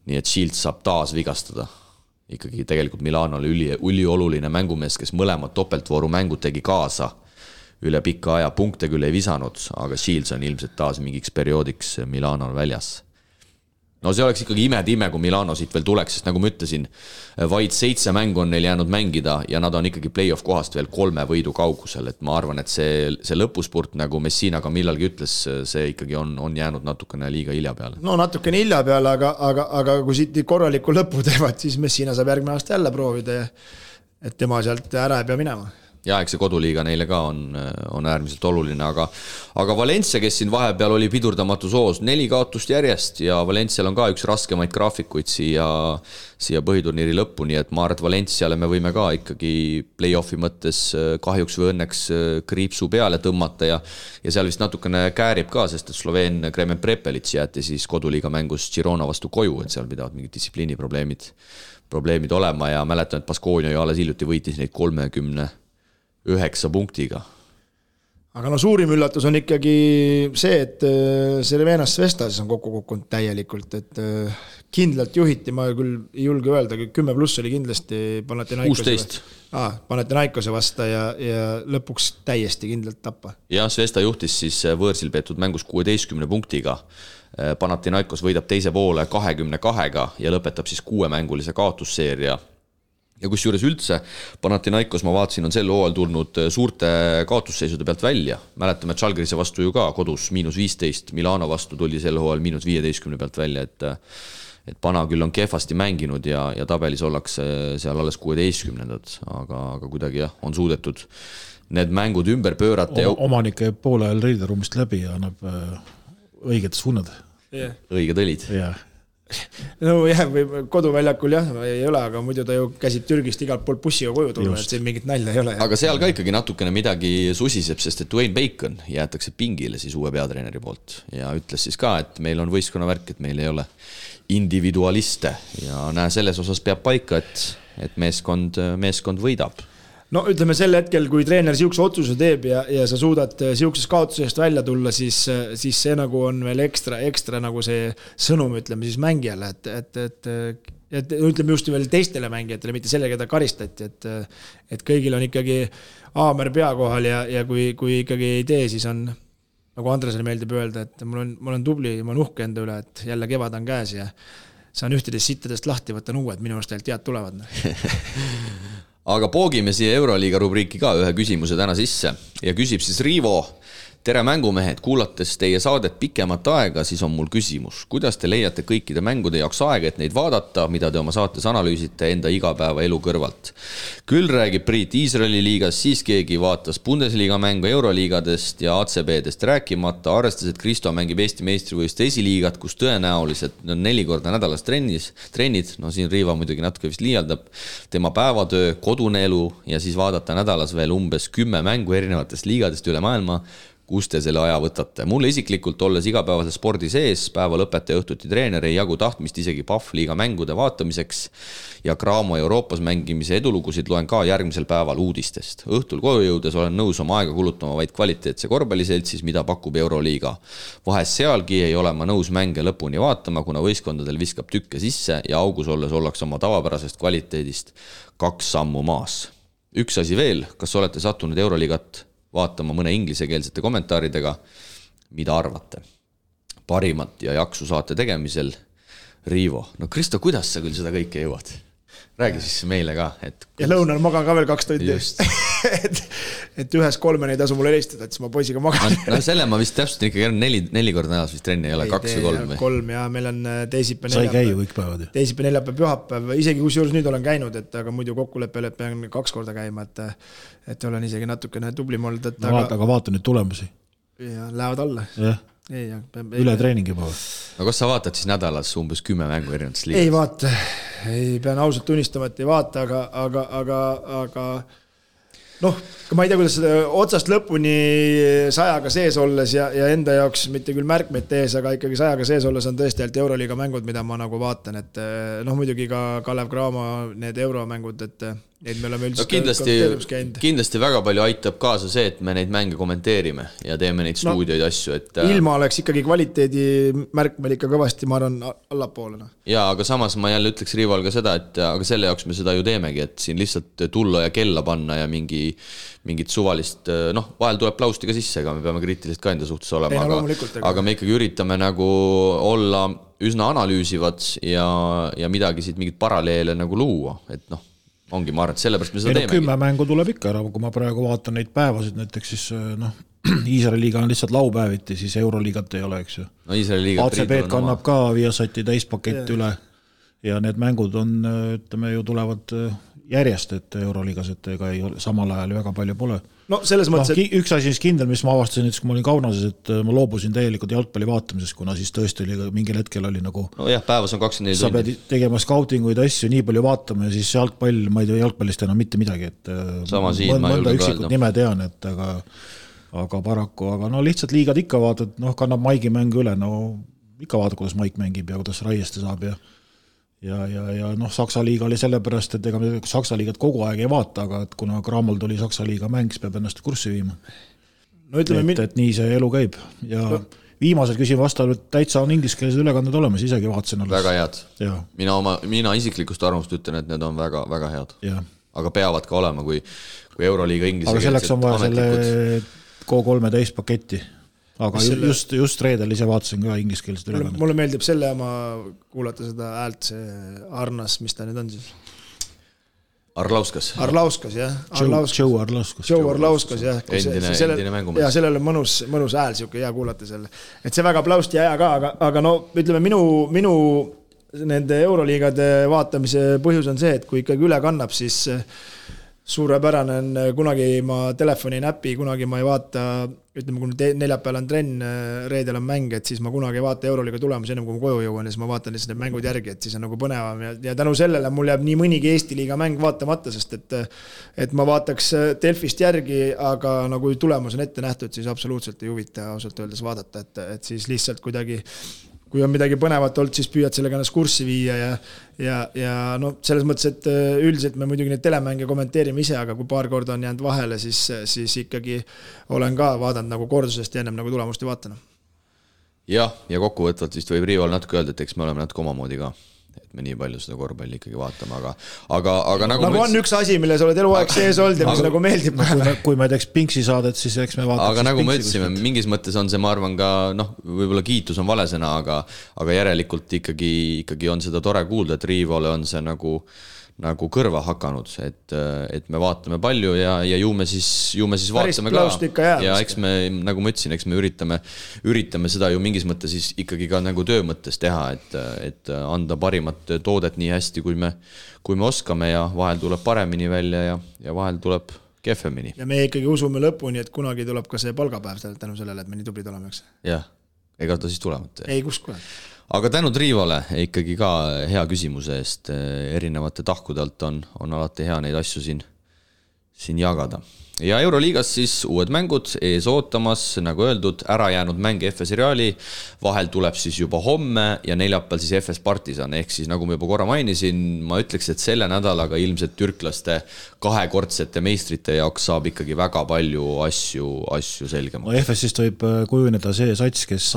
Nii et Shields saab taas vigastada. Ikkagi tegelikult Milano oli ülioluline mängumees, kes mõlemad topeltvooru mängud tegi kaasa üle pikka aja. Punkte küll ei visanud, aga Shields on ilmselt taas mingiks perioodiks Milano väljas. No see oleks ikkagi ime, kui Milano siit veel tuleks, sest nagu ma ütlesin, vaid 7 mängu on neil jäänud mängida ja nad on ikkagi play-off kohast veel 3 võidu kaugusel, et ma arvan, et see lõpuspurt, nagu Messina ka millalgi ütles, see ikkagi on jäänud natukene liiga hilja peale. No natukene hilja peale, aga kui siit korraliku lõpu teevad, siis Messina saab järgmine aasta jälle proovida, et tema sealt ära ei pea minema. Ja eks see koduliiga neile ka on äärmiselt oluline, aga Valencia, kes siin vahepeal oli pidurdamatu soos, 4 kaotust järjest ja Valencial on ka üks raskemaid graafikuid siia põhiturniiri lõppu, nii et ma arvan, et Valenciale me võime ka ikkagi play-offi mõttes kahjuks või õnneks kriipsu peale tõmmata ja seal vist natukene käärib ka, sest et Sloveen Kremen Prepelits jäeti siis koduliiga mängus Girona vastu koju, et seal pidavad mingid distsipliiniprobleemid olema ja mäletan, et Baskonia ju alles hiljuti võitis neid 39 punktiga. Aga suurim üllatus on ikkagi see, et Cervenas Vestas on kokku kukkunud täielikult, et kindlalt juhiti, ma küll ei julge öelda, 10+ oli kindlasti Panathinaikose vasta ja lõpuks täiesti kindlalt tappa. Ja Svesta juhtis siis võõrsil peetud mängus 16 punktiga. Panathinaikos võidab teise poole 22 ja lõpetab siis 6-mängulise kaotusseeria. Ja kus juures üldse Panathinaikos, ma vaatasin, on sel hooajal tulnud suurte kaotusseisude pealt välja. Mäletame, et Žalgirise vastu ju ka kodus -15, Milano vastu tuli sel hooajal -15 pealt välja, et Pana küll on kehvasti mänginud ja tabelis ollakse seal alles 16, aga kuidagi on suudetud need mängud ümber pöörata. Omanik käib poole ajal reideruumist läbi ja annab õiged suunad. Õiged õlid. Jah. No jah, või koduväljakul ei ole, aga muidu ta ju käsib Türgist igalt poolt bussiga koju tulla, et siin mingit nalja ei ole. Aga seal ka ikkagi natukene midagi susiseb, sest et Dwayne Bacon jäetakse pingile siis uue peatreeneri poolt ja ütles siis ka, et meil on võistkonna värk, et meil ei ole individualiste ja selles osas peab paika, et meeskond võidab. No ütleme sel hetkel, kui treener siukse otsuse teeb ja sa suudad siukses kaotusest välja tulla, siis see nagu on veel ekstra nagu see sõnum, ütleme siis mängijale, et ütleme just veel teistele mängijatele, mitte selle, keda karistati, et kõigil on ikkagi aamer pea kohal ja kui ikkagi ei tee, siis on, nagu Andresele meeldib öelda, et ma olen tubli, ma olen uhke enda üle, et jälle kevad on käes ja saan ühtedest sittadest lahti, võtan uued, minu arust tead tulevad. Aga poogime siia Euroliiga rubriiki ka ühe küsimuse täna sisse ja küsib siis Riivo. Tere mängumehed, kuulates teie saadet pikemat aega, siis on mul küsimus. Kuidas te leiate kõikide mängude jaoks aega, et neid vaadata, mida te oma saates analüüsite enda igapäeva elu kõrvalt? Küll räägib Priit Iisraeli liigas, siis keegi vaatas Bundesliga mängu Euroliigadest ja ACB-dest rääkimata, arvestades, et Kristo mängib Eesti meistrivõistluste esiliigat, kus tõenäoliselt on 4 korda nädalas trennid, no siin Riiva muidugi natuke vist liialdab, tema päevatöö, kodune elu ja siis vaadata nädalas veel umbes 10 mängu erinevatest liigadest üle maailma. Kus te selle aja võtate? Mulle isiklikult olles igapäevase spordi sees, päeva lõpetaja õhtuti treener ei jagu tahtmist isegi Pahvliiga mängude vaatamiseks ja Graamo Euroopas mängimise edulugusid loen ka järgmisel päeval uudistest. Õhtul koju jõudes olen nõus oma aega kulutama vaid kvaliteetse korvpalliseltsis, mida pakub Euroliiga. Vahest sealgi ei ole ma nõus mänge lõpuni vaatama, kuna võistkondadel viskab tükke sisse ja augus olles ollaks oma tavapärasest kvaliteedist 2 sammu maas. Üks asi veel, kas olete sattunud Euroliigat vaatama mõne inglisekeelsete kommentaaridega? mida arvate? Parimat ja jaksu saate tegemisel. Riivo, no Kristo, kuidas sa küll seda kõike jõuad? Räägi siis meile ka. Ja lõunal magan ka veel 2 tundi. et 1-3 ei tasu mulle helistada, et siis ma poisiga magan. No selle ma vist täpselt ikkagi 4 korda nädalas vist trenni ei ole, 2 või 3 või? 3 ja meil on teisipäev, neljapäev. Sai käia kõik päevad. Teisipäev, neljapäev, pühapäev, isegi kusjuures nüüd olen käinud, aga muidu kokkuleppele pean 2 korda käima, et olen isegi natukene tublim olnud. Aga vaata nüüd tulemusi. Ja lähevad alla. Jah. Üle treeningi juba. No kas sa vaatad siis nädalas umbes 10 mängu erinevates liigas? Ei vaata, pean ausalt tunnistama, et ei vaata, aga noh, ma ei tea, kuidas seda otsast lõpuni 100-ga sees olles ja enda jaoks mitte küll märkmeid tees, aga ikkagi 100-ga sees olles on tõesti ainult Euroliiga mängud, mida ma nagu vaatan, et noh, muidugi ka Kalev Cramo need euromängud, et me oleme üldiselt kindlasti väga palju aitab kaasa see, et me neid mänge kommenteerime ja teeme neid stuudioid asju. Et ilma oleks ikkagi kvaliteedi märk meil ikka kõvasti, ma arvan, allapoolena. Ja, aga samas ma jälle ütleks Riival ka seda, et aga selle jaoks me seda ju teemegi, et siin lihtsalt tulla ja kella panna ja mingit suvalist, noh, vahel tuleb plausti ka sisse, aga me peame kriitiliselt ka enda suhtes olema, aga me ikkagi üritame nagu olla üsna analüüsivad ja midagi siit mingit paralleele nagu luua, et noh, ongi, ma arvan, et sellepärast me seda teemegi. 10 mängu tuleb ikka ära, kui ma praegu vaatan neid päevasid, näiteks siis noh, Iisraeli liiga on lihtsalt laupäeviti, siis Euroliigat ei ole, eks ju. No Iisraeli liigat ACB kannab ka Viasati täispakett üle ja need mängud on, ütleme ju tulevad järjest, et Euroliigas, et ega ei ole, samal ajal väga palju pole. No selles mõttes, et üks asi kindel, mis ma avastasin, kui ma olin Kaunases, et ma loobusin täielikult jalgpalli vaatamisest, kuna siis tõesti oli mingil hetkel oli nagu no jah, päevas on 24 sa pead tegema scoutinguid asju, nii palju vaatama ja siis jalgpall, ma ei tea jalgpallist enam mitte midagi, et mõnda üksikut nime tean, et aga paraku, aga no lihtsalt liigad ikka vaatad, noh, kannab Maigi mängu üle, no ikka vaatad, kuidas Maik mängib ja kuidas Raieste saab ja noh, Saksa liiga oli sellepärast, et ega me Saksa liigat kogu aeg ei vaata, aga et kuna Grammol tuli Saksa liiga mäng, siis peab ennast kurssi viima. No ütleme, et nii see elu käib ja viimasel küsin vastavalt täitsa on ingliskeelsed ülekanded olemas, isegi vaatasin alles. Väga head. Mina isiklikust arvamust ütlen, et need on väga, väga head. Aga peavad ka olema, kui Euroliiga ingliskeelsed. Aga selleks on vaja selle K3 täispaketti. Aga just reedel ise vaatasin ka ingliskeelsed ülekanded. Mulle meeldib selle oma kuulata seda häält, see Arnas, mis ta nüüd on siis? Arlauskas, jah. Joe Arlauskas, jah. Endine mängumees. Ja sellel on mõnus hääl, siuke hea kuulata selle. Et see väga plausti aja ka, aga no ütleme, minu nende Euroliigade vaatamise põhjus on see, et kui ikkagi üle kannab, siis suurepärane on, kunagi ma telefoni näpi, kunagi ma ei vaata, ütleme, kui neljapäeval on trenn, reedel on mäng, et siis ma kunagi ei vaata Euroliiga tulemusi ennem, kui ma koju jõuan ja siis ma vaatan lihtsalt need mängud järgi, et siis on nagu põnevam ja tänu sellele mul jääb nii mõnigi Eesti liiga mäng vaatamata, sest et ma vaataks Delfist järgi, aga nagu tulemus on ette nähtud, siis absoluutselt ei huvita ausalt öeldes vaadata, et siis lihtsalt kuidagi kui on midagi põnevat olnud, siis püüad sellega ennast kurssi viia ja no selles mõttes, et üldiselt me muidugi neid telemänge kommenteerime ise, aga kui paar korda on jäänud vahele, siis ikkagi olen ka vaadanud nagu kordusest ja ennem nagu tulemust ei vaatanud. Ja kokkuvõtvalt vist võib Riival natuke öelda, et eks me oleme natuke omamoodi ka, et me nii palju seda korvpalli ikkagi vaatame, aga nagu on üks asi, mille sa oled eluaeg sees olnud ja mis nagu meeldib. Kui me teeks Pinksi saadet, siis eks me vaataks. Aga nagu me ütlesime, mingis mõttes on see, ma arvan ka, noh, võib-olla kiitus on valesena, aga järelikult ikkagi on seda tore kuulda, et Riivale on see nagu kõrva hakanud, et me vaatame palju ja ju me siis vaatame ka ja eks me, nagu ma ütlesin, eks me üritame seda ju mingis mõttes siis ikkagi ka nagu töö mõttes teha, et anda parimat toodet nii hästi, kui me oskame ja vahel tuleb paremini välja ja vahel tuleb kehvemini. Ja me ikkagi usume lõpuni, et kunagi tuleb ka see palgapäev tänu sellele, et me nii tublid oleme, eks? Jah, ega ta siis tulevad. Ei, kus kohe. Aga tänud Riivale ikkagi ka hea küsimuse eest, erinevate tahkudelt on alati hea neid asju siin jagada. Ja Euroliigas siis uued mängud ees ootamas, nagu öeldud, ära jäänud mäng FS Reali, vahel tuleb siis juba homme ja neljapäeval siis FS Partisan, ehk siis nagu ma juba korra mainisin, ma ütleks, et selle nädalaga ilmselt türklaste kahekordsete meistrite jaoks saab ikkagi väga palju asju selgemaks. No FS-ist võib kujuneda see sats, kes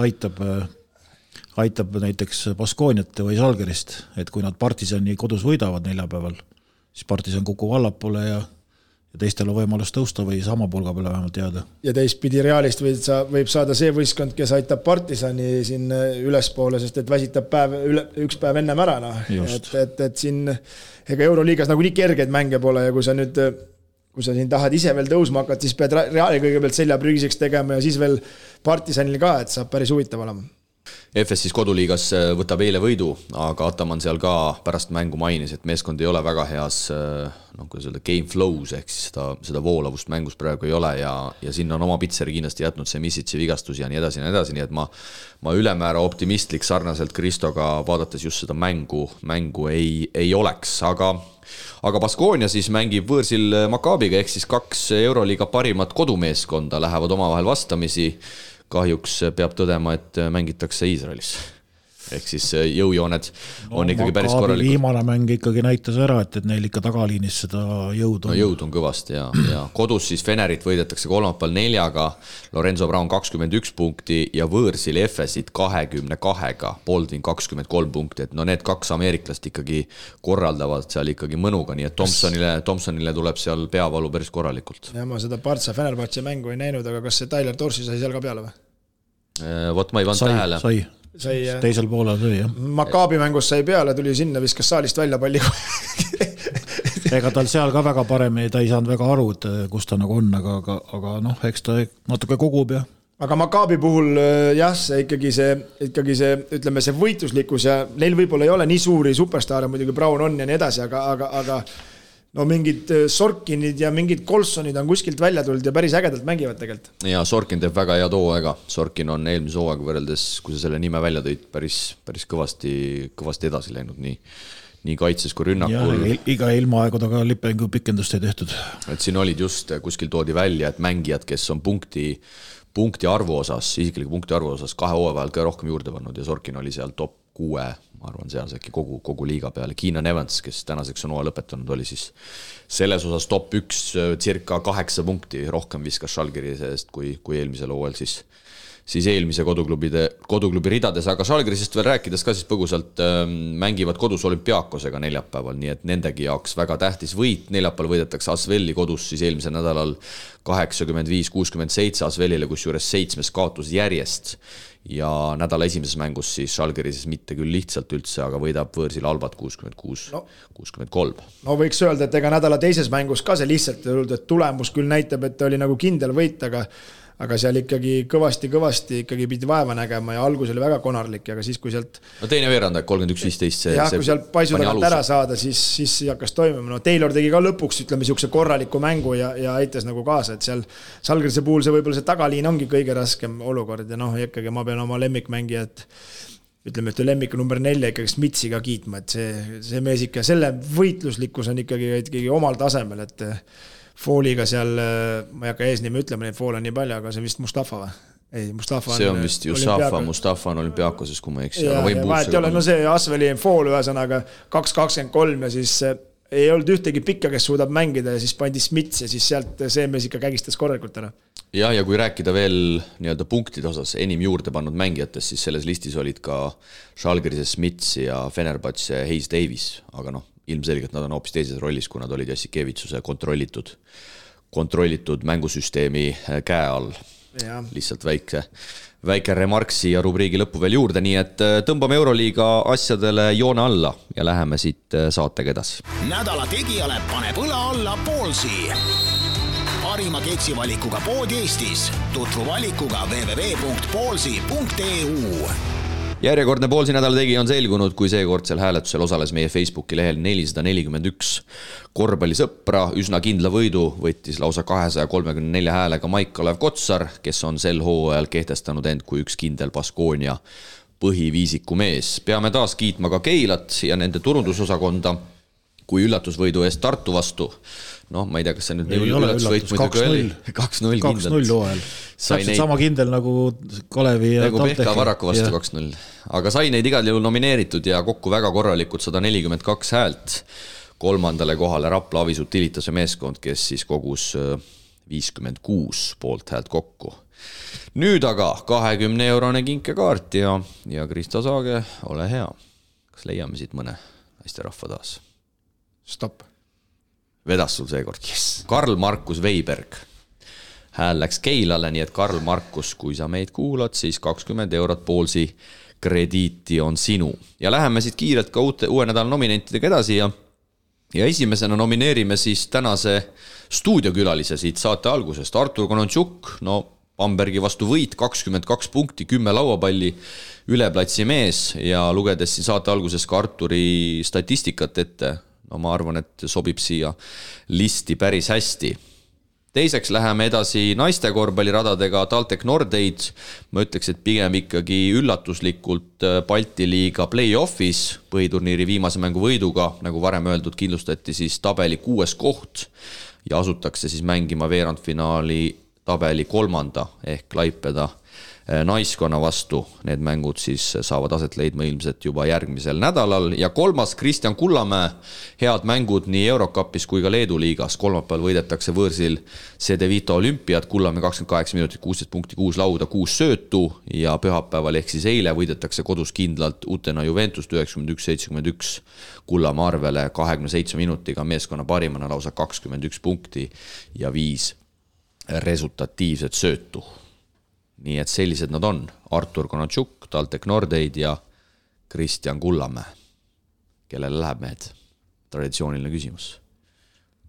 aitab näiteks Baskooniat või Žalgirist, et kui nad Partisani kodus võidavad neljapäeval, siis Partisan kukub allapoole ja teistel on võimalus tõusta või sama pulga peale vähemalt jääda. Ja teistpidi Realist võib saada see võistkond, kes aitab Partisani siin ülespoole, sest et väsitab üks päev ennem ära. No. Et siin ega Euroliigas nagu nii kergeid mänge pole ja kui sa siin tahad ise veel tõusma hakata, siis pead Reali kõigepealt selja prügiseks tegema ja siis veel Partisanil ka, et saab päris huvitav olema. FS siis koduliigas võtab eile võidu, aga Ataman seal ka pärast mängu mainis, et meeskond ei ole väga heas kuidas öelda, game flows, ehk siis seda voolavust mängus praegu ei ole ja sinna on oma pitseri kindlasti jätnud see Misitsi vigastus ja nii edasi, nii et ma ülemäära optimistlik sarnaselt Kristoga vaadates just seda mängu ei oleks, aga Baskonia siis mängib võõrsil Maccabiga, ehk siis 2 Euroliiga parimat kodumeeskonda lähevad omavahel vastamisi. Kahjuks peab tõdema, et mängitakse Iisraelis. Ehk siis jõujooned on ikkagi päris korralikud. Viimane mäng ikkagi näitas ära, et neil ikka tagaliinis seda jõud on. No jõud on kõvasti ja kodus siis Fenerit võidetakse kolmapäeval 4-ga, Lorenzo Brown 21 punkti ja võõrsil FS-it 22-ga, Baldwin 23 punkti, et no need 2 ameeriklast ikkagi korraldavad seal ikkagi mõnuga, nii et Thompsonile tuleb seal peavalu päris korralikult. Ja ma seda Partsa Fenerbahce mängu ei näinud, aga kas see Tyler Dorsi sai seal ka peale või? Vot ma ei vanud tähele. Teisel poolel sai, jah. Maccabi mängus sai peale, tuli sinna, viskas saalist välja palli. Ega tal seal ka väga paremini, ta ei saanud väga aru, et kus ta nagu on, aga noh, eks ta natuke kogub ja. Aga Maccabi puhul jah, see ikkagi see, ütleme see võitluslikkus ja neil võib-olla ei ole nii suuri superstaare, muidugi Brown on ja nii edasi, aga no mingid Sorkinid ja mingid Colsonid on kuskilt välja tulnud ja päris ägedalt mängivad tegelikult. Ja Sorkin teeb väga hea hooaega. Sorkin on eelmise hooaega võrreldes, kui sa selle nime välja tõid, päris kõvasti edasi läinud nii kaitses kui rünnakul. Ja iga ilmaaegu taga lipengu pikendust ei tehtud. Et siin olid just, kuskil toodi välja, et mängijad, kes on punkti arvu osas, isikliku punkti arvu osas 2 hooaja vahel ka rohkem juurde pannud ja Sorkin oli seal top 6, ma arvan, seal see kogu liiga peale. Keenan Evans, kes tänaseks on hooaja lõpetanud, oli siis selles osas top 1 circa 8 punkti rohkem viskas Žalgirise seest kui eelmisel hooajal siis eelmise koduklubi ridades, aga Žalgirisest veel rääkides ka siis põgusalt mängivad kodus Olümpiakosega neljapäeval, nii et nendegi jaoks väga tähtis võit. Neljapäeval võidetakse Asveli kodus siis eelmisel nädalal 85-67 Asvelile, kus juures 7 kaotus järjest ja nädala esimeses mängus siis Žalgirises mitte küll lihtsalt üldse, aga võidab võõrsil Albat 66-63. No võiks öelda, et ega nädala teises mängus ka see lihtsalt, et tulemus küll näitab, et oli nagu kindel võit, aga seal ikkagi kõvasti ikkagi pidi vaeva nägema ja algus oli väga konarlik, aga siis kui sealt no teine veerand, 31-15 kui sealt paisu tagant ära saada, siis hakkas toimima. No Taylor tegi ka lõpuks, ütleme, siukse korraliku mängu ja aitas nagu kaasa, et seal Žalgirise puhul see võib-olla see tagaliin ongi kõige raskem olukord ja noh, ikkagi ma pean oma lemmikmängijat ütleme, et lemmik number 4 ikkagi Smitsi ka kiitma, et see mees ikka, selle võitluslikkus on ikkagi omal tasemel, et Fooliga seal, ma ei hakka eesnime ütlema, neid foole on nii palju, aga see vist Mustafa või? Ei, Mustafa see on vist Mustafa on Olümpiakoses, kui ma eks. No see Asveli fool ühesõnaga 2-23 ja siis ei olnud ühtegi pikka, kes suudab mängida ja siis pandi Smits ja siis sealt see mees ikka kägistas korralikult ära. Ja kui rääkida veel nii-öelda punktide osas enim juurde pannud mängijatest, siis selles listis olid ka Žalgirise Smits ja Fenerbahce Hayes Davis, aga noh, ilmselgelt nad on hoopis teises rollis, kui nad olid Jassikevitsuse kontrollitud mängusüsteemi käe all. Ja. Lihtsalt väike remarksi ja rubriigi lõppu veel juurde, nii et tõmbame Euroliiga asjadele joone alla ja läheme siit saatega edasi. Nädala tegijale paneb õla alla Poolsi. Parima keksivalikuga pood Eestis. Tutvu valikuga www.poolsi.eu. Järjekordne Poolsi nädala tegija on selgunud, kui seekordsel hääletusel osales meie Facebooki lehel 441 korvpallisõpra. Üsna kindla võidu võttis lausa 234 häälega Maik-Kalev Kotsar, kes on sel hooajal kehtestanud end kui üks kindel Baskonia põhiviisiku mees. Peame taas kiitma ka Keilat ja nende turundusosakonda kui üllatusvõidu eest Tartu vastu. Noh, ma ei tea, kas see nüüd ei üllatusvõit 2-0 kindlalt. Täpselt sama kindel nagu Kalevi ja nagu Pehka Varaku vastu 2-0. Aga sai neid igal jõul nomineeritud ja kokku väga korralikud 142 häält. Kolmandale kohale Rapla Avisut Tilitase meeskond, kes siis kogus 56 poolt häält kokku. Nüüd aga 20-eurone kinkekaart ja Krista Saage, ole hea. Kas leiame siit mõne hästi rahva taas? Stopp. Vedas sul seekord, yes. Karl Markus Veiberg. Hääl läks Keilale, nii et Karl Markus, kui sa meid kuulad, siis 20 eurot Poolsi krediiti on sinu. Ja läheme siit kiirelt ka uue nädala nominentidega edasi ja esimesena nomineerime siis tänase stuudiokülalise siit saate algusest. Artur Konontšuk, no Bambergi vastu võit, 22 punkti, 10 lauapalli, üleplatsi mees ja lugedes siin saate alguses ka Arturi statistikat ette, no ma arvan, et sobib siia listi päris hästi. Teiseks läheme edasi naiste korvpalliradadega TalTech Nordeid. Ma ütleks, et pigem ikkagi üllatuslikult Balti liiga play-offis põhiturniiri viimase mängu võiduga, nagu varem öeldud, kindlustati siis tabeli 6. koht ja asutakse siis mängima veerandfinaali tabeli 3. ehk Klaipeda naiskonna vastu. Need mängud siis saavad aset leidma ilmselt juba järgmisel nädalal. Ja 3. Kristjan Kullamäe, head mängud nii Eurocupis kui ka Leedu liigas. Kolmapäeval võidetakse võõrsil CD Vito Olümpiat, Kullamäe 28 minutit, 16 punkti, 6 lauda, 6 söötu ja pühapäeval ehk siis eile võidetakse kodus kindlalt Utena Juventus 91-71 Kullamäe arvele 27 minutiga meeskonna parimana lausa 21 punkti ja 5 resultatiivset söötu. Nii et sellised nad on. Artur Konontšuk, TalTech Nordeid ja Kristjan Kullamäe. Kellele läheb mehed? Traditsiooniline küsimus.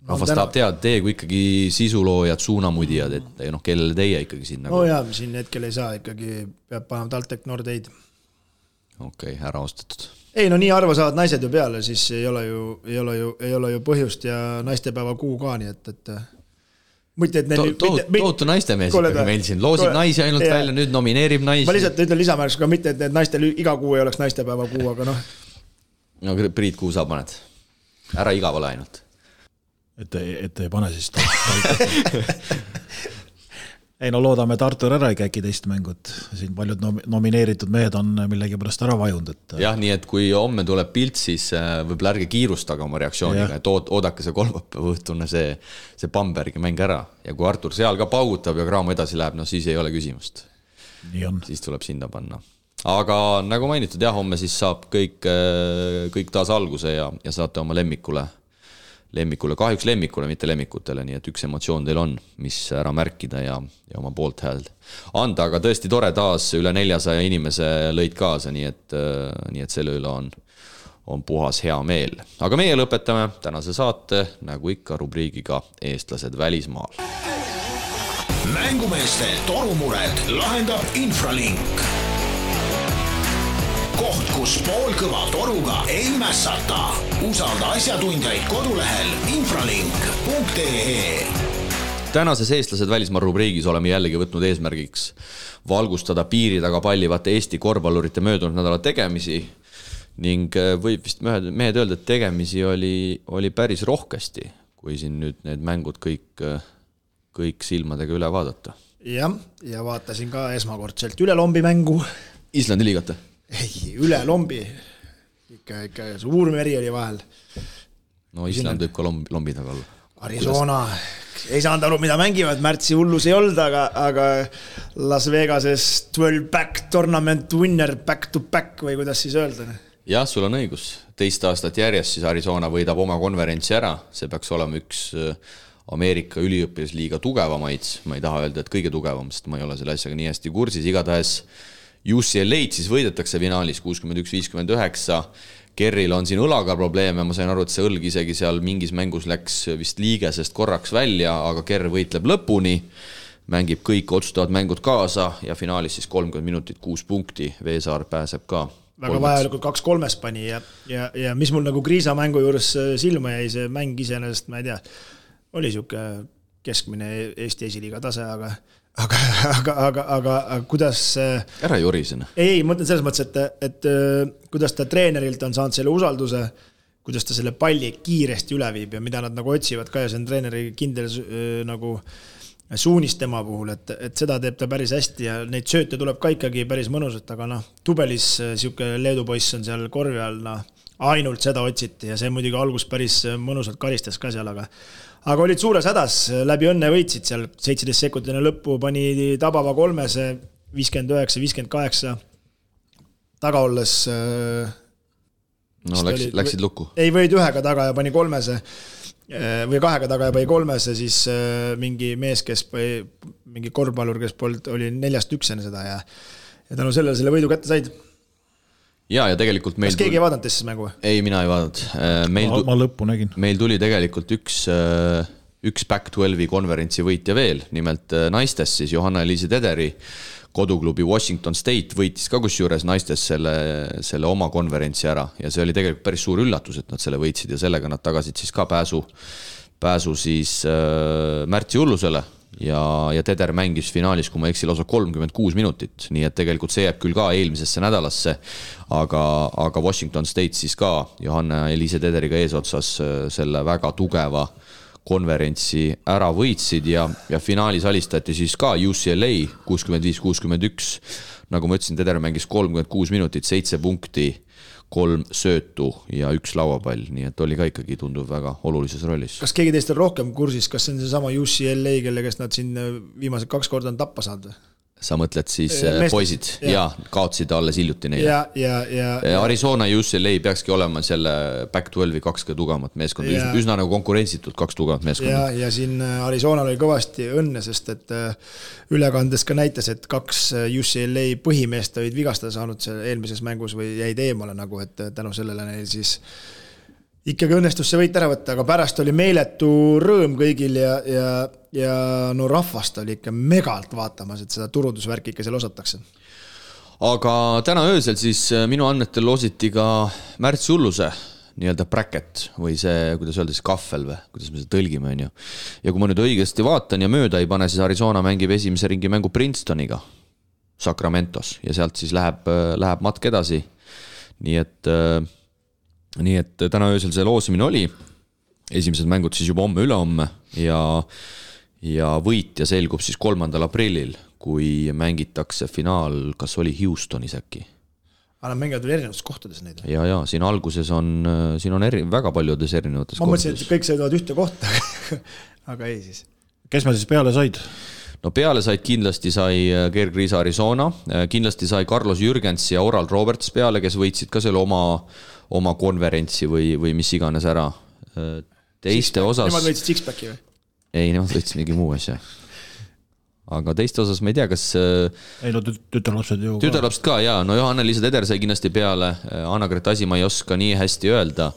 Rahvas tahab teada, teie kui ikkagi sisuloojad, suunamudijad, et kellele teie ikkagi siin nagu... No jaa, siin hetkel ei saa, ikkagi peab panema TalTech Nordeid. Okei, ära ostetud. Ei, no nii arva saavad naised ju peale, siis ei ole ju põhjust ja naistepäeva kuu ka, nii et Tootu naistemees ikkagi meil siin loosib naisi ainult välja, nüüd nomineerib naisi. Ma lihtsalt ütlen lisamärks ka mitte, et naistel iga kuu ei oleks naistepäeva kuu, aga noh. No Priit, kuu sa paned? Ära igavale ainult. Et ei pane siis Ei no loodame, et Artur ära ei käki teist mängud. Siin paljud nomineeritud mehed on millegi pärast ära vajunud. Jah, nii et kui homme tuleb pilt, siis võib-olla ärge kiirustage oma reaktsiooniga, et oodake see kolmapäeva õhtune see Bambergi mäng ära. Ja kui Artur seal ka paugutab ja Kraamo edasi läheb, no siis ei ole küsimust. Nii on. Siis tuleb sinna panna. Aga nagu mainitud, jah, homme siis saab kõik taas alguse ja saate oma lemmikule, kahjuks lemmikule, mitte lemmikutele, nii et üks emotsioon teil on, mis ära märkida ja oma poolt hääld anda, aga tõesti tore taas üle 400 inimese lõid kaasa, nii et selle üle on puhas hea meel. Aga meie lõpetame tänase saate, nagu ikka rubriigiga Eestlased välismaal. Mängumeeste torumured lahendab Infralink. Koht, kus poolkõva toruga ei mässata. Usalda asjatundjaid kodulehel infralink.ee. Tänases Eestlased välismaa rubriigis oleme jällegi võtnud eesmärgiks valgustada piiri taga pallivate Eesti korvpallurite möödunud nädala tegemisi ning võib vist mehed öelda, et tegemisi oli päris rohkesti, kui siin nüüd need mängud kõik silmadega üle vaadata. Ja vaatasin ka esmakordselt üle lombi mängu. Islandi liigata? Ei, üle lombi. Ikka suur meri oli vahel. No Island võib ka lombi taga olla. Arizona. Ei saanud aru, mida mängivad. Märtsi hullus ei olnud, aga Las Vegases 12-back tournament winner back to back või kuidas siis öelda? Jah, sul on õigus. 2 aastat järjest siis Arizona võidab oma konverentsi ära. See peaks olema üks Ameerika üliõpilasliiga tugevamaid. Ma ei taha öelda, et kõige tugevam, sest ma ei ole selle asjaga nii hästi kursis. Igatahes UCLA-d siis võidetakse finaalis 61-59. Kerril on siin õlaga probleeme, ma sain aru, et see õlg isegi seal mingis mängus läks vist liigesest korraks välja, aga Kerr võitleb lõpuni, mängib kõik otsustavad mängud kaasa ja finaalis siis 30 minutit 6 punkti, Veesaar pääseb ka. Väga vajalikult 2-3 pani ja mis mul nagu Kriisa mängu juures silma jäi, see mäng iseenesest, ma ei tea, oli siuke keskmine Eesti esiliiga tase, aga kuidas... Ära jorisena. Ei, mõtlen selles mõttes, et kuidas ta treenerilt on saanud selle usalduse, kuidas ta selle palli kiiresti üle viib ja mida nad nagu otsivad ka ja see on treeneri kindel nagu suunis tema puhul, et seda teeb ta päris hästi ja neid sööte tuleb ka ikkagi päris mõnusat, aga Tubelis siuke Leedu poiss on seal korvi all, ainult seda otsiti ja see muidugi algus päris mõnusalt karistas ka seal, aga olid suures hädas, läbi õnne võitsid seal 17 sekundine lõppu, pani tabava 3, 59-58 taga olles läksid lukku. Ei võid 1 taga ja pani 3 või 2 taga ja põi 3 ja siis mingi mees, kes põi, mingi korvpallur, kes oli 4-1 enne seda ja tänu sellele selle võidu kätte said. Ja tegelikult meil... Kas keegi ei vaadanud siis mängu? Ei, mina ei vaadanud. Ma lõppu nägin. Meil tuli tegelikult üks Back-12 konverentsi võitja veel, nimelt naistes siis Johanna-Eliise Tederi koduklubi Washington State võitis ka kusjuures naistes selle oma konverentsi ära ja see oli tegelikult päris suur üllatus, et nad selle võitsid ja sellega nad tagasid siis ka pääsu siis märtsi hullusele ja Teder mängis finaalis, kui ma eksin, lausa 36 minutit, nii et tegelikult see jääb küll ka eelmisesse nädalasse, aga Washington State siis ka Johanna-Eliise Tederiga eesotsas selle väga tugeva konverentsi ära võitsid ja finaalis alistati siis ka UCLA 65-61. Nagu ma ütlesin, Teder mängis 36 minutit, 7 punkti, 3 söötu ja 1 lauapall, nii et oli ka ikkagi tunduv väga olulises rollis. Kas keegi teist on rohkem kursis, kas see on see sama UCLA, kelle kes nad siin viimased 2 korda on tappa saanud? Sa mõtled siis poisid ja kaotsid alles hiljuti neile. Arizona ja UCLA peakski olema selle Back-12 2 tugevamat meeskond, üsna nagu konkurentsitult 2 tugevat meeskond. Ja siin Arizonal oli kõvasti õnne, sest et ülekandes ka näitas, et 2 UCLA põhimeest olid vigastada saanud eelmises mängus või jäid eemale nagu, et tänu sellele neil siis ikkagi õnnestus see võit ära võtta, aga pärast oli meeletu rõõm kõigil ja no rahvast oli ikka megalt vaatamas, et seda turundusvärki ikka seal osatakse. Aga täna öösel siis minu andmetel loositi ka märtsi hulluse nii-öelda bracket või see, kuidas öelda siis kahvel või, kuidas me seda tõlgime on ju. Ja kui ma nüüd õigesti vaatan ja mööda ei pane, siis Arizona mängib esimese ringi mängu Princetoniga Sacramentos ja sealt siis läheb matk edasi. Nii et täna öösel see loosimine oli, esimesed mängud siis juba homme ülehomme ja võitja selgub siis 3. aprillil, kui mängitakse finaal, kas oli Houstonis äkki? Aga nad mängivad veel erinevates kohtades neid? Ja, siin alguses on väga paljudes erinevates kohtades. Ma mõtlesin, et kõik sõidavad ühte kohta, aga ei siis. Kes me siis peale said? No peale kindlasti sai Gerg Riisa Arizona, kindlasti sai Carlos Jürgens ja Oral Roberts peale, kes võitsid ka selle oma konverentsi või mis iganes ära. Teiste osas... Nemad võitsid Sixpacki või? Ei, nemad võitsid mingi muu asja. Aga teiste osas ma ei tea, kas... Ei, no tütarlapsed ju... Tütarlapsed ka, jaa. No Johanna-Liisa Teder sai kindlasti peale. Anna-Gret Asi ma ei oska nii hästi öelda,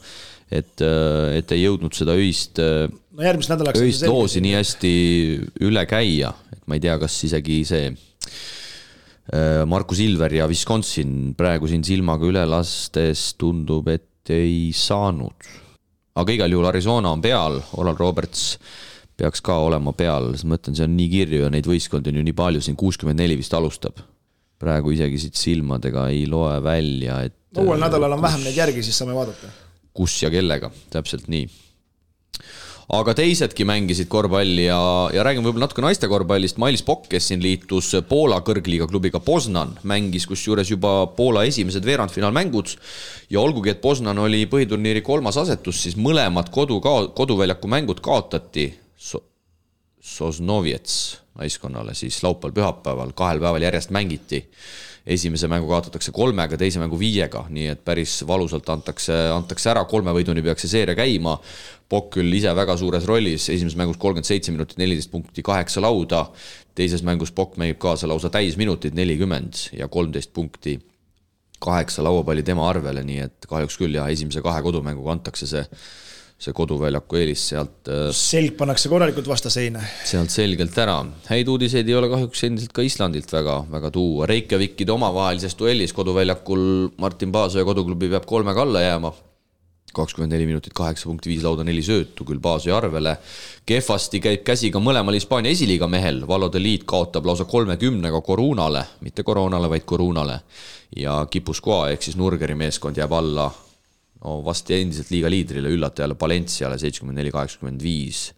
et ei jõudnud seda öist loosi nii hästi üle käia. Et ma ei tea, kas isegi see Markus Ilver ja Wisconsin praegu siin silmaga üle lastes tundub, et ei saanud. Aga igal juhul Arizona on peal, Oral Roberts peaks ka olema peal, ma mõtlen, see on nii kirju ja neid võistkondi on ju nii palju, siin 64 vist alustab. Praegu isegi siit silmadega ei loe välja, et... Uuel nädalal on vähem neid järgi, siis saame vaadata. Kus ja kellega, täpselt nii. Aga teisedki mängisid korvpalli ja räägime võib-olla natuke naiste korvpallist. Mailis Pokk, kes siin liitus Poola kõrgliiga klubiga Poznan, mängis kusjuures juba Poola esimesed veerandfinaalmängud ja olgugi, et Poznan oli põhiturniiri 3. asetus, siis mõlemad koduväljaku mängud kaotati Sosnoviets naiskonnale, siis laupäeval-pühapäeval 2 päeval järjest mängiti. Esimese mängu kaotatakse 3, teise mängu 5, nii et päris valusalt antakse ära, 3 võiduni peaks see seeria käima. Pokk küll ise väga suures rollis, esimeses mängus 37 minutit, 14 punkti, 8 lauda, teises mängus Pokk mängib kaasa lausa täis minutit 40 ja 13 punkti, 8 lauapalli tema arvele, nii et kahjuks küll ja esimese 2 kodumänguga antakse see koduväljaku eelis sealt... Selg pannakse korralikult vastaseina. Sealt selgelt ära. Häid uudiseid ei ole kahjuks endiselt ka Islandilt väga tuua. Reykjavikide omavahelises duellis koduväljakul Martin Paasoja koduklubi peab 3 alla jääma. 24 minutit, 8 punkti, 5 lauda, 4 söötu, küll Paasoja arvele. Kehvasti käib käsi ka mõlemal Hispaania esiliiga mehel. Valode liit kaotab lausa 30-ga Korunale, mitte Koronale, vaid Korunale. Ja Kipuskoa ehk siis Nurgeri meeskond jääb alla vasti endiselt liiga liidrile üllatajale Valenciale 74-85.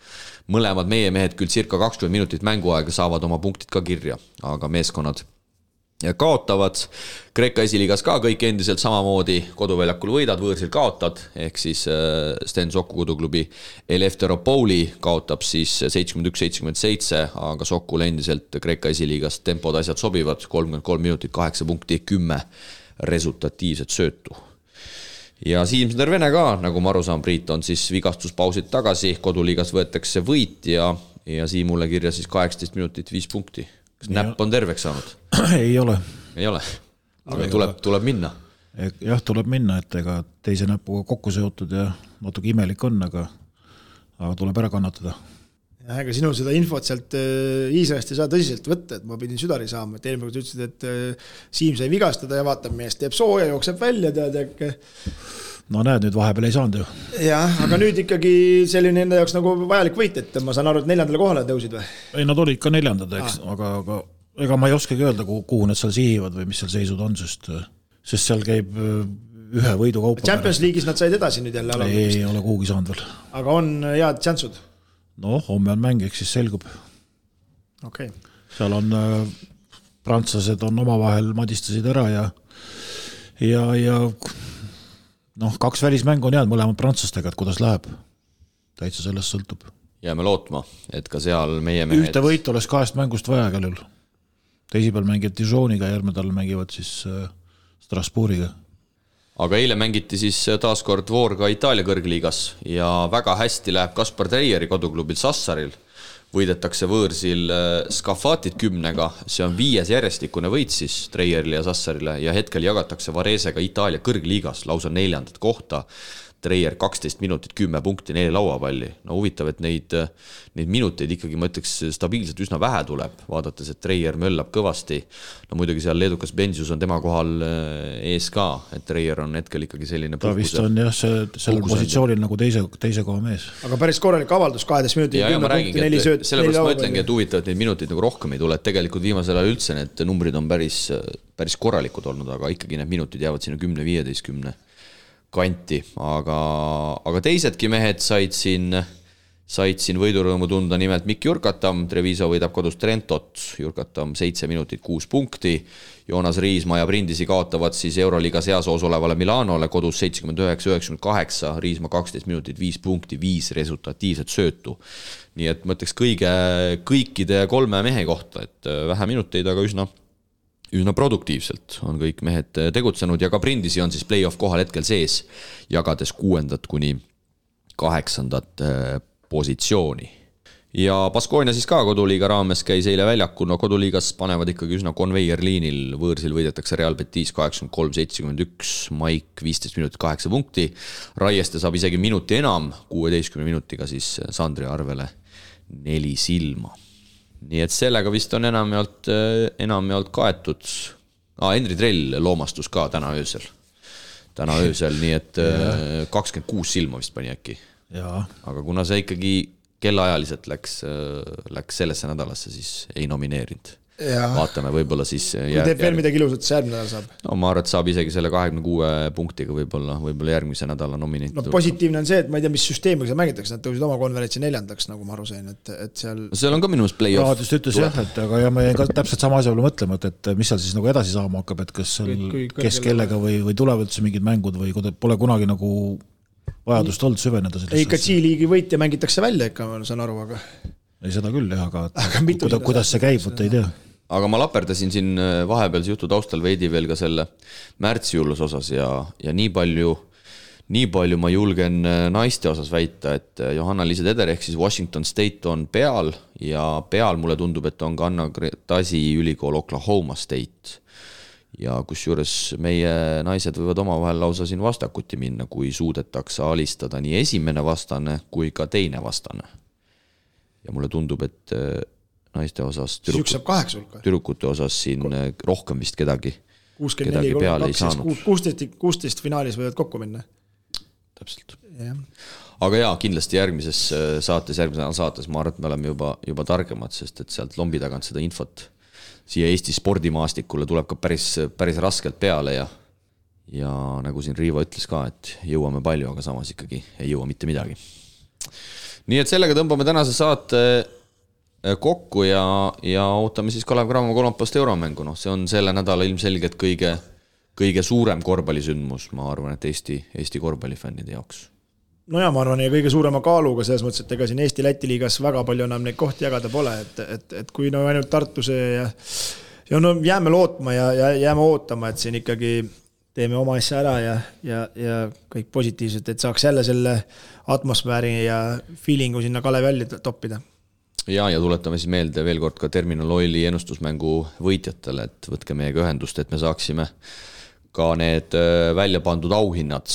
Mõlemad meie mehed küll circa 20 minutit mänguaega saavad oma punktid ka kirja, aga meeskonnad kaotavad. Kreeka esiliigas ka kõik endiselt samamoodi koduväljakul võidad, võõrsil kaotad, ehk siis Sten Soku koduklubi Eleftheropouli kaotab siis 71-77, aga Sokul endiselt Kreeka esiliigas tempod asjad sobivad, 33 minutit, 8 punkti, 10 resultatiivset söötu. ja Siimsner Vene ka, nagu ma aru saan, Priit, on siis vigastuspausid tagasi, koduliigas võetakse võit ja Siimule kirja siis 18 minutit 5 punkti. Kas näpp on terveks saanud? Ei ole. Ei ole, aga tuleb minna. Jah, tuleb minna, et ega teise näpuga kokku seotud ja natuke imelik on, aga tuleb ära kannatada. Ja ega sinul seda infot sealt Iisraelist ei saa tõsiselt võtta, et ma pidin südari saama, et eelmine kord ütlesid, et Siim sai vigastada ja vaatab mees, teeb sooja, jookseb välja, tead äkki. No näed, nüüd vahepeal ei saanud ju. Jah, aga nüüd ikkagi selline enda jaoks nagu vajalik võit, et ma saan aru, et 4. kohale tõusid või? Ei, nad olid ka 4, eks, aga ega ma ei oskagi öelda, kuhu nad seal sihivad või mis seal seisud on, sest seal käib ühe võidu kaupa. Champions League'is nad said edasi nüüd jälle. Ei ole kuhugi saanud veel. Aga on head tšansud? No, homme on mäng, eks siis selgub. Okay. Seal on prantslased on omavahel madistasid ära ja noh, 2 välismängu on jäänud mõlemad prantslastega, et kuidas läheb. Täitsa sellest sõltub. Jääme lootma, et ka seal meie mehed... Ühte võit oleks 2 mängust vaja kellel. Teisipäeval mängivad Dijoniga, järgmine tal mängivad siis Strasbourgiga. Aga eile mängiti siis taaskord Voorga Itaalia kõrgliigas ja väga hästi läheb Kaspar Treieri koduklubil Sassaril. Võidetakse võõrsil Skafatit 10-ga, see on 5. järjestikune võit siis Treierile ja Sassarile ja hetkel jagatakse Varesega Itaalia kõrgliigas lausa 4. kohta. Treier 12 minutit, 10 punkti, 4 lauapalli. No huvitav, et neid minuteid ikkagi, ma ütleks, stabiilselt üsna vähe tuleb, vaadates, et Treier möllab kõvasti. No muidugi seal leedukas Benzius on tema kohal ees ka, et Treier on hetkel ikkagi selline ta vist on jah, sellel positsioonil nagu teise koha mees. Aga päris korralik avaldus, 12 minutit, 10 punkti, 4 sööt. Sellepärast ma ütlengi, et huvitav, et neid minuteid nagu rohkem ei tule, et tegelikult viimasel ajal üldse need numbrid on päris korralikud olnud, aga ikkagi need minutid jäävad sinna 10-15 kanti, aga teisedki mehed said siin võidurõõmu tunda, nimelt Mikk Jurkatam, Treviso võidab kodus Trentot, Jurkatam 7 minutit 6 punkti, Joonas Riismaa ja Brindisi kaotavad siis Euroliigas heasoos olevale Milanole kodus 79-98, Riismaa 12 minutit 5 punkti, 5 resultatiivset söötu. Nii et mõtleks kõikide 3 mehe kohta, et vähe minuteid, aga üsna produktiivselt on kõik mehed tegutsenud ja ka Brindisi on siis play-off kohal hetkel sees, jagades 6. kuni 8. positsiooni. Ja Baskonia siis ka koduliiga raames käis eile väljakul, no koduliigas panevad ikkagi üsna konveierliinil, võõrsil võidetakse Real Betis 83-71, Maik 15 minutit 8 punkti, Raieste saab isegi minuti enam, 16 minutiga siis Sandri arvele 4 silma. Nii et sellega vist on enamjaolt kaetud. Henri Trell loomastus ka täna öösel, nii et 26 silma vist pani äkki. Aga kuna see ikkagi kellaajaliselt läks sellesse nädalasse, siis ei nomineerinud. Vaatame, võib-olla siis teeb veel midagi ilusat, see järgmine nädal saab? No ma arvan, et saab isegi selle 26 punktiga võib-olla järgmise nädala nomineeritud. No positiivne on see, et ma ei tea, mis süsteemiga mängitakse, nad tõusid oma konverentsi 4. nagu ma aru sain, et seal on ka minust play-off. Raadist ütles jah, et aga ma jäin ka täpselt sama asja peale mõtlema, et mis seal siis nagu edasi saama hakkab, et kas kes kellega või tulevad üldse mingid mängud või pole kunagi nagu vajadust olnud süveneda. Ei, ka G-liigi võitja mängitakse välja ikka, ma saan aru, aga... Ei, seda küll jah, aga kuidas see käib, võtta ei tea. Aga ma laperdasin siin vahepealse jutu taustal veidi veel ka selle märtsijullus osas ja nii palju ma julgen naiste osas väita, et Johanna-Liisa Teder ehk siis Washington State on peal ja peal mulle tundub, et on ka Anna Tasi ülikool Oklahoma State. Ja kus juures meie naised võivad omavahel lausa siin vastakuti minna, kui suudetakse alistada nii esimene vastane kui ka teine vastane. Ja mulle tundub, et naiste osas tüdrukute osas siin rohkem vist kedagi peale ei saanud. 16 finaalis võivad kokku minna. Täpselt. Aga jaa, kindlasti järgmises saates ma arvan, et me oleme juba targemad, sest et sealt lombi tagant seda infot siia Eesti spordimaastikule tuleb ka päris raskelt peale ja nagu siin Riivo ütles ka, et jõuame palju, aga samas ikkagi ei jõua mitte midagi. Nii et sellega tõmbame tänase saate kokku ja ootame siis Kalev Cramo kolmapäevast euromängu. See on selle nädala ilmselgelt kõige suurem korvpallisündmus, ma arvan, et Eesti korvpallifännide jaoks. No ja ma arvan, ja kõige suurema kaaluga selles mõttes, et ega siin Eesti-Läti liigas väga palju enam neid kohti jagada pole, et kui ainult Tartuse ja no jääme lootma ja jääme ootama, et siin ikkagi teeme oma asja ära ja kõik positiivselt, et saaks jälle selle atmosfääri ja feelingu sinna Kalevi halli toppida. Ja tuletame siis meelde veel kord ka Terminal Oili ennustusmängu võitjatele, et võtke meiega ühendust, et me saaksime ka need välja pandud auhinnad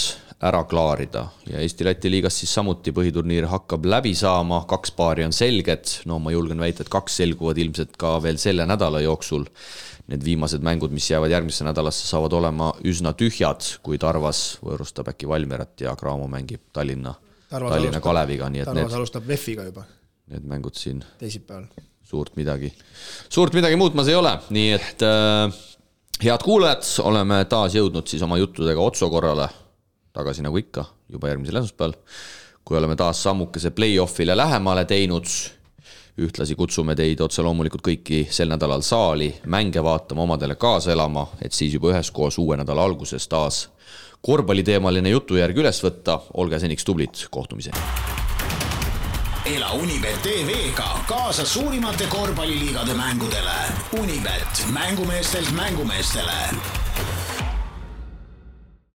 ära klaarida ja Eesti-Läti liigas siis samuti põhiturniir hakkab läbi saama, 2 paari on selged, no ma julgen väita, et 2 selguvad ilmselt ka veel selle nädala jooksul. Need viimased mängud, mis jäävad järgmisse nädalasse, saavad olema üsna tühjad, kui Tarvas võõrustab äkki Valmierat ja Graamo mängib Tallinna Kaleviga. Nii et Tarvas alustab VEF-iga juba. Need mängud siin teisipäeval. Suurt midagi muutmas ei ole, nii et head kuulajad, oleme taas jõudnud siis oma juttudega otsokorrale tagasi nagu ikka, juba järgmisel esmaspäeval, kui oleme taas sammukese play-offile lähemale teinud. Ühtlasi kutsume teid otse loomulikult kõiki sel nädalal saali mänge vaatama, omadele kaasa elama, et siis juba üheskoos uue nädala alguses taas korvpalliteemaline jutujärg üles võtta. Olge seniks tublid, kohtumiseni. Ela Unibet TV-ga kaasa suurimate korvpalliliigade mängudele. Unibet, mängumeestelt mängumeestele.